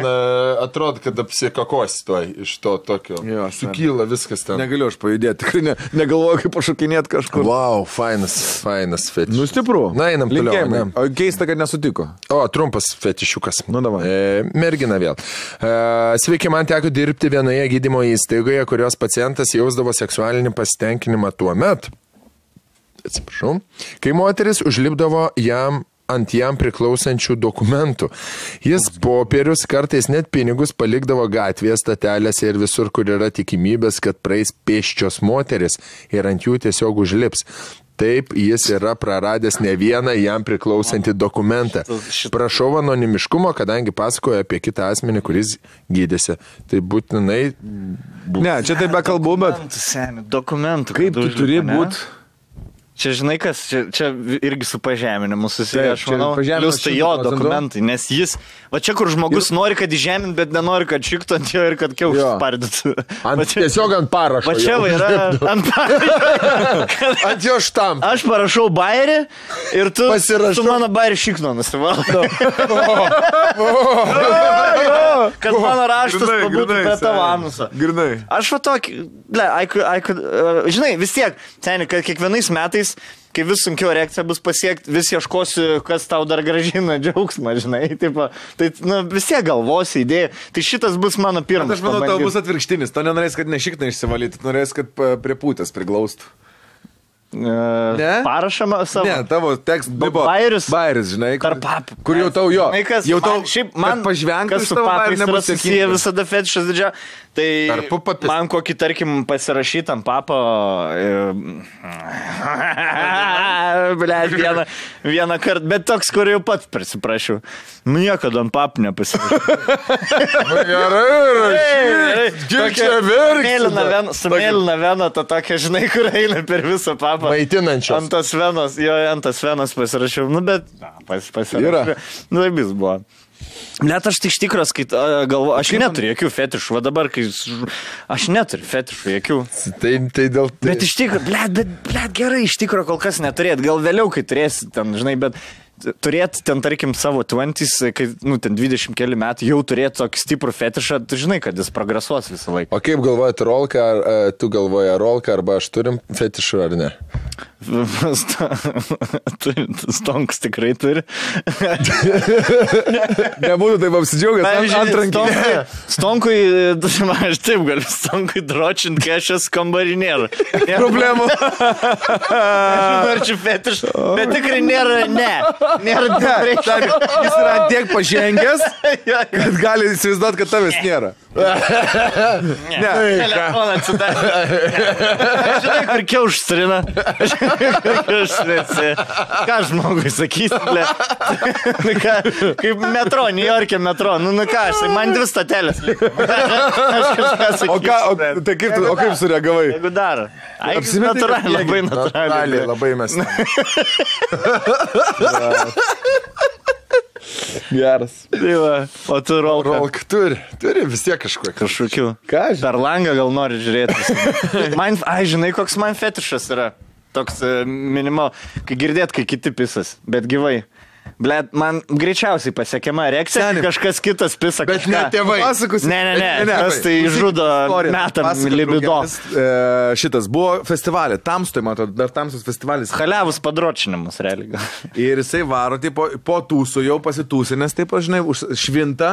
C: atrodo, kad apsikakosi to iš to tokio. Sukyla viskas ten.
A: Negaliu aš pajudėti. Tikrai negalvoju, kaip pašokinėti kažkur.
C: Wow, fainas fetiš.
A: Nu, stipru.
C: Na, einam toliau.
A: O keista, kad nesutiko.
C: O, trumpas fetišiukas.
A: Nu, davai.
C: Mergina vėl. Sveiki, man teko dirbti vienoje gydymo įstaigoje, kurios pacientas jausdavo seksualinį pasitenkinimą tuo met, atsiprašau, kai moteris užlipdavo ant jam priklausančių dokumentų. Jis popierius, kartais net pinigus palikdavo gatvėje, statelėse ir visur, kur yra tikimybės, kad praeis pėsčios moteris ir ant jų tiesiog užlips. Taip, jis yra praradęs ne vieną jam priklausantį dokumentą. Prašau anonimiškumo, kadangi pasakoja apie kitą asmenį, kuris gydėsi. Tai būtinai...
A: Ne, čia taip be kalbų, bet...
B: Dokumentų.
A: Kaip tu turi būti...
B: Čia žinai kas, čia irgi su pažeminimu susiję, aš manau, plius tai jo dokumentai, nes jis, va čia kur žmogus nori, kad įžemint, bet nenori, kad šiktų ant jo ir kad kiaušus spardytų.
C: Tiesiog ant parašo.
B: Va čia va yra ant parašo.
C: Ant jo štam.
B: Aš parašau bairį ir tu su mano bairį šikno nusivaldo. Kad mano raštas pabūtų prie tavo anuso. Aš va tokį, žinai, vis tiek, seniai, kad kiekvienais metais kai vis sunkiau erekcija bus pasiekti, vis ieškosiu, kas tau dar gražina džiaugsmą, žinai, tipo, tai vis tiek galvosi idėja, tai šitas bus mano pirmas.
A: Aš manau, tau bus atvirkštinis, tu nenorės, kad ne šikną išsivalyti, tu norės, kad prie pūtės priglaustų.
B: Parašama savo.
A: Ne, tavo tekst buvo
B: bairis,
A: žinai,
B: kur
A: jau tau jo.
B: Jau tau šiaip man
A: pažvengtas
B: su papais yra susiję visada fetišas didžia. Tai man kokį, tarkim, pasirašytam papą, vieną kartą, bet toks, kur jau pats prisiprašiau. Niekada ant papų nepasirašau.
C: Gerai,
B: su mėlyna vena, ta tokia, žinai, kur eina per visą papą.
C: Maitinančios.
B: Ant tas venos pasirašiau. Nu, bet pasirašiau. Nu, taip jis buvo. Net aš tai iš tikros, kai galvoju, aš neturiu jokių fetišų, va dabar, kai aš neturiu fetišų jokių.
C: Tai dėl tai.
B: Bet iš tikro, blėt, gerai, iš tikro kol kas neturėt, gal vėliau, kai turėsi ten, žinai, bet turėti ten, tarkim, savo 20s, kai, ten 20 keli metų, jau turėti tokį stiprų fetišą, tu žinai, kad jis progresuos visą laiką.
C: O kaip galvojat, Rolka, ar tu galvoji, Rolka, arba aš turim fetišų, ar ne?
B: Stonkus tikrai turi.
A: Nebūtų taip apsidžiaugęs antrankį.
B: Stonkui, aš taip galiu, Stonkui dročint, kai aš esu kambarį nėra.
A: Problemų.
B: Ar čia fetiš, bet tikrai nėra, ne. Nėra reikia.
A: Jis yra tiek pažengęs, kad gali įsivaizduoti, kad tavęs nėra.
B: Ne. Telefoną atsidarė. Žinai, kur kiauštrina. Ką žmogui sakys, ble? Kaip metro, New York'e metro. Nu ką, man 2 statelės.
A: O kaip sureagavai?
B: Jeigu dar. Natūraliai, labai natūraliai.
C: Labai mes.
A: Geras.
B: Tai va, o tu
C: Rolka turi vis tiek
B: kažkokių.
A: Ką?
B: Per langą gal nori žiūrėti. Žinai, koks man fetišas yra. Toks minimal, kai girdėt, kai kiti pisas, bet gyvai. Blet, man greičiausiai pasiekiama reakcija, kažkas kitas pisa
C: bet
B: kažką.
C: Bet ne tėvai.
A: Pasakus.
B: Ne. Tas tai žudo metam libido.
A: Šitas buvo festivalė, Tamstoje, man atrodo, dar Tamstos festivalis.
B: Haliavus padročinimas, realiai.
A: Ir jisai varo, tai po tūsų jau pasitūsinės, taip, žinai, švinta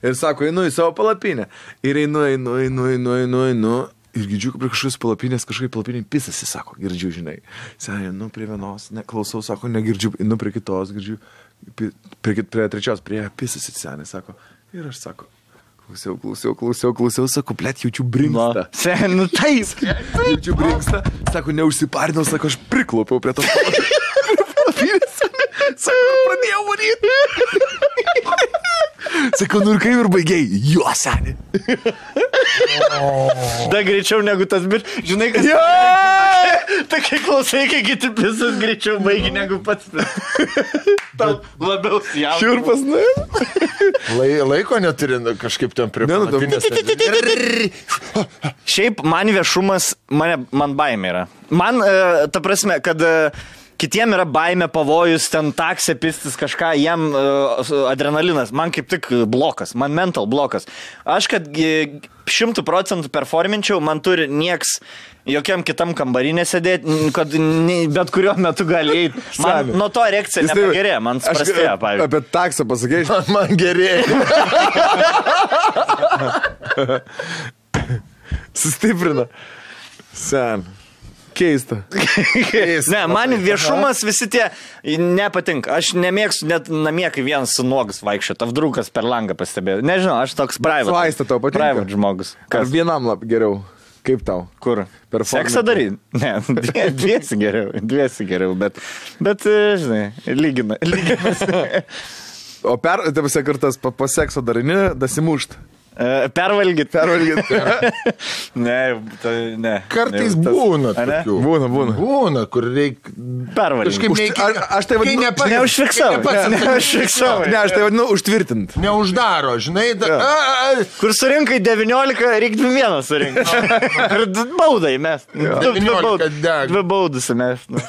A: ir sako, einu į savo palapinę. Ir einu. Ir girdžiu, prie kažkokios palapinės, kažkaip palapinė pisasi, sako, girdžiu, žinai. Senė, prie vienos, neklausau, sako, negirdžiu, prie kitos, girdžiu, prie trečios, prie pisasi, senė, sako. Ir aš sako, klausiau, sako, blet, jaučiu brinkstą.
B: Senė, taip.
A: Jaučiu brinkstą, sako, neužsiparinau, sako, aš priklopiau prie tos palapinės. Sako, pradėjau varyti. Sako, ir kaip ir baigiai, jo, senė.
B: Da greičiau negu tas, bet žinai, kas... Tai kai klausai, kai kiti pisas greičiau baigi negu pats. Tau labiau jaudina.
A: Šiurpas,
C: Laiko neturi kažkaip ten prie palapinės.
B: Šiaip man viešumas, man baimė yra. Man, ta prasme, kad... Kitiem yra baimė, pavojus, ten taksė, pistis kažką, jam adrenalinas, man kaip tik blokas, man mental blokas. Aš, kad 100% performinčiau, man turi nieks jokiam kitam kambarinė sėdėti, kad bet kuriuo metu gali eiti. Man nuo to reakcija nepagerėjo, man prastėjo, pavyzdžiui.
A: Apie taksą pasakėjai,
C: man gerėjo.
A: Sustiprina. Sen. Keista.
B: Ne, man viešumas visi tie nepatinka. Aš nemėgstu net namie, kai vienas su nuogas vaikščio. Tavdrukas per langą pastebėjau. Nežinau, aš toks private.
A: Svaista tau patinka.
B: Private žmogus.
A: Ar vienam geriau? Kaip tau?
B: Kur? Seksą daryti? Ne, dviesi geriau, bet žinai, lyginasi.
A: O kartas po sekso darini, dasimušt.
B: Pervalgyt. Ne.
C: Kartais būna tokių. Būna, kur reikia...
B: Pervalgyt.
A: Aš tai vadinu...
B: Neužfiksavau.
A: Ne, aš tai vadinu užtvirtint.
C: Neuždaro, žinai.
B: Kur surinkai 19, reikia 21 surinkti. Ir baudai mes. 2 baudus mes. 2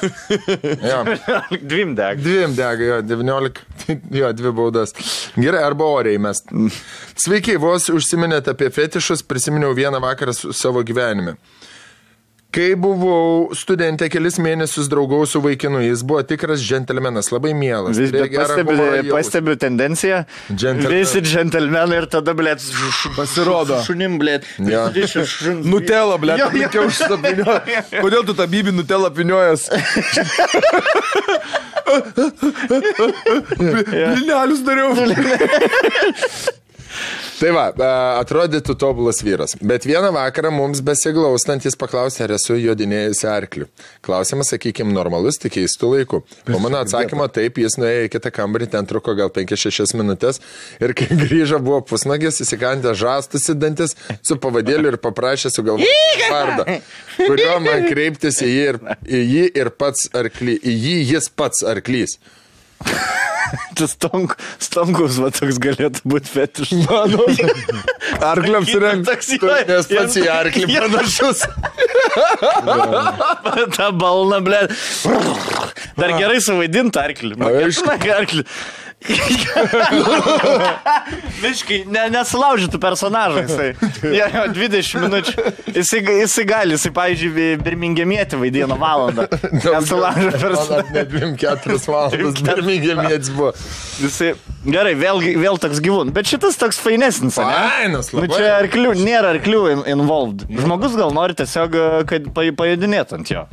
B: deg.
C: 2 deg, jo, 19. Jo, 2 baudas. Gerai, arba oriai mes. Sveiki, vos užsiminėte apie fetišus, prisiminiau vieną vakarą savo gyvenime. Kai buvau studentė, kelis mėnesius draugau su vaikinu, jis buvo tikras džentelmenas, labai mielas.
B: Pastebiu tendenciją, visi džentelmenai ir tada, blėt,
A: pasirodo.
B: Šunim, blėt.
A: Nutela, blėt, reikia užsapinioja. Kodėl tu tą bybį Nutela piniojas? Blynelius dariau.
C: Tai va, atrodytų tobulas vyras. Bet vieną vakarą mums besiglaustant jis paklausė, ar esu jodinėjusi arkliu. Klausimas, sakykime, normalus, tik keistų laikų. Po mano atsakymo taip, jis nuėjo į kitą kambarį, ten truko gal 5-6 minutės. Ir kai grįžo, buvo pusnagis, įsikandė žastus į dantis su pavadėliu ir paprašė sugalvoti vardą, kurio man kreiptis į jį ir pats arklys. Į jį jis pats arklys.
B: Tas stonkus, va, toks galėtų būti fetiš. Mano.
A: Arkliam surengti.
C: Nes pats į arklį panašus.
B: Ta balna, blė. Dar gerai suvaidinti arklį. Arklį. Miškai, nesulaužytų personažą jisai. 20 minučių. Jisai gali, pavyzdžiui, Birmingemietį vaidino valandą. Nesulaužė personažą.
C: Net 2-4 valandas Birmingemietis buvo.
B: Jisai, gerai, vėl toks gyvūn. Bet šitas toks fainesnis, ne?
C: Fainas, labai.
B: Čia arklių, nėra arklių involved. Žmogus gal nori tiesiog, kad pajudinėtų ant jo.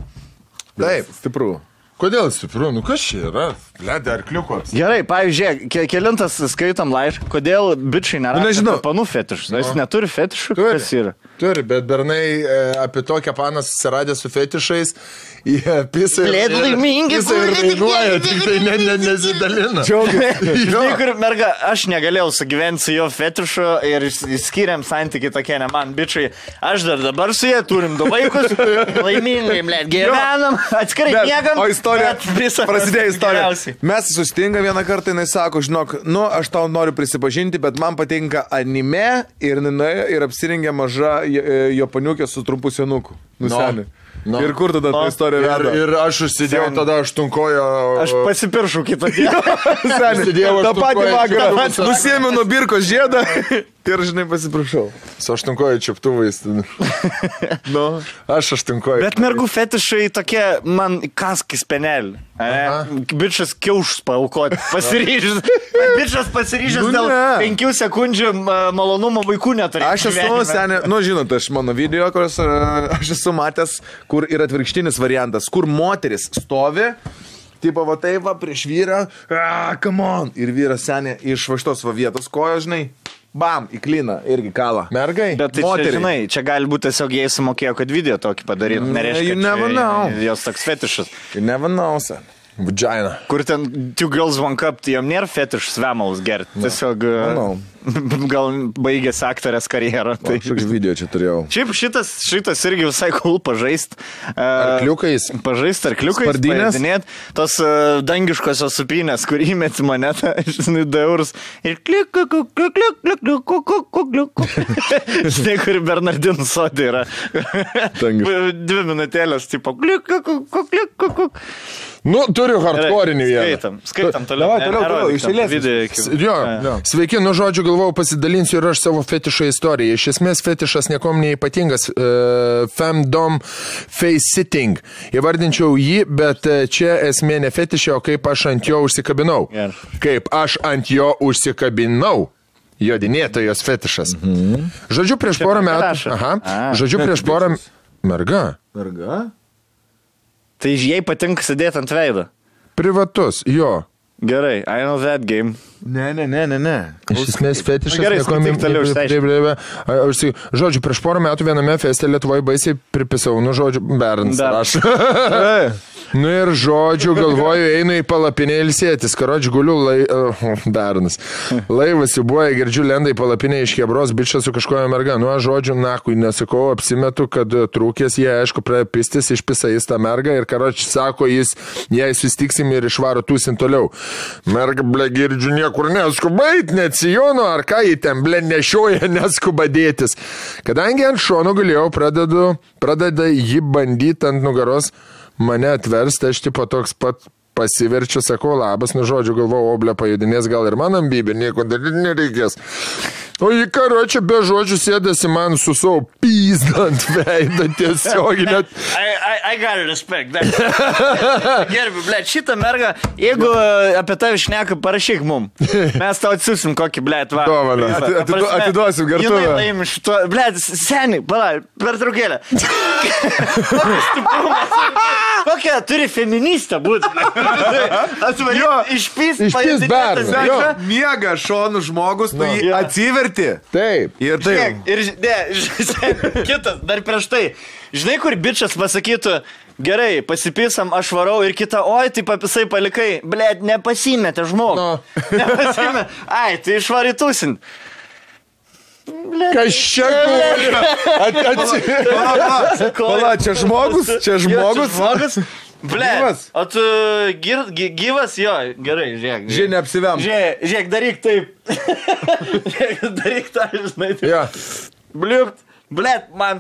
A: Taip, stipru.
C: Kodėl stipru? Nu kas čia yra? Ledė arkliukas.
B: Gerai, pavyzdžiui, kelintas skaitom laišką, kodėl bičiai nėra panų fetišus. Jis neturi fetišų, kas yra?
C: Turi, bet bernai apie tokią paną susiradė su fetišais, jie pisa ir rainuoja, tik tai nesidalina.
B: Žinai, kur merga, aš negalėjau sugyventi su jo fetišu ir skiriam santykiai tokie, ne man, bičiai. Aš dar dabar su jie turim 2 vaikus, laimingai, blėt, gyvenam, atskirai miegam.
A: O istorija, prasidėjo istorija. Mes sustinga vieną kartą, jinai sako, žinok, aš tau noriu prisipažinti, bet man patinka anime ir nuėjo ir apsirengė maža japoniukė su trumpu senuku. Nusenė. No. Ir kur tada ta istorija veda?
C: Ir aš užsidėjau tada aštunkojo...
B: Aš pasipiršau kitą dieną.
A: Ta patį vakarą. Nusėmiau nuo birkos žiedą ir, žinai, pasiprašau.
C: Su aštunkojo čiaptuvais.
A: No.
C: Aš aštunkojo.
B: Bet mergų fetišai tokie, man kaskis penelį. Bičas kiaušus paaukoti. Pasiryžęs. Bičas pasiryžęs dėl 5 sekundžių malonumo vaikų neturėjo.
A: Aš esu, senė, žinot, aš mano video, kurios aš esu matęs, kur yra atvirkštinis variantas, kur moteris stovi, tipo va taip va prieš vyrą, come on, ir vyras senė iš va šitos va vietos kojo, žinai, bam, įklina, irgi kalą.
C: Mergai?
B: Bet tai čia, žinai, čia gali būti tiesiog jie sumokėjo, kad video tokį padarytų, nereiškia, kad jos toks fetišas.
A: You never know, sen.
C: Vagina.
B: Kur ten Two Girls One Cup, tai jom nėra fetišas vemalus gerti. Tiesiog gal baigėsi aktorės karjerą.
A: Tai šioks video čia turėjau.
B: Šiaip šitas irgi visai cool pažaist.
C: Arkliukais.
B: Pažaist arkliukais.
A: Spardinės.
B: Tos dangiškosios supinės, kur įmeti monetą, žinai, 2 eurus. Ir klik, klik, klik, klik, klik, klik, klik, klik. Žinai, kur Bernardinų sodė yra. 2 minutėlės, tipo, klik, klik, klik, klik, klik.
C: Nu, turiu hardcore'inį vieną.
B: Skaitam toliau.
A: Toliau, išėlės.
C: Jo. Sveiki, žodžiu, galvojau, pasidalinsiu ir aš savo fetišo istoriją. Iš esmės, fetišas niekom neypatingas. Femdom face sitting. Įvardinčiau jį, bet čia esmė ne fetišė, o kaip aš ant jo užsikabinau. Kaip aš ant jo užsikabinau. Jodinėtojos fetišas. Žodžiu, prieš porą metų... Žodžiu, prieš porą... Merga.
B: Tai jai patinka sėdėti ant veido.
C: Privatus, jo.
B: Gerai, I know that game.
C: Ne. Iš esmės fetišas.
B: Gerai, skaityk toliau
C: išsiaiškinti. Žodžiu, prieš porą metų viename feste Lietuvoje baisiai pripisau, žodžiu, Berns rašo. Ir žodžiu, galvoju, einu į palapinę ilsėtis, karoči guliu, Bernas. Laivas įbuoja, girdžiu, lenda į palapinę iš Hebros, bičas su kažkoja merga. Žodžiu, nakui, nesakau, apsimetu, kad trūkės, jie, aišku, prapistis, išpisa jis tą mergą ir karoči sako, jei sustiksim ir išvaro tūsin toliau. Merga, ble, girdžiu, niekur neskuba eit, neatsijono, ar ką jį ten, ble, nešioja, neskuba dėtis. Kadangi ant šono galėjau, pradeda jį bandyti ant nugaros, mane atversti, aš tipo toks pat pasiverčiu, sakau, labas, žodžiu, galvoju, oblė pajudinės, gal ir man ambybė, nieko daryti nereikės. O jį karočią be žodžių sėdasi man su savo pizdą ant veidą tiesiog.
B: I gotta respect that. Gerbi, blėt, šitą mergą, jeigu apie tave šneka, parašyk mum. Mes tau atsiusim kokį, blėt, va.
A: Dovaną. Atiduosim gertuvę.
B: Jinai laimi šito, blėt, seniai, pala, per traukėlę. Kokia, turi feministą būti. Išpys
A: Berną. Miega šonų žmogus, tu jį atsiverti.
C: Taip.
A: Ir taip.
B: Kitas, dar prieš tai. Žinai, kur bičas pasakytų, gerai, pasipysam, aš varau ir kita, oi, tai papisai palikai, blėt, nepasimetė žmogų. Nepasimetė. Ai, tai išvarytusin.
C: Kas čia
A: Pala, čia žmogus?
B: Ble, o tu gyvas, jo, gerai, žiūrėk.
A: Žiūrėk, neapsiviam.
B: Žiūrėk, daryk taip. Daryk tą, žinai.
C: Ja.
B: Bliupt. Blet, man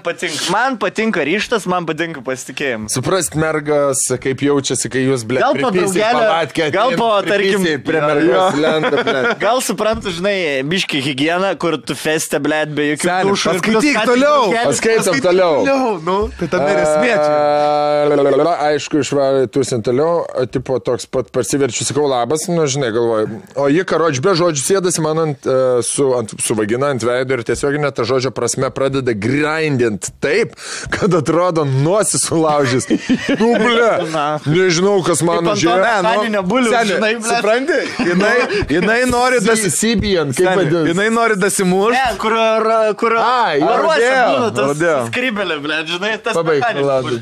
B: patinka ryštas, man patinka pasitikėjimas.
C: Suprast mergas, kaip jaučiasi, kai jūs, blet,
B: pripisi palatkę. Gal po, tarkim,
C: prie mergos lenda, blet.
B: Gal suprantu, žinai, biški higieną, kur tu feste, blet, be jokių dušų.
A: Paskaityk toliau.
C: Paskaitom toliau.
A: Nu, tai tam neresmėčiau.
C: Aišku, išvarė tusin toliau, tipo toks pat parsiverčiu, sakau, labas, žinai, galvoju. O jie, karoči, be žodžių sėdasi man su vagina ant veido ir tiesiog net tą žodžio prasme pradeda grindint taip, kad atrodo nosis sulaužys. Nu, ble, nežinau, kas man
B: Saninio bulių, žinai, ble.
A: Supranti? Jinai nori
C: Sibijan, kaip vadinasi.
A: Jinai nori dasimušti.
B: Ne, kur varuose būna tas skrybelė, ble, žinai, tas mechaninis.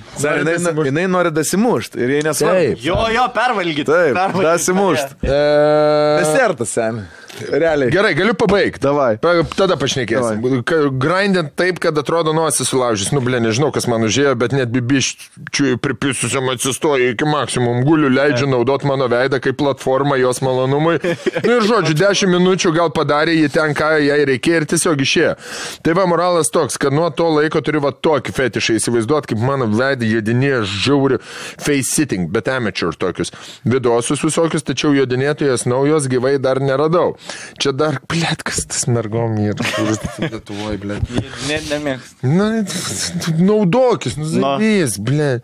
A: Jinai nori dasimušti ir jai nesvarbu.
B: Jo, pervalgyti.
A: Taip, dasimušti. Desertas, seni. Realiai.
C: Gerai, galiu pabaigti.
A: Davai.
C: Tada pašnekėsim. Grindint taip, kad atrodo nosis sulaužys. Nu, ble, nežinau, kas man užėjo, bet net bibiščiui pripisusiam atsistoja iki maksimum. Guliu, leidžiu naudot mano veidą kaip platformą jos malonumui. Nu ir žodžiu, 10 minučių gal padarė jį ten, ką jai reikėjo ir tiesiog išėjo. Tai va, moralas toks, kad nuo to laiko turiu va tokį fetišą įsivaizduot, kaip mano veidą jodinėja žiauri face sitting, bet amateur tokius. Vidosus visokius, tačiau jodinėtojas naujos gyvai dar neradau. Čia dar, blėt, kas tas mergom yra, kuris Lietuvoj, blėt.
B: Nemėgst.
C: Na, naudokis, nuzavys, blėt.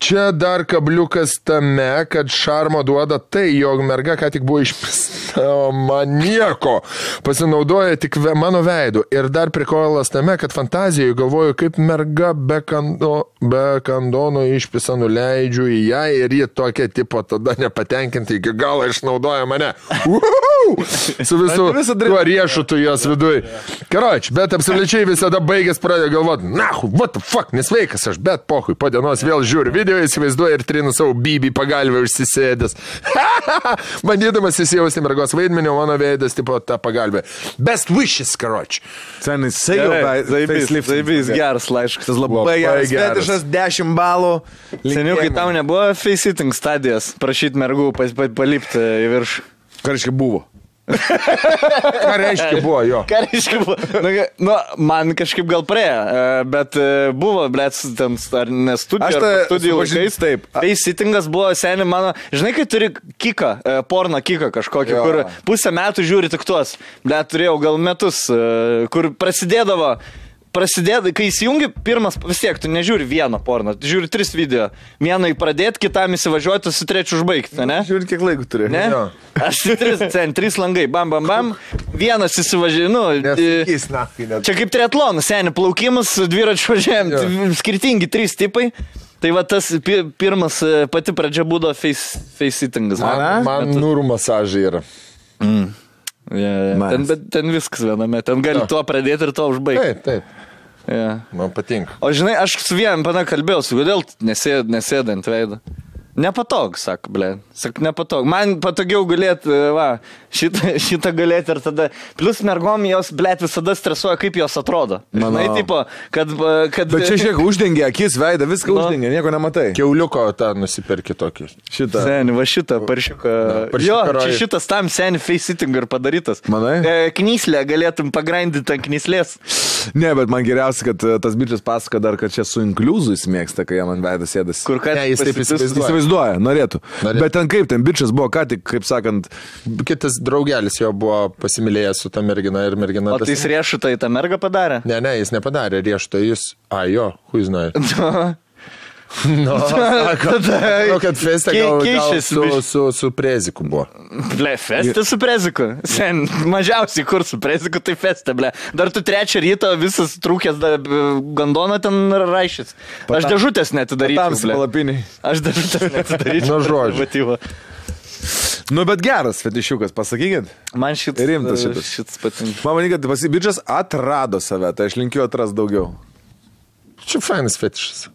C: Čia dar kabliukas tame, kad šarmo duoda tai, jog merga ką tik buvo išpista, o man nieko. Pasinaudoja tik mano veidu. Ir dar prikolas tame, kad fantazijoje galvoju, kaip merga be kandono išpisa nuleidžiu į ją ir ji tokia tipo tada nepatenkinti iki galo išnaudoja mane. Su visu tuo riešutu jos viduj. Karoči, bet absoliučiai visada baigęs pradėjo galvoti, nahu, what the fuck, nesveikas aš, bet pohui, po dienos vėl žiūriu video, įsivaizduoju ir trinu savo bybį pagalvę užsisėdęs. Bandydamas įsijausti mergos vaidmenį, mano veidas tipo tą pagalbę. Best wishes, karoči.
A: Senis, zaibys geras laiškas, labai geras. Fetišas 10 balų.
B: Seniau, kai tau nebuvo face sitting stadijas, prašyti mergų palipti į viršų.
A: Karškai buvo.
C: Ką reiškia buvo jo?
B: Ką reiškia buvo? Nu, man kažkaip gal praėjo, bet buvo, blėt, ten ar ne studijų laikais.
A: Taip.
B: Face sittingas buvo seniai mano, žinai, kai turi kiką, porno kiką kažkokį, kur pusę metų žiūri tik tuos. Blėt, turėjau gal metus, kur prasidėdavo, kai įsijungi pirmas, vis tiek, tu nežiūri vieną porno, tu žiūri 3 video. Vieną pradėti, kitam įsivažiuoti, su trečiu užbaigti, ne?
A: Žiūri, kiek laiko turi.
B: Ne? Jo. Aš 3 langai, bam. Vienas įsivažiuoju, čia kaip triatlonas, seniai, plaukimas, dviračių važiavimas, skirtingi 3 tipai. Tai va tas pirmas, pati pradžia būdo face sittingas.
C: Man nūrų masažai yra.
B: Ten viskas viename, ten gali tuo pradėti ir tuo užbaigti.
C: Taip. Man patinka.
B: O žinai, aš su vienam kalbėjau, kodėl nesėdant veidą. Nepatog, sako, ble. Sak, nepatog. Man patogiau galėti, šitą galėti ir tada. Plus mergom jos, ble, visada stresuoja, kaip jos atrodo. Žinai, tipo, kad...
A: Bet čia šiek uždengia akis, veidą, viską uždengia, nieko nematai.
C: Kiauliuko tą nusiperki tokį.
A: Šitą.
B: Seni, va šitą, paršiuką. Jo, čia šitas tam seni face sitting ir padarytas.
A: Manai?
B: Knyslę galėtum pagrindinti ant knyslės.
A: Ne, bet man geriausia, kad tas bičias pasako dar, kad čia su inkliuzu jis mėgsta, kai jam ant veidą sėdasi.
B: Kur ką
C: jis taip
A: įsivaizduoja, norėtų. Bet ten kaip, ten bičias buvo ką tik, kaip sakant...
C: Kitas draugelis jo buvo pasimylėjęs su ta mergina ir mergina...
B: O tai jis riešutą į tą mergą padarė?
C: Ne, jis nepadarė riešutą, jis... jo, who is not? No, kad festė gal su preziku buvo.
B: Ble, festė su preziku. Sen, mažiausiai kur su preziku, tai festė, ble. Dar tu 3 ryto visas trūkęs gandoną ten raišys. Aš dėžutės netidaryčiau, ble. Aš dėžutės netidaryčiau.
C: Nu, žodžiu.
A: Nu, bet geras fetišiukas, pasakykit.
B: Man
A: šitas
B: patinka.
A: Man manyt, kad bičias atrado save, tai aš linkiu atras daugiau.
C: Čia fainas fetišas.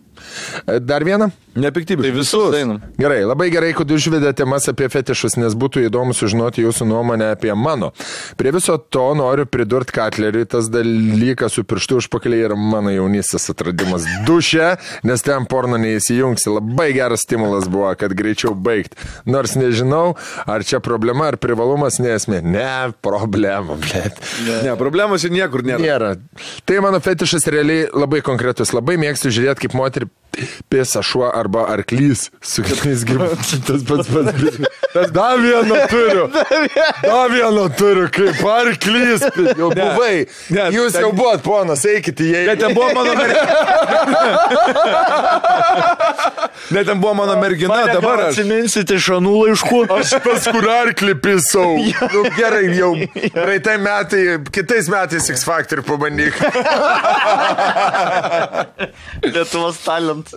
C: Dar vieną?
A: Nepiktybiškai.
B: Tai visus.
C: Gerai, labai gerai, kad užvedė temas apie fetišus, nes būtų įdomu sužinoti jūsų nuomonę apie mano. Prie viso to noriu pridurti Katleriui, tas dalykas su pirštu užpakaliai yra mano jaunystės atradimas duše, nes ten porno neįsijungsi. Labai geras stimulas buvo, kad greičiau baigti. Nors nežinau, ar čia problema, ar privalumas, nesmė. Ne, problema, blėt.
A: Ne, problemos čia niekur nėra.
C: Tai mano fetišas realiai labai konkretus. Labai mėgstu žiūrėti, kaip moterį pėsa šuo arba arklys su kitais gyvūnais. Tas pats. Tas dar vieną turiu, kaip arklys. Jau buvai. Jūs jau buvot, ponas, eikite jai.
A: Net ten buvo mano mergina, dabar aš.
B: Atsiminsite šanų laiškų.
C: Aš pas kur arklį pisau. Nu, gerai, jau praeitai metai, kitais metais X Factor pabandyk.
B: Lietuvos talent.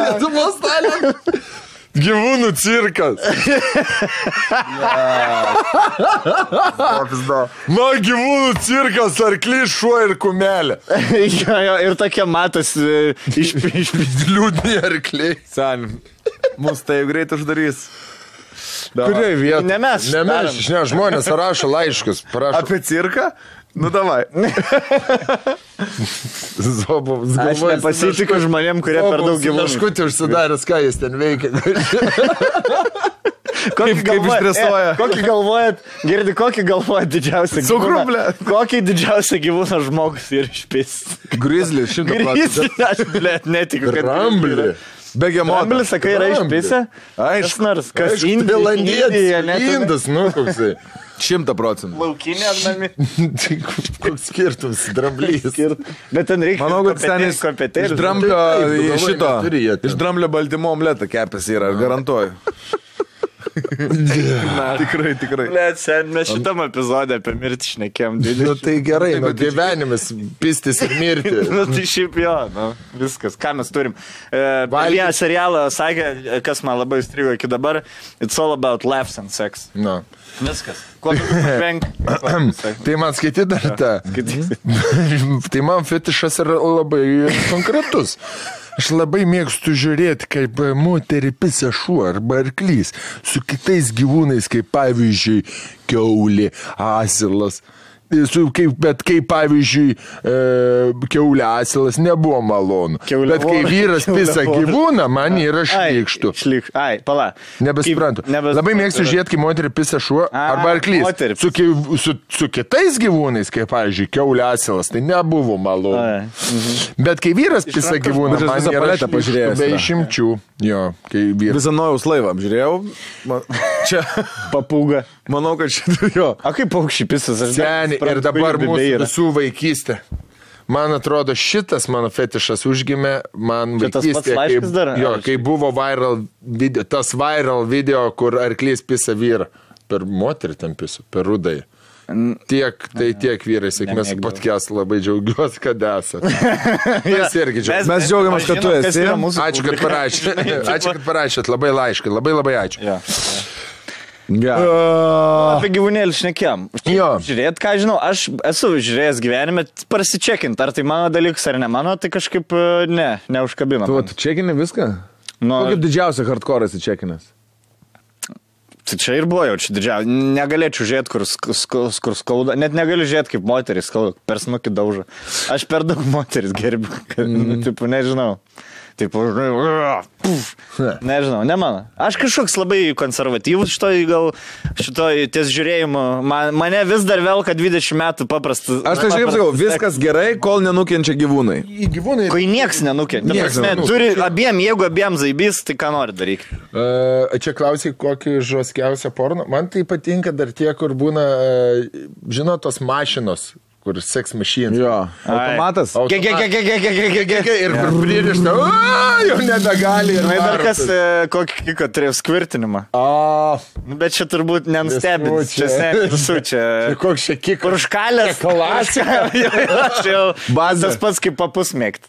C: Lietuvos talent. Gyvūnų cirkas. Gyvūnų cirkas, arklys, šuo ir kumelė.
B: Ir tokie matas iš
C: liūdni arkliai.
A: Sen, mus tai greit uždarys.
C: Kurioje vietoje?
B: Ne mes.
C: Ne, žmonės rašo laiškus.
A: Apie cirką? Nu, davai.
C: Zobovas.
B: Aš nepasitikiu žmonėm, kurie per daug gyvūnų.
C: Kažkutį užsidaręs, ką jis ten veikia.
A: Kaip išstresuoja.
B: Kokį galvojat didžiausią gyvūną?
A: Cukrublė.
B: Kokį didžiausią gyvūną žmogus ir išpis?
A: Grizzly, 100%.
B: Aš, netikiu, kad...
C: Ramblį.
A: Begemotas.
B: Ramblį, sakai, yra išpisę?
A: Aišku.
B: Kas
C: Indas, nu, koksai.
A: 100%.
B: Laukinė ar nami?
C: Koks skirtumas, dramblys.
B: Bet ten reikia...
A: Manau, kad ten iš dramblio baltymo omletą kepės yra, garantuoju. Tikrai.
B: Mes šitam epizodė apie mirtį šnekėm.
C: Nu tai gerai, gyvenimas, pistis ir mirti.
B: Nu tai šiaip jo, viskas, ką mes turim. Vieną serialą sakė, kas man labai įstrigo iki dabar, It's all about laughs and sex. Viskas. Kuo venk?
C: Tai man skaityti dar tą. Tai man fetišas yra labai konkretus. Aš labai mėgstu žiūrėti, kaip moterį pisa šuo arba arklys su kitais gyvūnais, kaip pavyzdžiui kiaulė, asilas. Bet kaip pavyzdžiui kiaulė, asilas nebuvo malonu. Bet kai vyras pisa gyvūną, man yra šlykštų.
B: Pala.
C: Nebesprantu. Labai mėgstu žiūrėti, kai moterį pisa šuo arba arklys. Su kitais gyvūnais, kaip pavyzdžiui kiaulė, asilas, tai nebuvo malonu. Bet kai vyras pisa gyvūną, man yra šlykštų be išimčių.
A: Visą Nojaus laivą apžiūrėjau. Čia
B: papūga.
A: Manau, kad čia jo.
B: A kaip paukščiai pisas?
C: Seniai, ir dabar mūsų visų vaikystė. Man atrodo, šitas mano fetišas užgimė man vaikystė, kai buvo tas viral video, kur arklys pisa vyrą. Per moterį ten pisu, per rudai. Tiek vyrai, sėkmės podcast, labai džiaugiuosi, kad esate.
A: Mes džiaugiamės, kad tu esi.
C: Ačiū, kad parašėt. Ačiū, kad parašėt. Labai laiškai. Labai ačiū.
B: Apie gyvūnėlį šnekėm. Žiūrėt, ką žinau, aš esu žiūrėjęs gyvenime, prasičekint, ar tai mano dalykas ar ne mano, tai kažkaip neužkabino.
A: Tu čekini viską? Kaip didžiausia hardcore esi čekinęs?
B: Tai čia ir buvo jau čia didžiausia. Negalėčiau žiūrėti, kur skauda. Net negaliu žiūrėti, kaip moteris skauda, per snukį daužo. Aš per daug moteris gerbiu. Taip, nežinau. Taip, nežinau, ne mano. Aš kažkoks labai konservatyvus šitoj ties žiūrėjimu. Mane vis dar velka 20 metų paprastas.
A: Aš tai kaip sakau, viskas gerai, kol nenukenčia gyvūnai.
B: Kai nieks nenukenčia. Turi jeigu abiem zaibys, tai ką nori daryti.
C: Čia klausai, kokį žoskiausią porno. Man tai patinka dar tie, kur būna, žinot, tos mašinos. Kur sex machine.
A: Jo. Automatas.
C: Ir pririšta. Jau nebegali.
B: Ir dar kas, kokį turėjo skvirtinimą. Bet čia turbūt nenustebins. Čia
C: koks čia kik.
B: Kur užkalės.
C: Klasika.
B: Bazas pats kaip papus mėgt.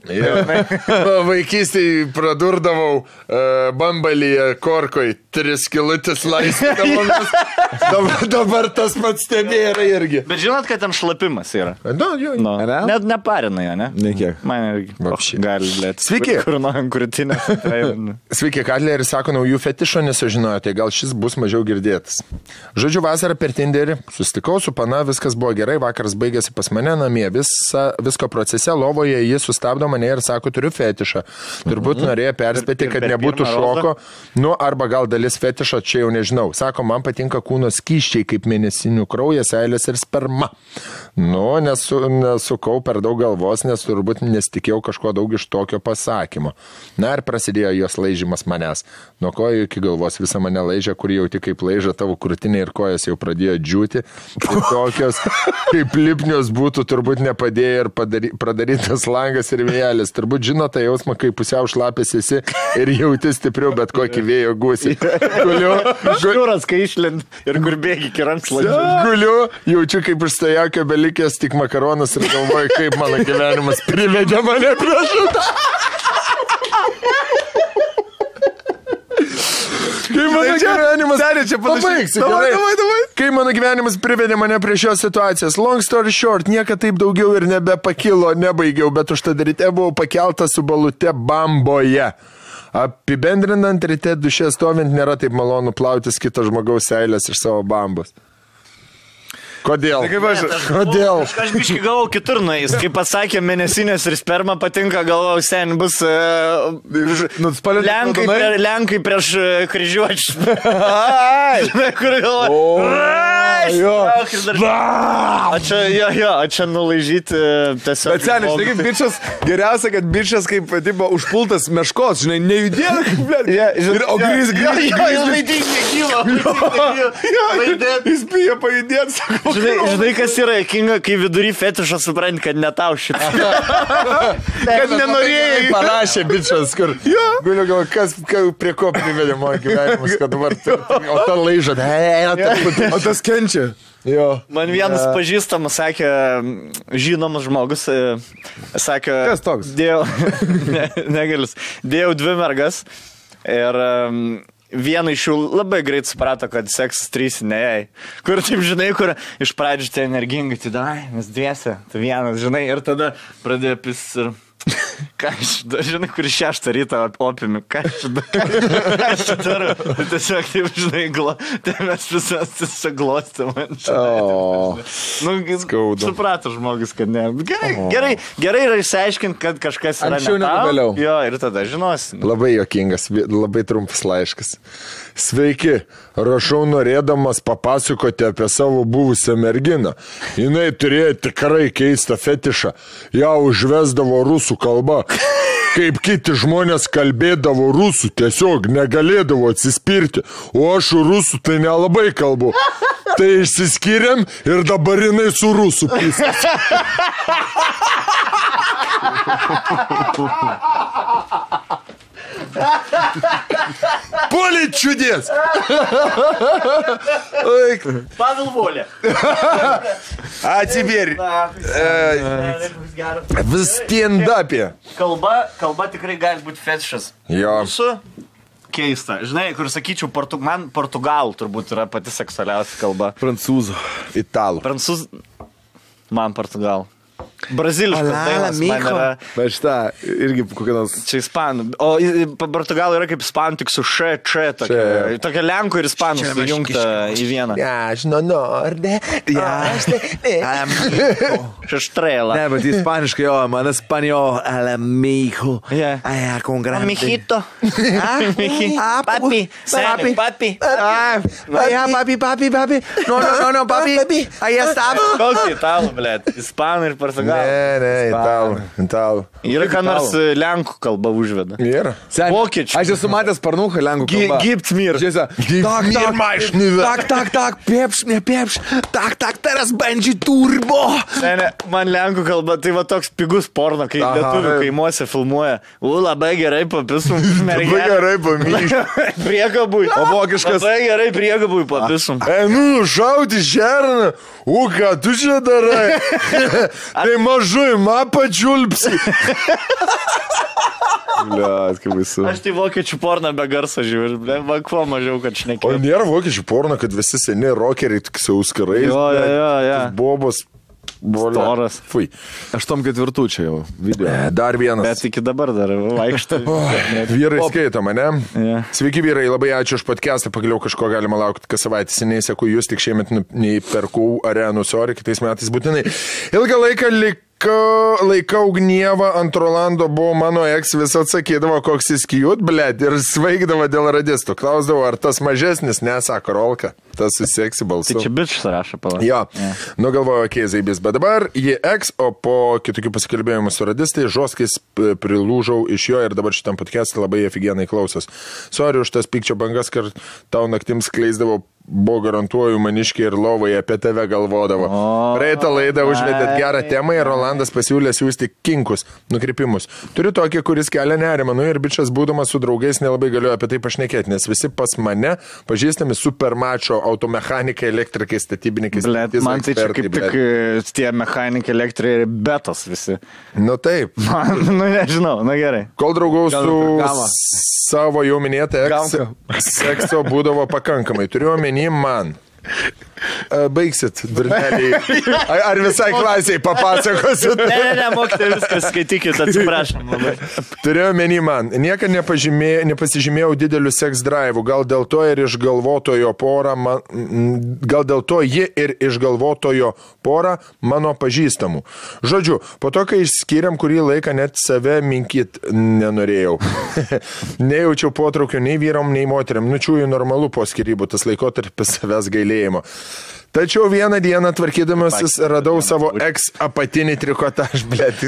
C: Vaikystėj pradurdavau bambalyje korkoj 3 kilutės laistydavomis. Dabar tas pats stebėra irgi.
B: Bet žinot, kad tam šlapimas yra. Net neparina jo, ne?
A: Nekiek.
B: Man irgi gali lėti.
C: Sveiki.
B: Kur nuojam krūtinę.
C: Sveiki, Katleris sako naujų fetišo, nesužinojote, gal šis bus mažiau girdėtas. Žodžiu, vasarą per Tinderį susitikau su pana, viskas buvo gerai, vakaras baigėsi pas mane namie, visko procese, lovoje jis sustabdo mane ir sako, turiu fetišą. Turbūt norėjo perspėti, kad nebūtų šoko, arba gal dalis fetišo, čia jau nežinau. Sako, man patinka kūno skyščiai, kaip mėnesinių kraujas, seilės ir sperma. Nu, nesukau per daug galvos, nes turbūt nesitikėjau kažko daug iš tokio pasakymo. Na ir prasidėjo jos laižymas manęs. Nuo kojų iki galvos visą mane laižė, kur jau tik kaip laižė tavo krūtinė ir kojas jau pradėjo džiūti. Ir tokios, kaip lipnios būtų, turbūt nepadėjo ir pradarytas langas ir vėjelis. Turbūt žino tą jausmą, kai pusiau šlapės esi ir jauti stipriau bet kokį vėjo gūsį.
B: Šūras, kai išlind ir kur bėgi iki rankšluodžio.
C: Guliu, jaučiu kaip iš stojokio belikęs tik makaronas ir galvoju, kaip mano gyvenimas privedė mane prie šitą. Kai mano gyvenimas... Pabaigsiu, gerai. Kai mano gyvenimas privedė mane prie šios situacijos. Long story short, niekada taip daugiau ir nebepakilo, nebaigiau, bet užtat ryte buvau pakeltas su balute bamboje. Apibendrinant, ryte duše stovint nėra taip malonu plautis kito žmogaus seilės iš savo bambos. Kodėl? Kodėl?
B: Aš biškai galvau kitur nueis. Kaip pasakė, mėnesinės ir sperma patinka, galvau, sen bus Lenkai prieš kryžiuočius. Kur galvau. O čia nulaižyti tiesiog.
A: Bet seniai, žinai, kaip bičas, geriausia, kad bičas kaip tipo užpultas meškos, žinai, nejudėlė, kaip blėt. O grįz. Jis bijo pajudėti, sako.
B: Žinai, kas yra kinga, kai vidury fetišą supranti, kad ne tau šitą.
A: Kad nenorėjai.
C: Parašė bičas, kur. Guliu galvo, kas prie ko privedė mano gyvenimus, kad dabar. O ta laiža.
A: O tas kenčia.
C: Jo.
B: Man vienas pažįstamas sakė, žinomas žmogus, sakė.
A: Kas toks?
B: Negalius. Dėjau 2 mergas ir vieną iš jų labai greit suprato, kad seksas 3 ne jai. Kur taip, žinai, kur iš pradžių tai energingai, tai dai, mes dviese, tai vienas, žinai, ir tada pradėjo pis ir... Ką aš, žinai, kur 6 ryto opimi, ką aš darau, tiesiog taip, žinai, tai mes visas glostė man. Suprato žmogus, kad ne. Gerai yra išsiaiškinti, kad kažkas yra
A: anksčiau negu vėliau.
B: Jo, ir tada žinosim.
C: Labai juokingas, labai trumpas laiškas. Sveiki, rašau norėdamas papasakoti apie savo buvusią merginą. Jinai turėjo tikrai keistą fetišą. Ją užvesdavo rusų kalba. Kaip kiti žmonės kalbėdavo rusų, tiesiog negalėdavo atsispirti. O aš rusų tai nelabai kalbu. Tai išsiskyrėm ir dabar jinai su rusų pisas. Поле чудес!
B: Павел Воля.
C: А теперь в стендапе.
B: Kalba tikrai gali būti fetišas.
C: Jo.
B: Keista. Žinai, kur sakyčiau, man portugalų turbūt yra pati seksualiausia kalba.
A: Prancūzų.
C: Italų.
B: Man portugalų. Braziliškas dainas man yra.
A: Bet šitą irgi kokia nors.
B: Čia ispanų. O portugalų yra kaip ispanų, tik su tokia lenkų ir ispanų sujungta į vieną.
C: Aš norde.
B: Šeštrėlą.
A: Ne, bet ispaniškai, jo, man espanjol, alamijo. Con grande.
B: Amijito. Papi. Papi.
A: Papi. No, papi. Ahí está.
B: Koks italų, blėt? Ispanų ir portugalų.
C: Ne, italų.
B: Yra ką nors lenkų kalba užveda.
C: Yra.
B: Vokiečių.
A: Aš esu matęs parnuką lenkų kalbą.
B: Gibt mir.
A: Tak, pieps, ne pieps. Tak, teraz bandži turbo.
B: Ne, man lenkų kalba, tai va toks pigus porno, kai lietuvių kaimuose filmuoja. Labai gerai papisum.
C: Labai gerai pamyšt.
B: Priekabui.
A: O vokiškas.
B: Labai gerai priekabui papisum.
C: Šauti šerną. Ką tu čia darai? Tai mažui, pačiulpsi.
A: Bliat, kaip baisu.
B: Aš tai vokiečių porną be garso žiūriu. Man kuo mažiau, kad šnekėjau.
C: O nėra vokiečių porno, kad visi seni rokeriai tik sauskarais.
B: Jo.
C: Bobos.
B: Storas.
C: Fui.
A: 8-4 čia jau video.
C: Dar vienas.
B: Bet iki dabar dar vaikštai.
C: Vyrai skaito mane.
B: Yeah.
C: Sveiki vyrai, labai ačiū už podcastą. Pagaliau kažko galima laukti kas savaitę. Seniai seku jūs, tik šiemet nei perkau arenų, sorry, kitais metais būtinai. Ilgą laiką laikau gnievą, ant Rolando buvo mano eks, vis atsakydavo, koks jis kijut, blėt, ir svaigdavo dėl radistų. Klausdavo, ar tas mažesnis, nesako Rolka, tas susieksi balsu.
B: Tai čia bičius rašo, pala.
C: Jo, nugalvojo keizai bet dabar jie eks, o po kitokių pasikalbėjimų su radistai, žoskais prilūžau iš jo ir dabar šitam podcast'e labai afigienai klausos. Sorry už tas pykčio bangas, kad tau naktims skleisdavo, buvo garantuoju maniškiai ir lovai apie tave galvodavo. Praeitą laidą užvedėt gerą temą ir Rolandas pasiūlė siūsti kinkus, nukrypimus. Turiu tokį, kuris kelia nerimą, ir bičias būdamas su draugais nelabai galiu apie tai pašnekėti, nes visi pas mane pažįstami supermačio automechanikai, elektrikai, statybininkai.
B: Man tai čia kaip tik tie mechanikai, elektrikai ir betos visi.
C: Nu taip.
B: Nežinau, gerai.
C: Kol draugau su savo jau minėtą sekso būdavo pakankamai. Turiu omeny man. Baigsit, durneliai. Ar visai klasiai papasakosiu?
B: Ne, mokytojai, viskas, skaitykit, atsiprašom.
C: Turėjau menį man. Niekad nepasižymėjau didelių seks drive'ų. Gal dėl to ir išgalvotojo porą mano pažįstamų. Žodžiu, po to, kai išskiriam kurį laiką, net save minkyt nenorėjau. Nejaučiau potraukio nei vyram, nei moteriam. Nučiųjų normalu po skirybų, tas laikotarpis savęs gailėjimo. Tačiau vieną dieną tvarkydamasis radau savo eks apatinį trikotaž, blėt.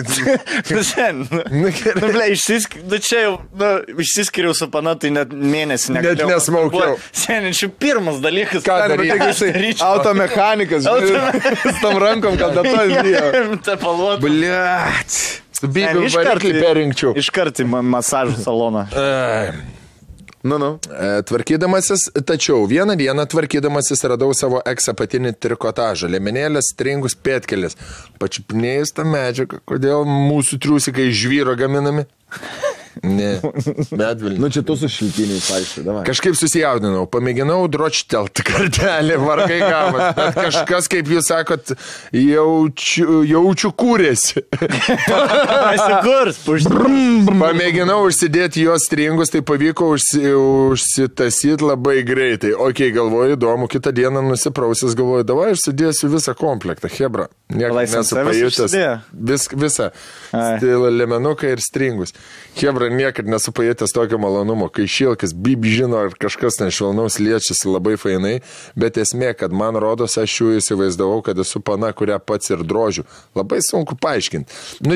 B: Išsiskiriau su pana, tai net mėnesį
C: negalėjau. Net nesmaukiau.
B: Šiandien pirmas dalykas.
A: Ką daryti? Automechanikas. Su tom rankom, kad dato įdėjo.
C: Blėt. Su bėgiu variklį perinkčiau.
B: Iškart į masažų saloną.
C: Tvarkydamasis, tačiau vieną dieną tvarkydamasis radau savo eks apatinį trikotažą, liemenėlės, stringus, pėtkelis. Pačiupinėjus tą medžiagą, kodėl mūsų triusikai žvyro gaminami? Ne, medvilnį.
A: Čia tu su šiltiniais, aišku.
C: Kažkaip susijaudinau, pamėginau dročtelt kartelį, vargai gavas, bet kažkas, kaip jūs sakot, jaučiu kūrėsi. Pamėginau užsidėti jos stringus, tai pavyko užsitasyti labai greitai. Ok, galvoju, įdomu, kitą dieną nusiprausis, galvoju, davai, aš sudėsiu visą komplektą, hebra. Niekas nesupajutęs. Visą. Lemenuką ir stringus. Hebra, niekad nesupajutęs tokio malonumo, kai šilkas, žino, ar kažkas nešvelnaus liečiasi labai fainai, bet esmė, kad man rodos, aš jų įsivaizdavau, kad esu pana, kurią pats ir drožiu. Labai sunku paaiškinti.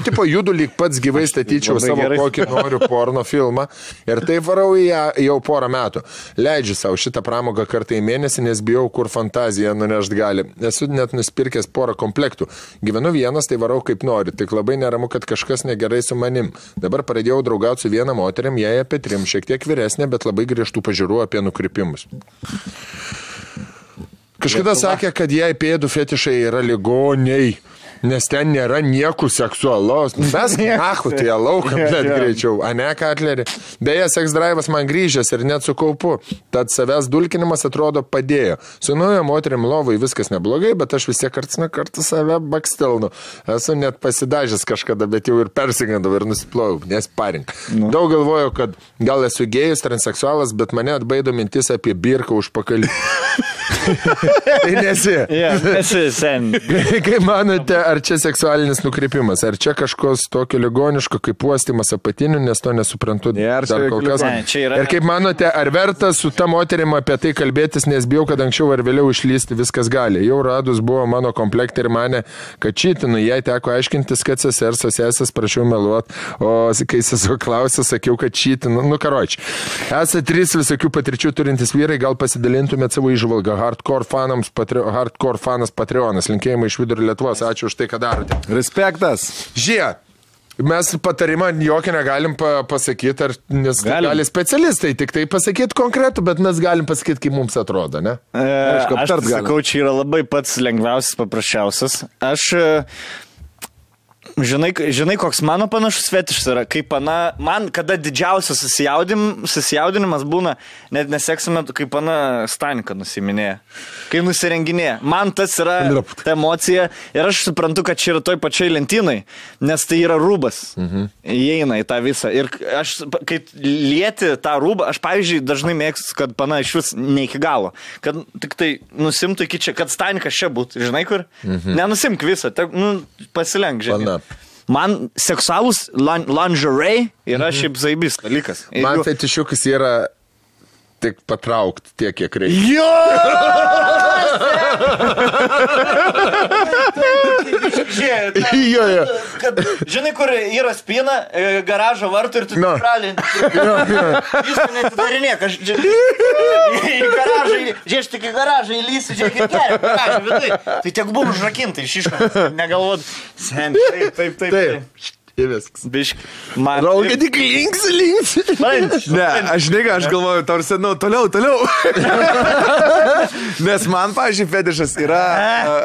C: Tipo, judu lyg pats gyvai statyčiau savo kokį noriu porno filmą ir tai varau į ją jau porą metų. Leidžiu savo šitą pramogą kartą į mėnesį, nes bijau, kur fantazija nunešt gali. Esu net nuspirkęs porą komplektų. Gyvenu vienas, tai varau kaip noriu, tik labai neramu, kad kažkas negerai su manim. Dabar pradėjau draugauti su viena moteriam, jai apie 3, šiek tiek vyresnė, bet labai griežtų pažiūrų apie nukrypimus. Kažkada sakė, kad jai pėdų fetišai yra ligoniai, nes ten nėra nieko seksualaus. Mes nachu, tai lauką, bet greičiau. A ne, Katlerį? Beje, seks drive'as man grįžęs ir net su kaupu. Tad savęs dulkinimas atrodo padėjo. Su nauja moterim lovai viskas neblogai, bet aš vis tiek karts nuo karto save bakstelnu. Esu net pasidažęs kažkada, bet jau ir persigandau ir nusiplovau, nes parink. Daug galvoju, kad gal esu gėjus, transseksualas, bet mane atbaido mintis apie birką užpakalį. Tai nesi.
B: Esi sen.
C: Kaip manote, ar čia seksualinis nukrypimas? Ar čia kažkos tokio ligoniško kaip uostymas apatinių, nes to nesuprantu dar kol kas. Ir kaip manote, ar verta su ta moterim apie tai kalbėtis, nes bijau, kad anksčiau ar vėliau išlysti viskas gali. Jau radus buvo mano komplektą ir mane, kad čytinu, jai teko aiškintis, kad sesės prašiau meluot, o kai sesuo klausė, sakiau, kad čytinu. Karoči. Esate 3 visokių patirčių turintis vyrai, gal pasidalintumėt savo įžvalgą. Hardcore fanas Patreonas. Linkėjimai iš Vidurio Lietuvos. Ačiū už tai, ką darote.
A: Respektas.
C: Žiūrėk. Mes patarimą jokį negalim pasakyti, nes gali specialistai tik tai pasakyti konkretų, bet mes galim pasakyti, kaip mums atrodo, ne?
B: Aš sakau, čia yra labai pats lengviausias, paprasčiausias. Žinai, koks mano panašus fetišas yra, kaip man kada didžiausias susijaudinimas būna, net neseksime, kaip pana Stanika nusiminėja, kai nusirenginėja. Man tas yra ta emocija ir aš suprantu, kad čia yra toj pačiai lentynai, nes tai yra rūbas. Įeina į tą visą. Ir aš, kai lieti tą rūbą, aš, pavyzdžiui, dažnai mėgstu, kad pana iš vis ne iki galo, kad tik tai nusimtų iki čia, kad Stanikas čia būtų, žinai kur? Nenusimk visą, pasilenk, žinai. Man seksualus lingerie yra šiaip zaibis dalykas.
C: Man fetišiukas yra tik patraukti tiek, kiek reikia.
B: Jo! Žinai, kur yra spina, garažo vartų ir tu pralinti. Jūs netidarinėk, aš į garažą, žiūrėš tik į garažą įlysiu, žiūrėk į kelią, garažą vidai. Tai tiek buvo užrakinta iš iškas, negalvot. Sen, taip.
C: Ir viskas.
B: Bišk.
C: Rolka tik links.
A: Ne, aš galvoju, tarsi, toliau. Nes man, pavyzdžiui, fetišas yra,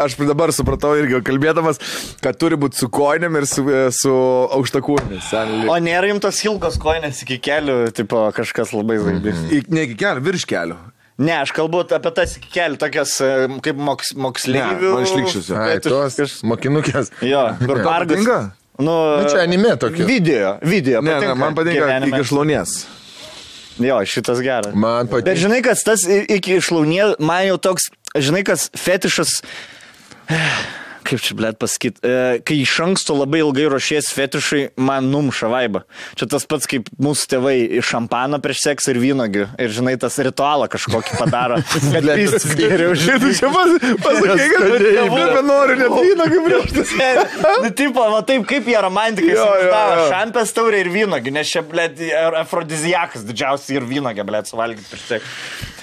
A: aš dabar supratau irgi kalbėdamas, kad turi būti su koinėm ir su aukštakūnėmis.
B: O nėra jums tos ilgos koinės iki kelių, tipo kažkas labai zaibis.
A: Ne iki kelių, virš kelių.
B: Ne, aš kalbu apie tas iki kelių, tokias kaip moksleivių.
A: Man išlikščiusiu.
C: Ai, tos mokinukės.
B: Jo, kur pargas.
C: Nu, čia anime tokia.
B: Video.
A: Ne, man patinka iki šlaunies.
B: Jo, šitas geras.
C: Man patinka.
B: Bet žinai, kas tas iki šlaunies, man jau toks, žinai, kas fetišas, kaip čia, blėt, pasakyti, kai iš anksto labai ilgai ruošies fetišai, man numša vaibą. Čia tas pats, kaip mūsų tėvai iš šampano prieš seksą ir vynogių. Ir, žinai, tas ritualą kažkokį padaro. Kad vis geriau žinai.
A: Čia pasakai, kad noriu net vynogių prieš tai.
B: Nu, tipo, va taip, kaip jie romantikai suštavo šampės taurė ir vynogių, nes čia, blėt, afrodiziakas didžiausiai ir vynogė, blėt, suvalgyti prieš seksą.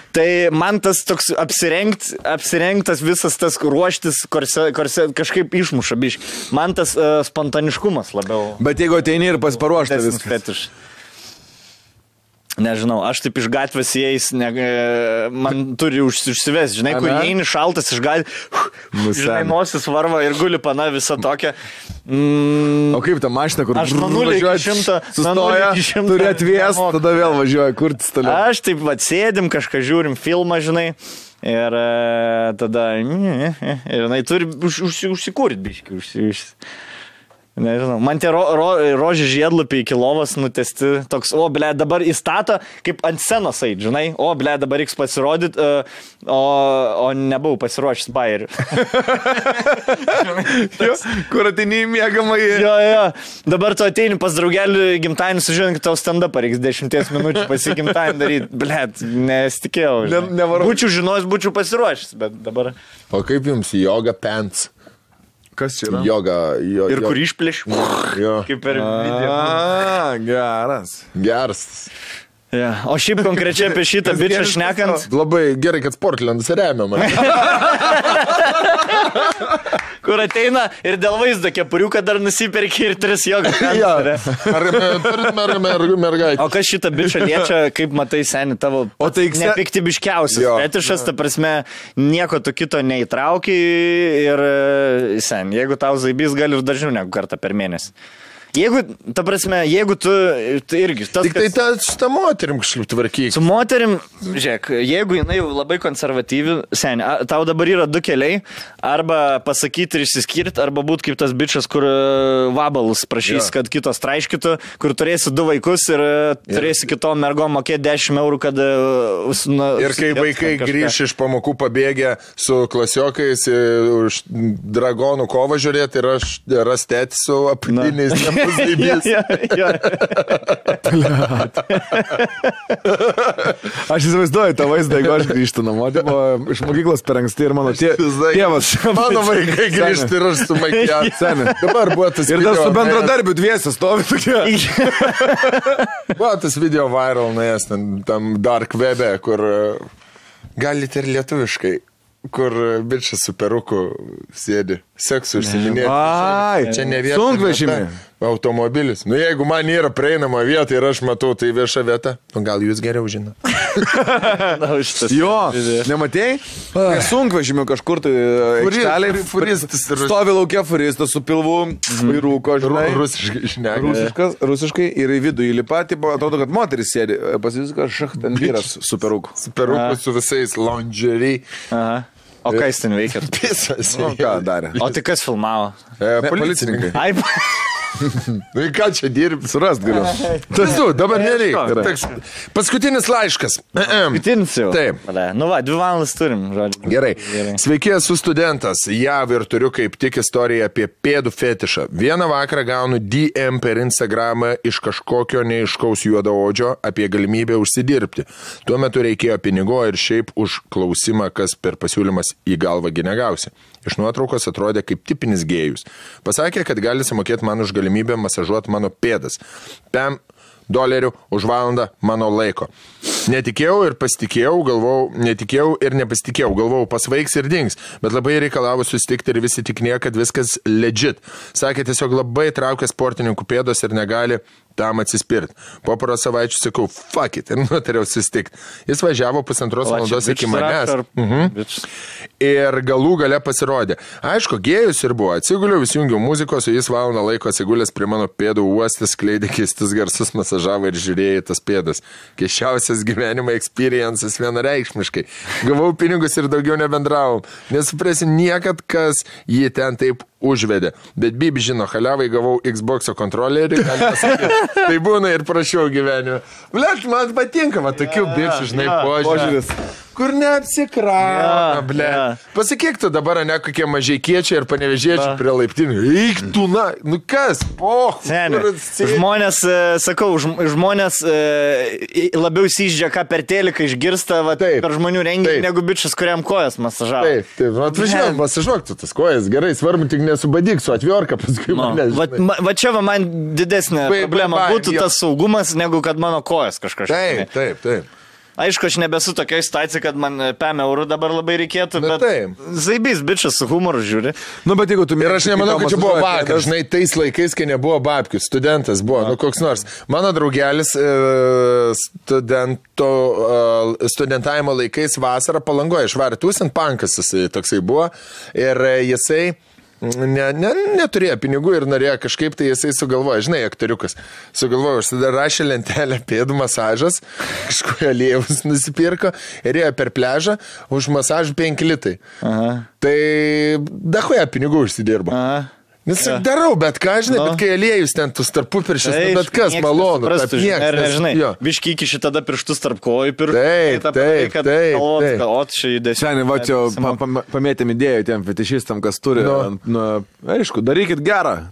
B: Tai man tas toks apsirengtas visas tas ruoštis kažkaip išmuša biškį. Man tas spontaniškumas labiau.
A: Bet jeigu ateini ir pasiparuošta viskas.
B: Fetiš. Nežinau, aš taip iš gatvės įeis, man turi užsivesti, žinai, kur įeini šaltas iš gatvės, žinai, nosis varva ir guli pana visą tokią.
A: O kaip ta mašina, kur
B: aš nuo 0 iki 100
A: sustoja, turi atvės, tada vėl važiuoja, kur toliau.
B: Aš taip sėdim, kažką žiūrim filmą, žinai, ir tada, ir turi užsikūrti biškį, Nežinau, man tie rožė žiedlapiai iki lovos nutesti toks, dabar įstato kaip ant scenos eit, žinai, dabar reiks pasirodyti, o nebuvau pasiruošęs bairių.
A: Kur ateini į mėgamąjį.
B: Jo, dabar tu ateini pas draugelį gimtadienį, sužinai, kad tau stand-up reiks 10 minučių pasigimtadienį daryti. Blet, nesitikėjau. Būčiau žinojęs, būčiau pasiruošęs, bet dabar.
C: O kaip jums yoga pants?
A: Kas čia yra?
C: Yoga.
B: Ir kur išplėš? Kaip per video.
C: Geras.
B: Yeah. O šiaip konkrečiai apie šitą bičią šnekant.
C: Labai gerai, kad Sportlandas remia mane.
B: Kur ateina ir dėl vaizdo kepuriuką dar nusiperki ir 3 joga.
C: Mergaitė.
B: O kas šitą bičią liečia, kaip matai, seni, tavo nepiktybiškiausias fetišas, ta prasme, nieko tu kito neįtrauki ir, seni, jeigu tau zaibys, gali ir dažniau negu kartą per mėnesį. Jeigu, ta prasme, jeigu tu irgi...
C: Tik tai ta moterim kažkaip tvarkyk.
B: Su moterim, žiūrėk, jeigu jinai labai konservatyvi, seni, tau dabar yra 2 keliai, arba pasakyti ir išsiskirti, arba būti kaip tas bičas, kur vabalus prašys, kad kitos traiškytų, kur turėsi 2 vaikus ir turėsi kitom mergom mokėti 10 eurų, kad...
C: Ir kai vaikai grįš iš pamokų pabėgę su klasiokais už dragonų kovą žiūrėti ir aš rastėti su apatiniais
A: Aš įsivaizduoju tą vaizdą, jeigu aš grįžtu namo, iš mokyklos per anksti ir mano tėvas.
C: Mano vaikai grįžti ir aš su makiažu. Dabar buvo tas
A: video. Ir dar su bendradarbiu dviese stovi tokie.
C: Buvo tas video viral, nuėjęs tam dark webe, kur galite ir lietuviškai. Kur bičas su peruku sėdi, seksu užsiminėti.
A: Ai,
C: čia ne vieta.
A: Sunkvežimį.
C: Automobilis. Nu, jeigu man yra prieinama vieta ir aš matau, tai vieša vieta, nu gal jūs geriau žino.
A: Jo, nematėjai? Sunkvežimį kažkur tai aikšteliai. Stovi laukia furistas su pilvu, rūko, žinai. Rusiškai ir į vidų įlipa, atrodo, kad moteris sėdi. Pasisika, ten vyras su peruku.
C: Su peruku, su visais lingerie.
B: Aha. O ką jis ten veikia?
C: Pisas.
A: O ką darė?
B: O tai kas filmavo?
C: Policininkai.
B: Ai,
C: Nu, ką čia dirbi?
A: Surast galiu.
C: Tas tu, dabar nereikia. Paskutinis laiškas.
B: Paskutinis jau.
C: Taip.
B: Nu va, 2 valandas turim, žodžiu.
C: Gerai. Sveiki, esu studentas. JAV ir turiu kaip tik istoriją apie pėdų fetišą. Vieną vakarą gaunu DM per Instagramą iš kažkokio neiškaus juodaodžio apie galimybę užsidirbti. Tuo metu reikėjo pinigo ir šiaip už klausimą, kas per pasiūlymas į galvą negausi. Iš nuotraukos atrodė kaip tipinis gėjus. Pasakė, kad gali sumokėti man už galimybę masažuoti mano pėdas. $5 už valandą mano laiko. Netikėjau ir nepasitikėjau, galvojau, pasvaigs ir dings, bet labai reikalavo susitikti ir visi tiknėjo, kad viskas legit. Sakė, tiesiog labai traukia sportininkų pėdos ir negali tam atsispirti. Po poros savaičių sakau, fuck it, ir nutariau susitikti. Jis važiavo 1,5 valandos iki manęs. Ir galų gale pasirodė. Aišku, gėjus ir buvo. Atsiguliau, įsijungiau muzikos, o jis valandą laiko atsigulęs prie mano pėdų uostas, skleidė keistus garsus, masažavo ir žiūrėjo tas pėdas. Keisčiausias gyvenimo experiences vienareikšmiškai. Gavau pinigus ir daugiau nebendravom. Nesuprasi niekad, kas jį ten taip užvedė. Bet Bibi žino, haliavai gavau Xbox'o kontrolerį, tai būna ir prašiau gyvenime. Blet, man patinka, va, tokių bičių, žinai, požiūris. Kur neapsikrauna, ble. Pasakyk tu dabar, ne kokie mažeikiečiai ir panevežiečiai prie laiptinių. Eik tu, na, nu kas?
B: Žmonės, sakau, žmonės labiau įsiždžia, ką per teliką išgirsta per žmonių renginį, negu bičias, kuriam kojas masažavo.
C: Taip, atvažiuok, masažuok tu tas kojas, gerai, svarbu tik nesubadyk su atviorka paskui mane.
B: Va čia va man didesnė problema būtų tas saugumas, negu kad mano kojas kažkas.
C: Taip.
B: Aišku, aš nebesu tokioje situacijoje, kad man €5 dabar labai reikėtų, bet zaibys bičias su humoru žiūri.
A: Nu, bet jeigu tu
C: ir aš nemanau, kad čia buvo vakar, žinai, tais laikais, kai nebuvo babkių, studentas buvo, nu koks nors. Mano draugelis studentavimo laikais vasarą Palangoje išvarė tūsint, pankas jisai toksai buvo ir jisai neturėjo pinigų ir norėjo kažkaip, tai jisai sugalvojo, žinai, aktoriukas, sugalvojo, užsidarašė lentelę pėdų masažas, kažkoje aliejus nusipirko ir ėjo per pležą, už masažą 5 litai. Tai dahoje pinigų užsidirbo. Nes darau, bet ką, žinai, bet kai aliejus ten tus tarpupiršis, bet kas malonu.
B: Žinai, biški iki šitada pirštus tarp kojų
A: Šiandien, va čia pamėtėm idėjų tiem fetišistam, kas turi. Aišku, darykit gerą.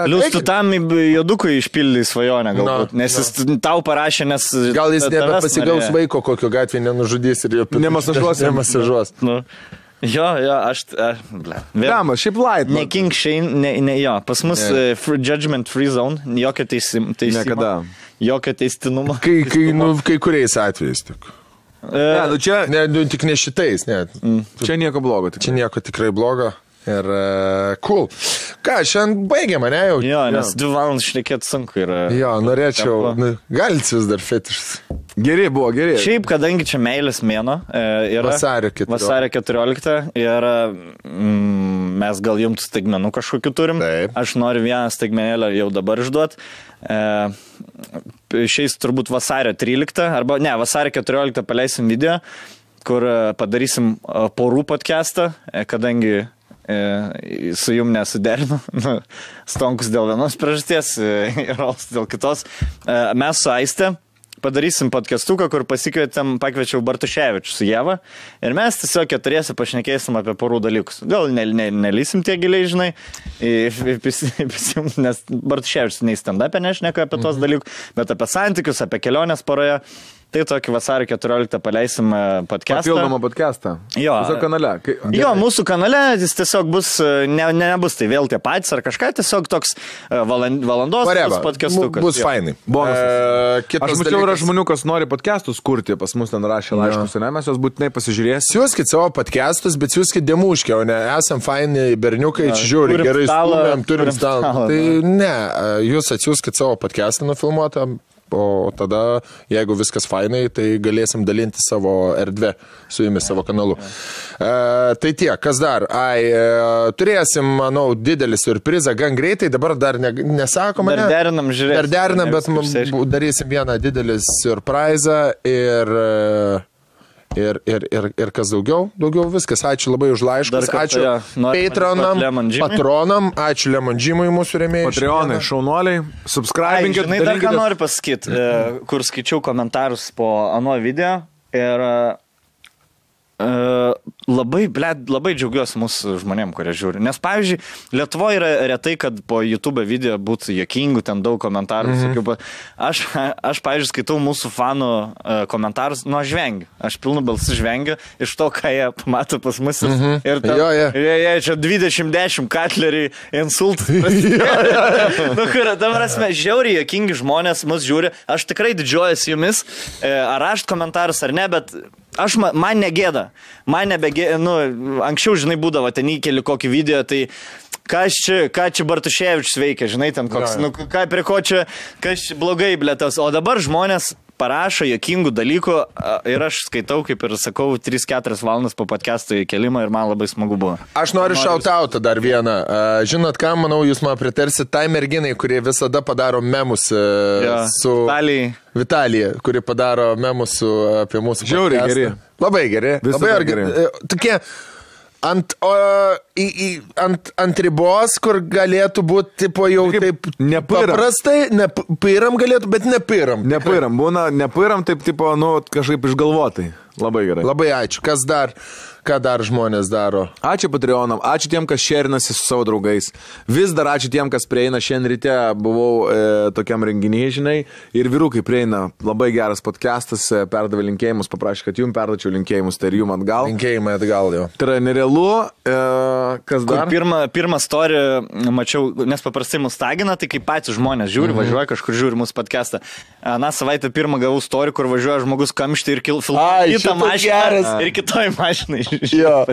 B: Lius tu tam jodukui išpildai svajonę galbūt, nes jis tau parašė, nes...
C: Gal jis nebepasigaus vaiko, kokio gatvė nenužudys ir jo nemasažuos.
B: Jo, aš...
A: Dama, šiaip light.
B: Ne King Shane, jo, pas mus judgment free zone, jokio teisimo.
A: Niekada.
B: Jokio teistinumo.
C: Kai kuriais atvejais tik. Tik ne šitais, ne.
A: Čia nieko blogo.
C: Čia nieko tikrai blogo. Ir cool. Ką, šiandien baigėme, ne jau?
B: Jo, nes 2 valandas šnekėti sunku yra.
C: Jo, norėčiau. Galit vis dar fetišas.
A: Geri buvo.
B: Šiaip, kadangi čia meilės mėno yra
C: vasario
B: 14 ir mes gal jums staigmenų kažkokiu turim.
C: Taip.
B: Aš noriu vieną staigmenėlę jau dabar išduot. Šiais turbūt vasario 13, arba ne, vasario 14 paleisim video, kur padarysim porų podcastą, kadangi su jum nesuderinu. Stonkus dėl vienos priežasties, Rols dėl kitos. Mes su Aiste padarysim podcastuką, kur pakviečiau Bartuševičių su Jeva ir mes tiesiog keturiesi pašnekėsim apie porų dalykus. Gal nelysim tie giliai, žinai, nes Bartuševičius nei stand-up'e nešneka apie tos dalykus, bet apie santykius, apie kelionės poroje. Tai tokį vasario 14 paleisim podcastą.
A: Papildomą podcastą.
B: Jo.
A: Mūsų kanale.
B: Jo, mūsų kanale jis tiesiog bus, nebus tai vėl tie patys ar kažką, tiesiog toks valandos podcastukas.
C: Bus fainai.
A: Bonusas. Aš mačiau, yra žmonių, kas nori podcastus kurti, pas mus ten rašė laiškus, ne, mes jos būtinai pasižiūrėsim.
C: Siūskit savo podcastus, bet siūskit demuškę, o ne, esam faini berniukai, čia žiūri, gerai stūmėm, turim stalą. Tai ne, jūs atsiūskit savo podcastą nufilmuotą. O tada, jeigu viskas fainai, tai galėsim dalinti savo erdvę su jumis, savo kanalu. Tai tiek, kas dar? Turėsim, manau, didelį surprizą gan greitai, dabar dar nesakoma.
B: Dar derinam, žiūrėsim.
C: Dar derinam, bet darysim vieną didelį surprizą ir kas daugiau viskas. Ačiū labai už laiškus, ačiū patronam, ačiū Lemon Jimui mūsų rėmėjai.
A: Patreonai, šaunuoliai, subscribinkit.
B: Žinai, dar ką noriu pasakyti, kur skaičiau komentarus po ano video ir labai džiaugiuosi mūsų žmonėm, kurie žiūri. Nes, pavyzdžiui, Lietuvoje yra retai, kad po YouTube video būtų juokingų, ten daug komentarų. Aš, pavyzdžiui, skaitau mūsų fanų komentarus, aš vengiu. Aš pilnu balsu žvengiu iš to, ką jie pamato pas mus. Ir čia 20-10 katleriai, insultus. Dabar esame žiauriai juokingi žmonės, mus žiūri. Aš tikrai didžiuojuosi jumis, ar rašt komentarus ar ne, bet man negėda. Man nebegėda, anksčiau, žinai, būdavo, ten įkeli kokį video, tai ką čia Bartuševičius veikia, žinai, ten koks, prie ko čia, kas čia blogai, blėtas. O dabar žmonės parašo juokingų dalykų ir aš skaitau, kaip ir sakau, 3-4 valandas po podcast'o įkelimą ir man labai smagu buvo.
C: Aš noriu šautautą dar vieną. Žinot ką, manau, jūs man pritarsit tai merginai, kurie visada padaro memus su... Vitalija, kuri padaro memus apie mūsų podcast'ą.
A: Žiauriai geri.
C: Labai geri. Labai geri. Tokie ant ribos, kur galėtų būti, tipo, jau taip paprastai, nepairam galėtų, bet nepairam.
A: Nepairam, būna, nepairam taip, tipo, kažkaip išgalvotai. Labai gerai.
C: Labai ačiū. Ką dar žmonės daro?
A: Ačiū Patreonam, ačiū tiem, kas šerinasi su savo draugais. Vis dar ačiū tiem, kas prieina. Šiandien ryte buvau tokiam renginyje, žinai, ir vyrukai prieina. Labai geras podcastas, perdavė linkėjimus, paprašė, kad jums perdačiau linkėjimus, tai ir jums atgal.
C: Linkėjimai atgal jau.
A: Tai yra nerealu. Kas dar?
B: Pirmą story mačiau, nes paprastai mus tagina, tai kaip patys žmonės žiūri, važiuoja kažkur žiūri mūsų podcastą. Na, savaitę pirmą gavau story, kur važiuoja žmogus kamštį ir filmuoja kitą mašiną ir kitoj mašinai.
C: Jo.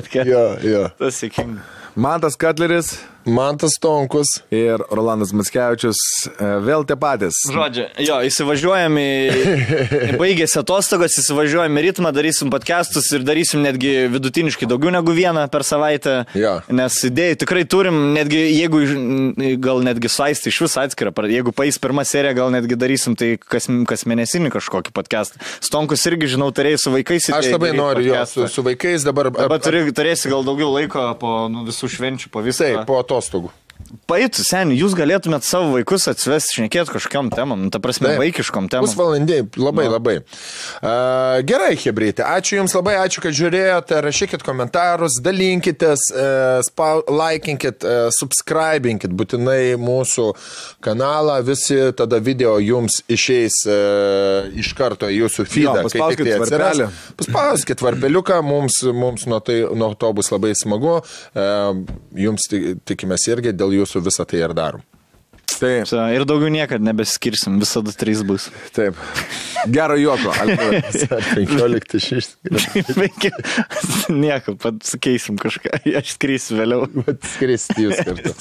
B: Tas sėkinga.
A: Mantas Katleris.
C: Mantas Tonkus.
A: Ir Rolandas Mackevičius. Vėl tie patys.
B: Žodžiu, įsivažiuojam baigėsi atostogos, įsivažiuojam į ritmą, darysim podcastus ir darysim netgi vidutiniškai daugiau negu vieną per savaitę. Nes idėjų tikrai turim, netgi jeigu gal netgi saisti iš vis atskirą, jeigu paeis pirmą seriją, gal netgi darysim tai kas mėnesinį kažkokį podcastą. Stonkus irgi, žinau, turėjai su vaikais.
C: Aš labai noriu su vaikais dabar.
B: Turėsi gal daugiau laiko po visų švenčių, po visai.
C: Po atostogų.
B: Paeitų, seniai, jūs galėtumėt savo vaikus atsivesti, šnekėti kažkokiam temam, ta prasme, vaikiškom temam.
C: Pusvalandė, labai. Gerai, chebrytė, ačiū Jums labai, ačiū, kad žiūrėjote, rašykit komentarus, dalinkitės, laikinkit, subscribinkit būtinai mūsų kanalą, visi tada video Jums išeis iš karto į Jūsų feedą.
A: Paspauskit varpelį.
C: Paspauskit varpeliuką, mums nuo to bus labai smagu, Jums tikimės irgi dėl Jūsų visą tai ir darom.
A: Taip.
B: Ir daugiau niekad nebeskirsim, visada 3 bus.
A: Taip. Gero juoko.
C: 15-6.
B: Nieko, pat sukeisim kažką. Aš skrisiu vėliau.
C: Skristi jūs kartu.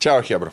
C: Čiau, chebra.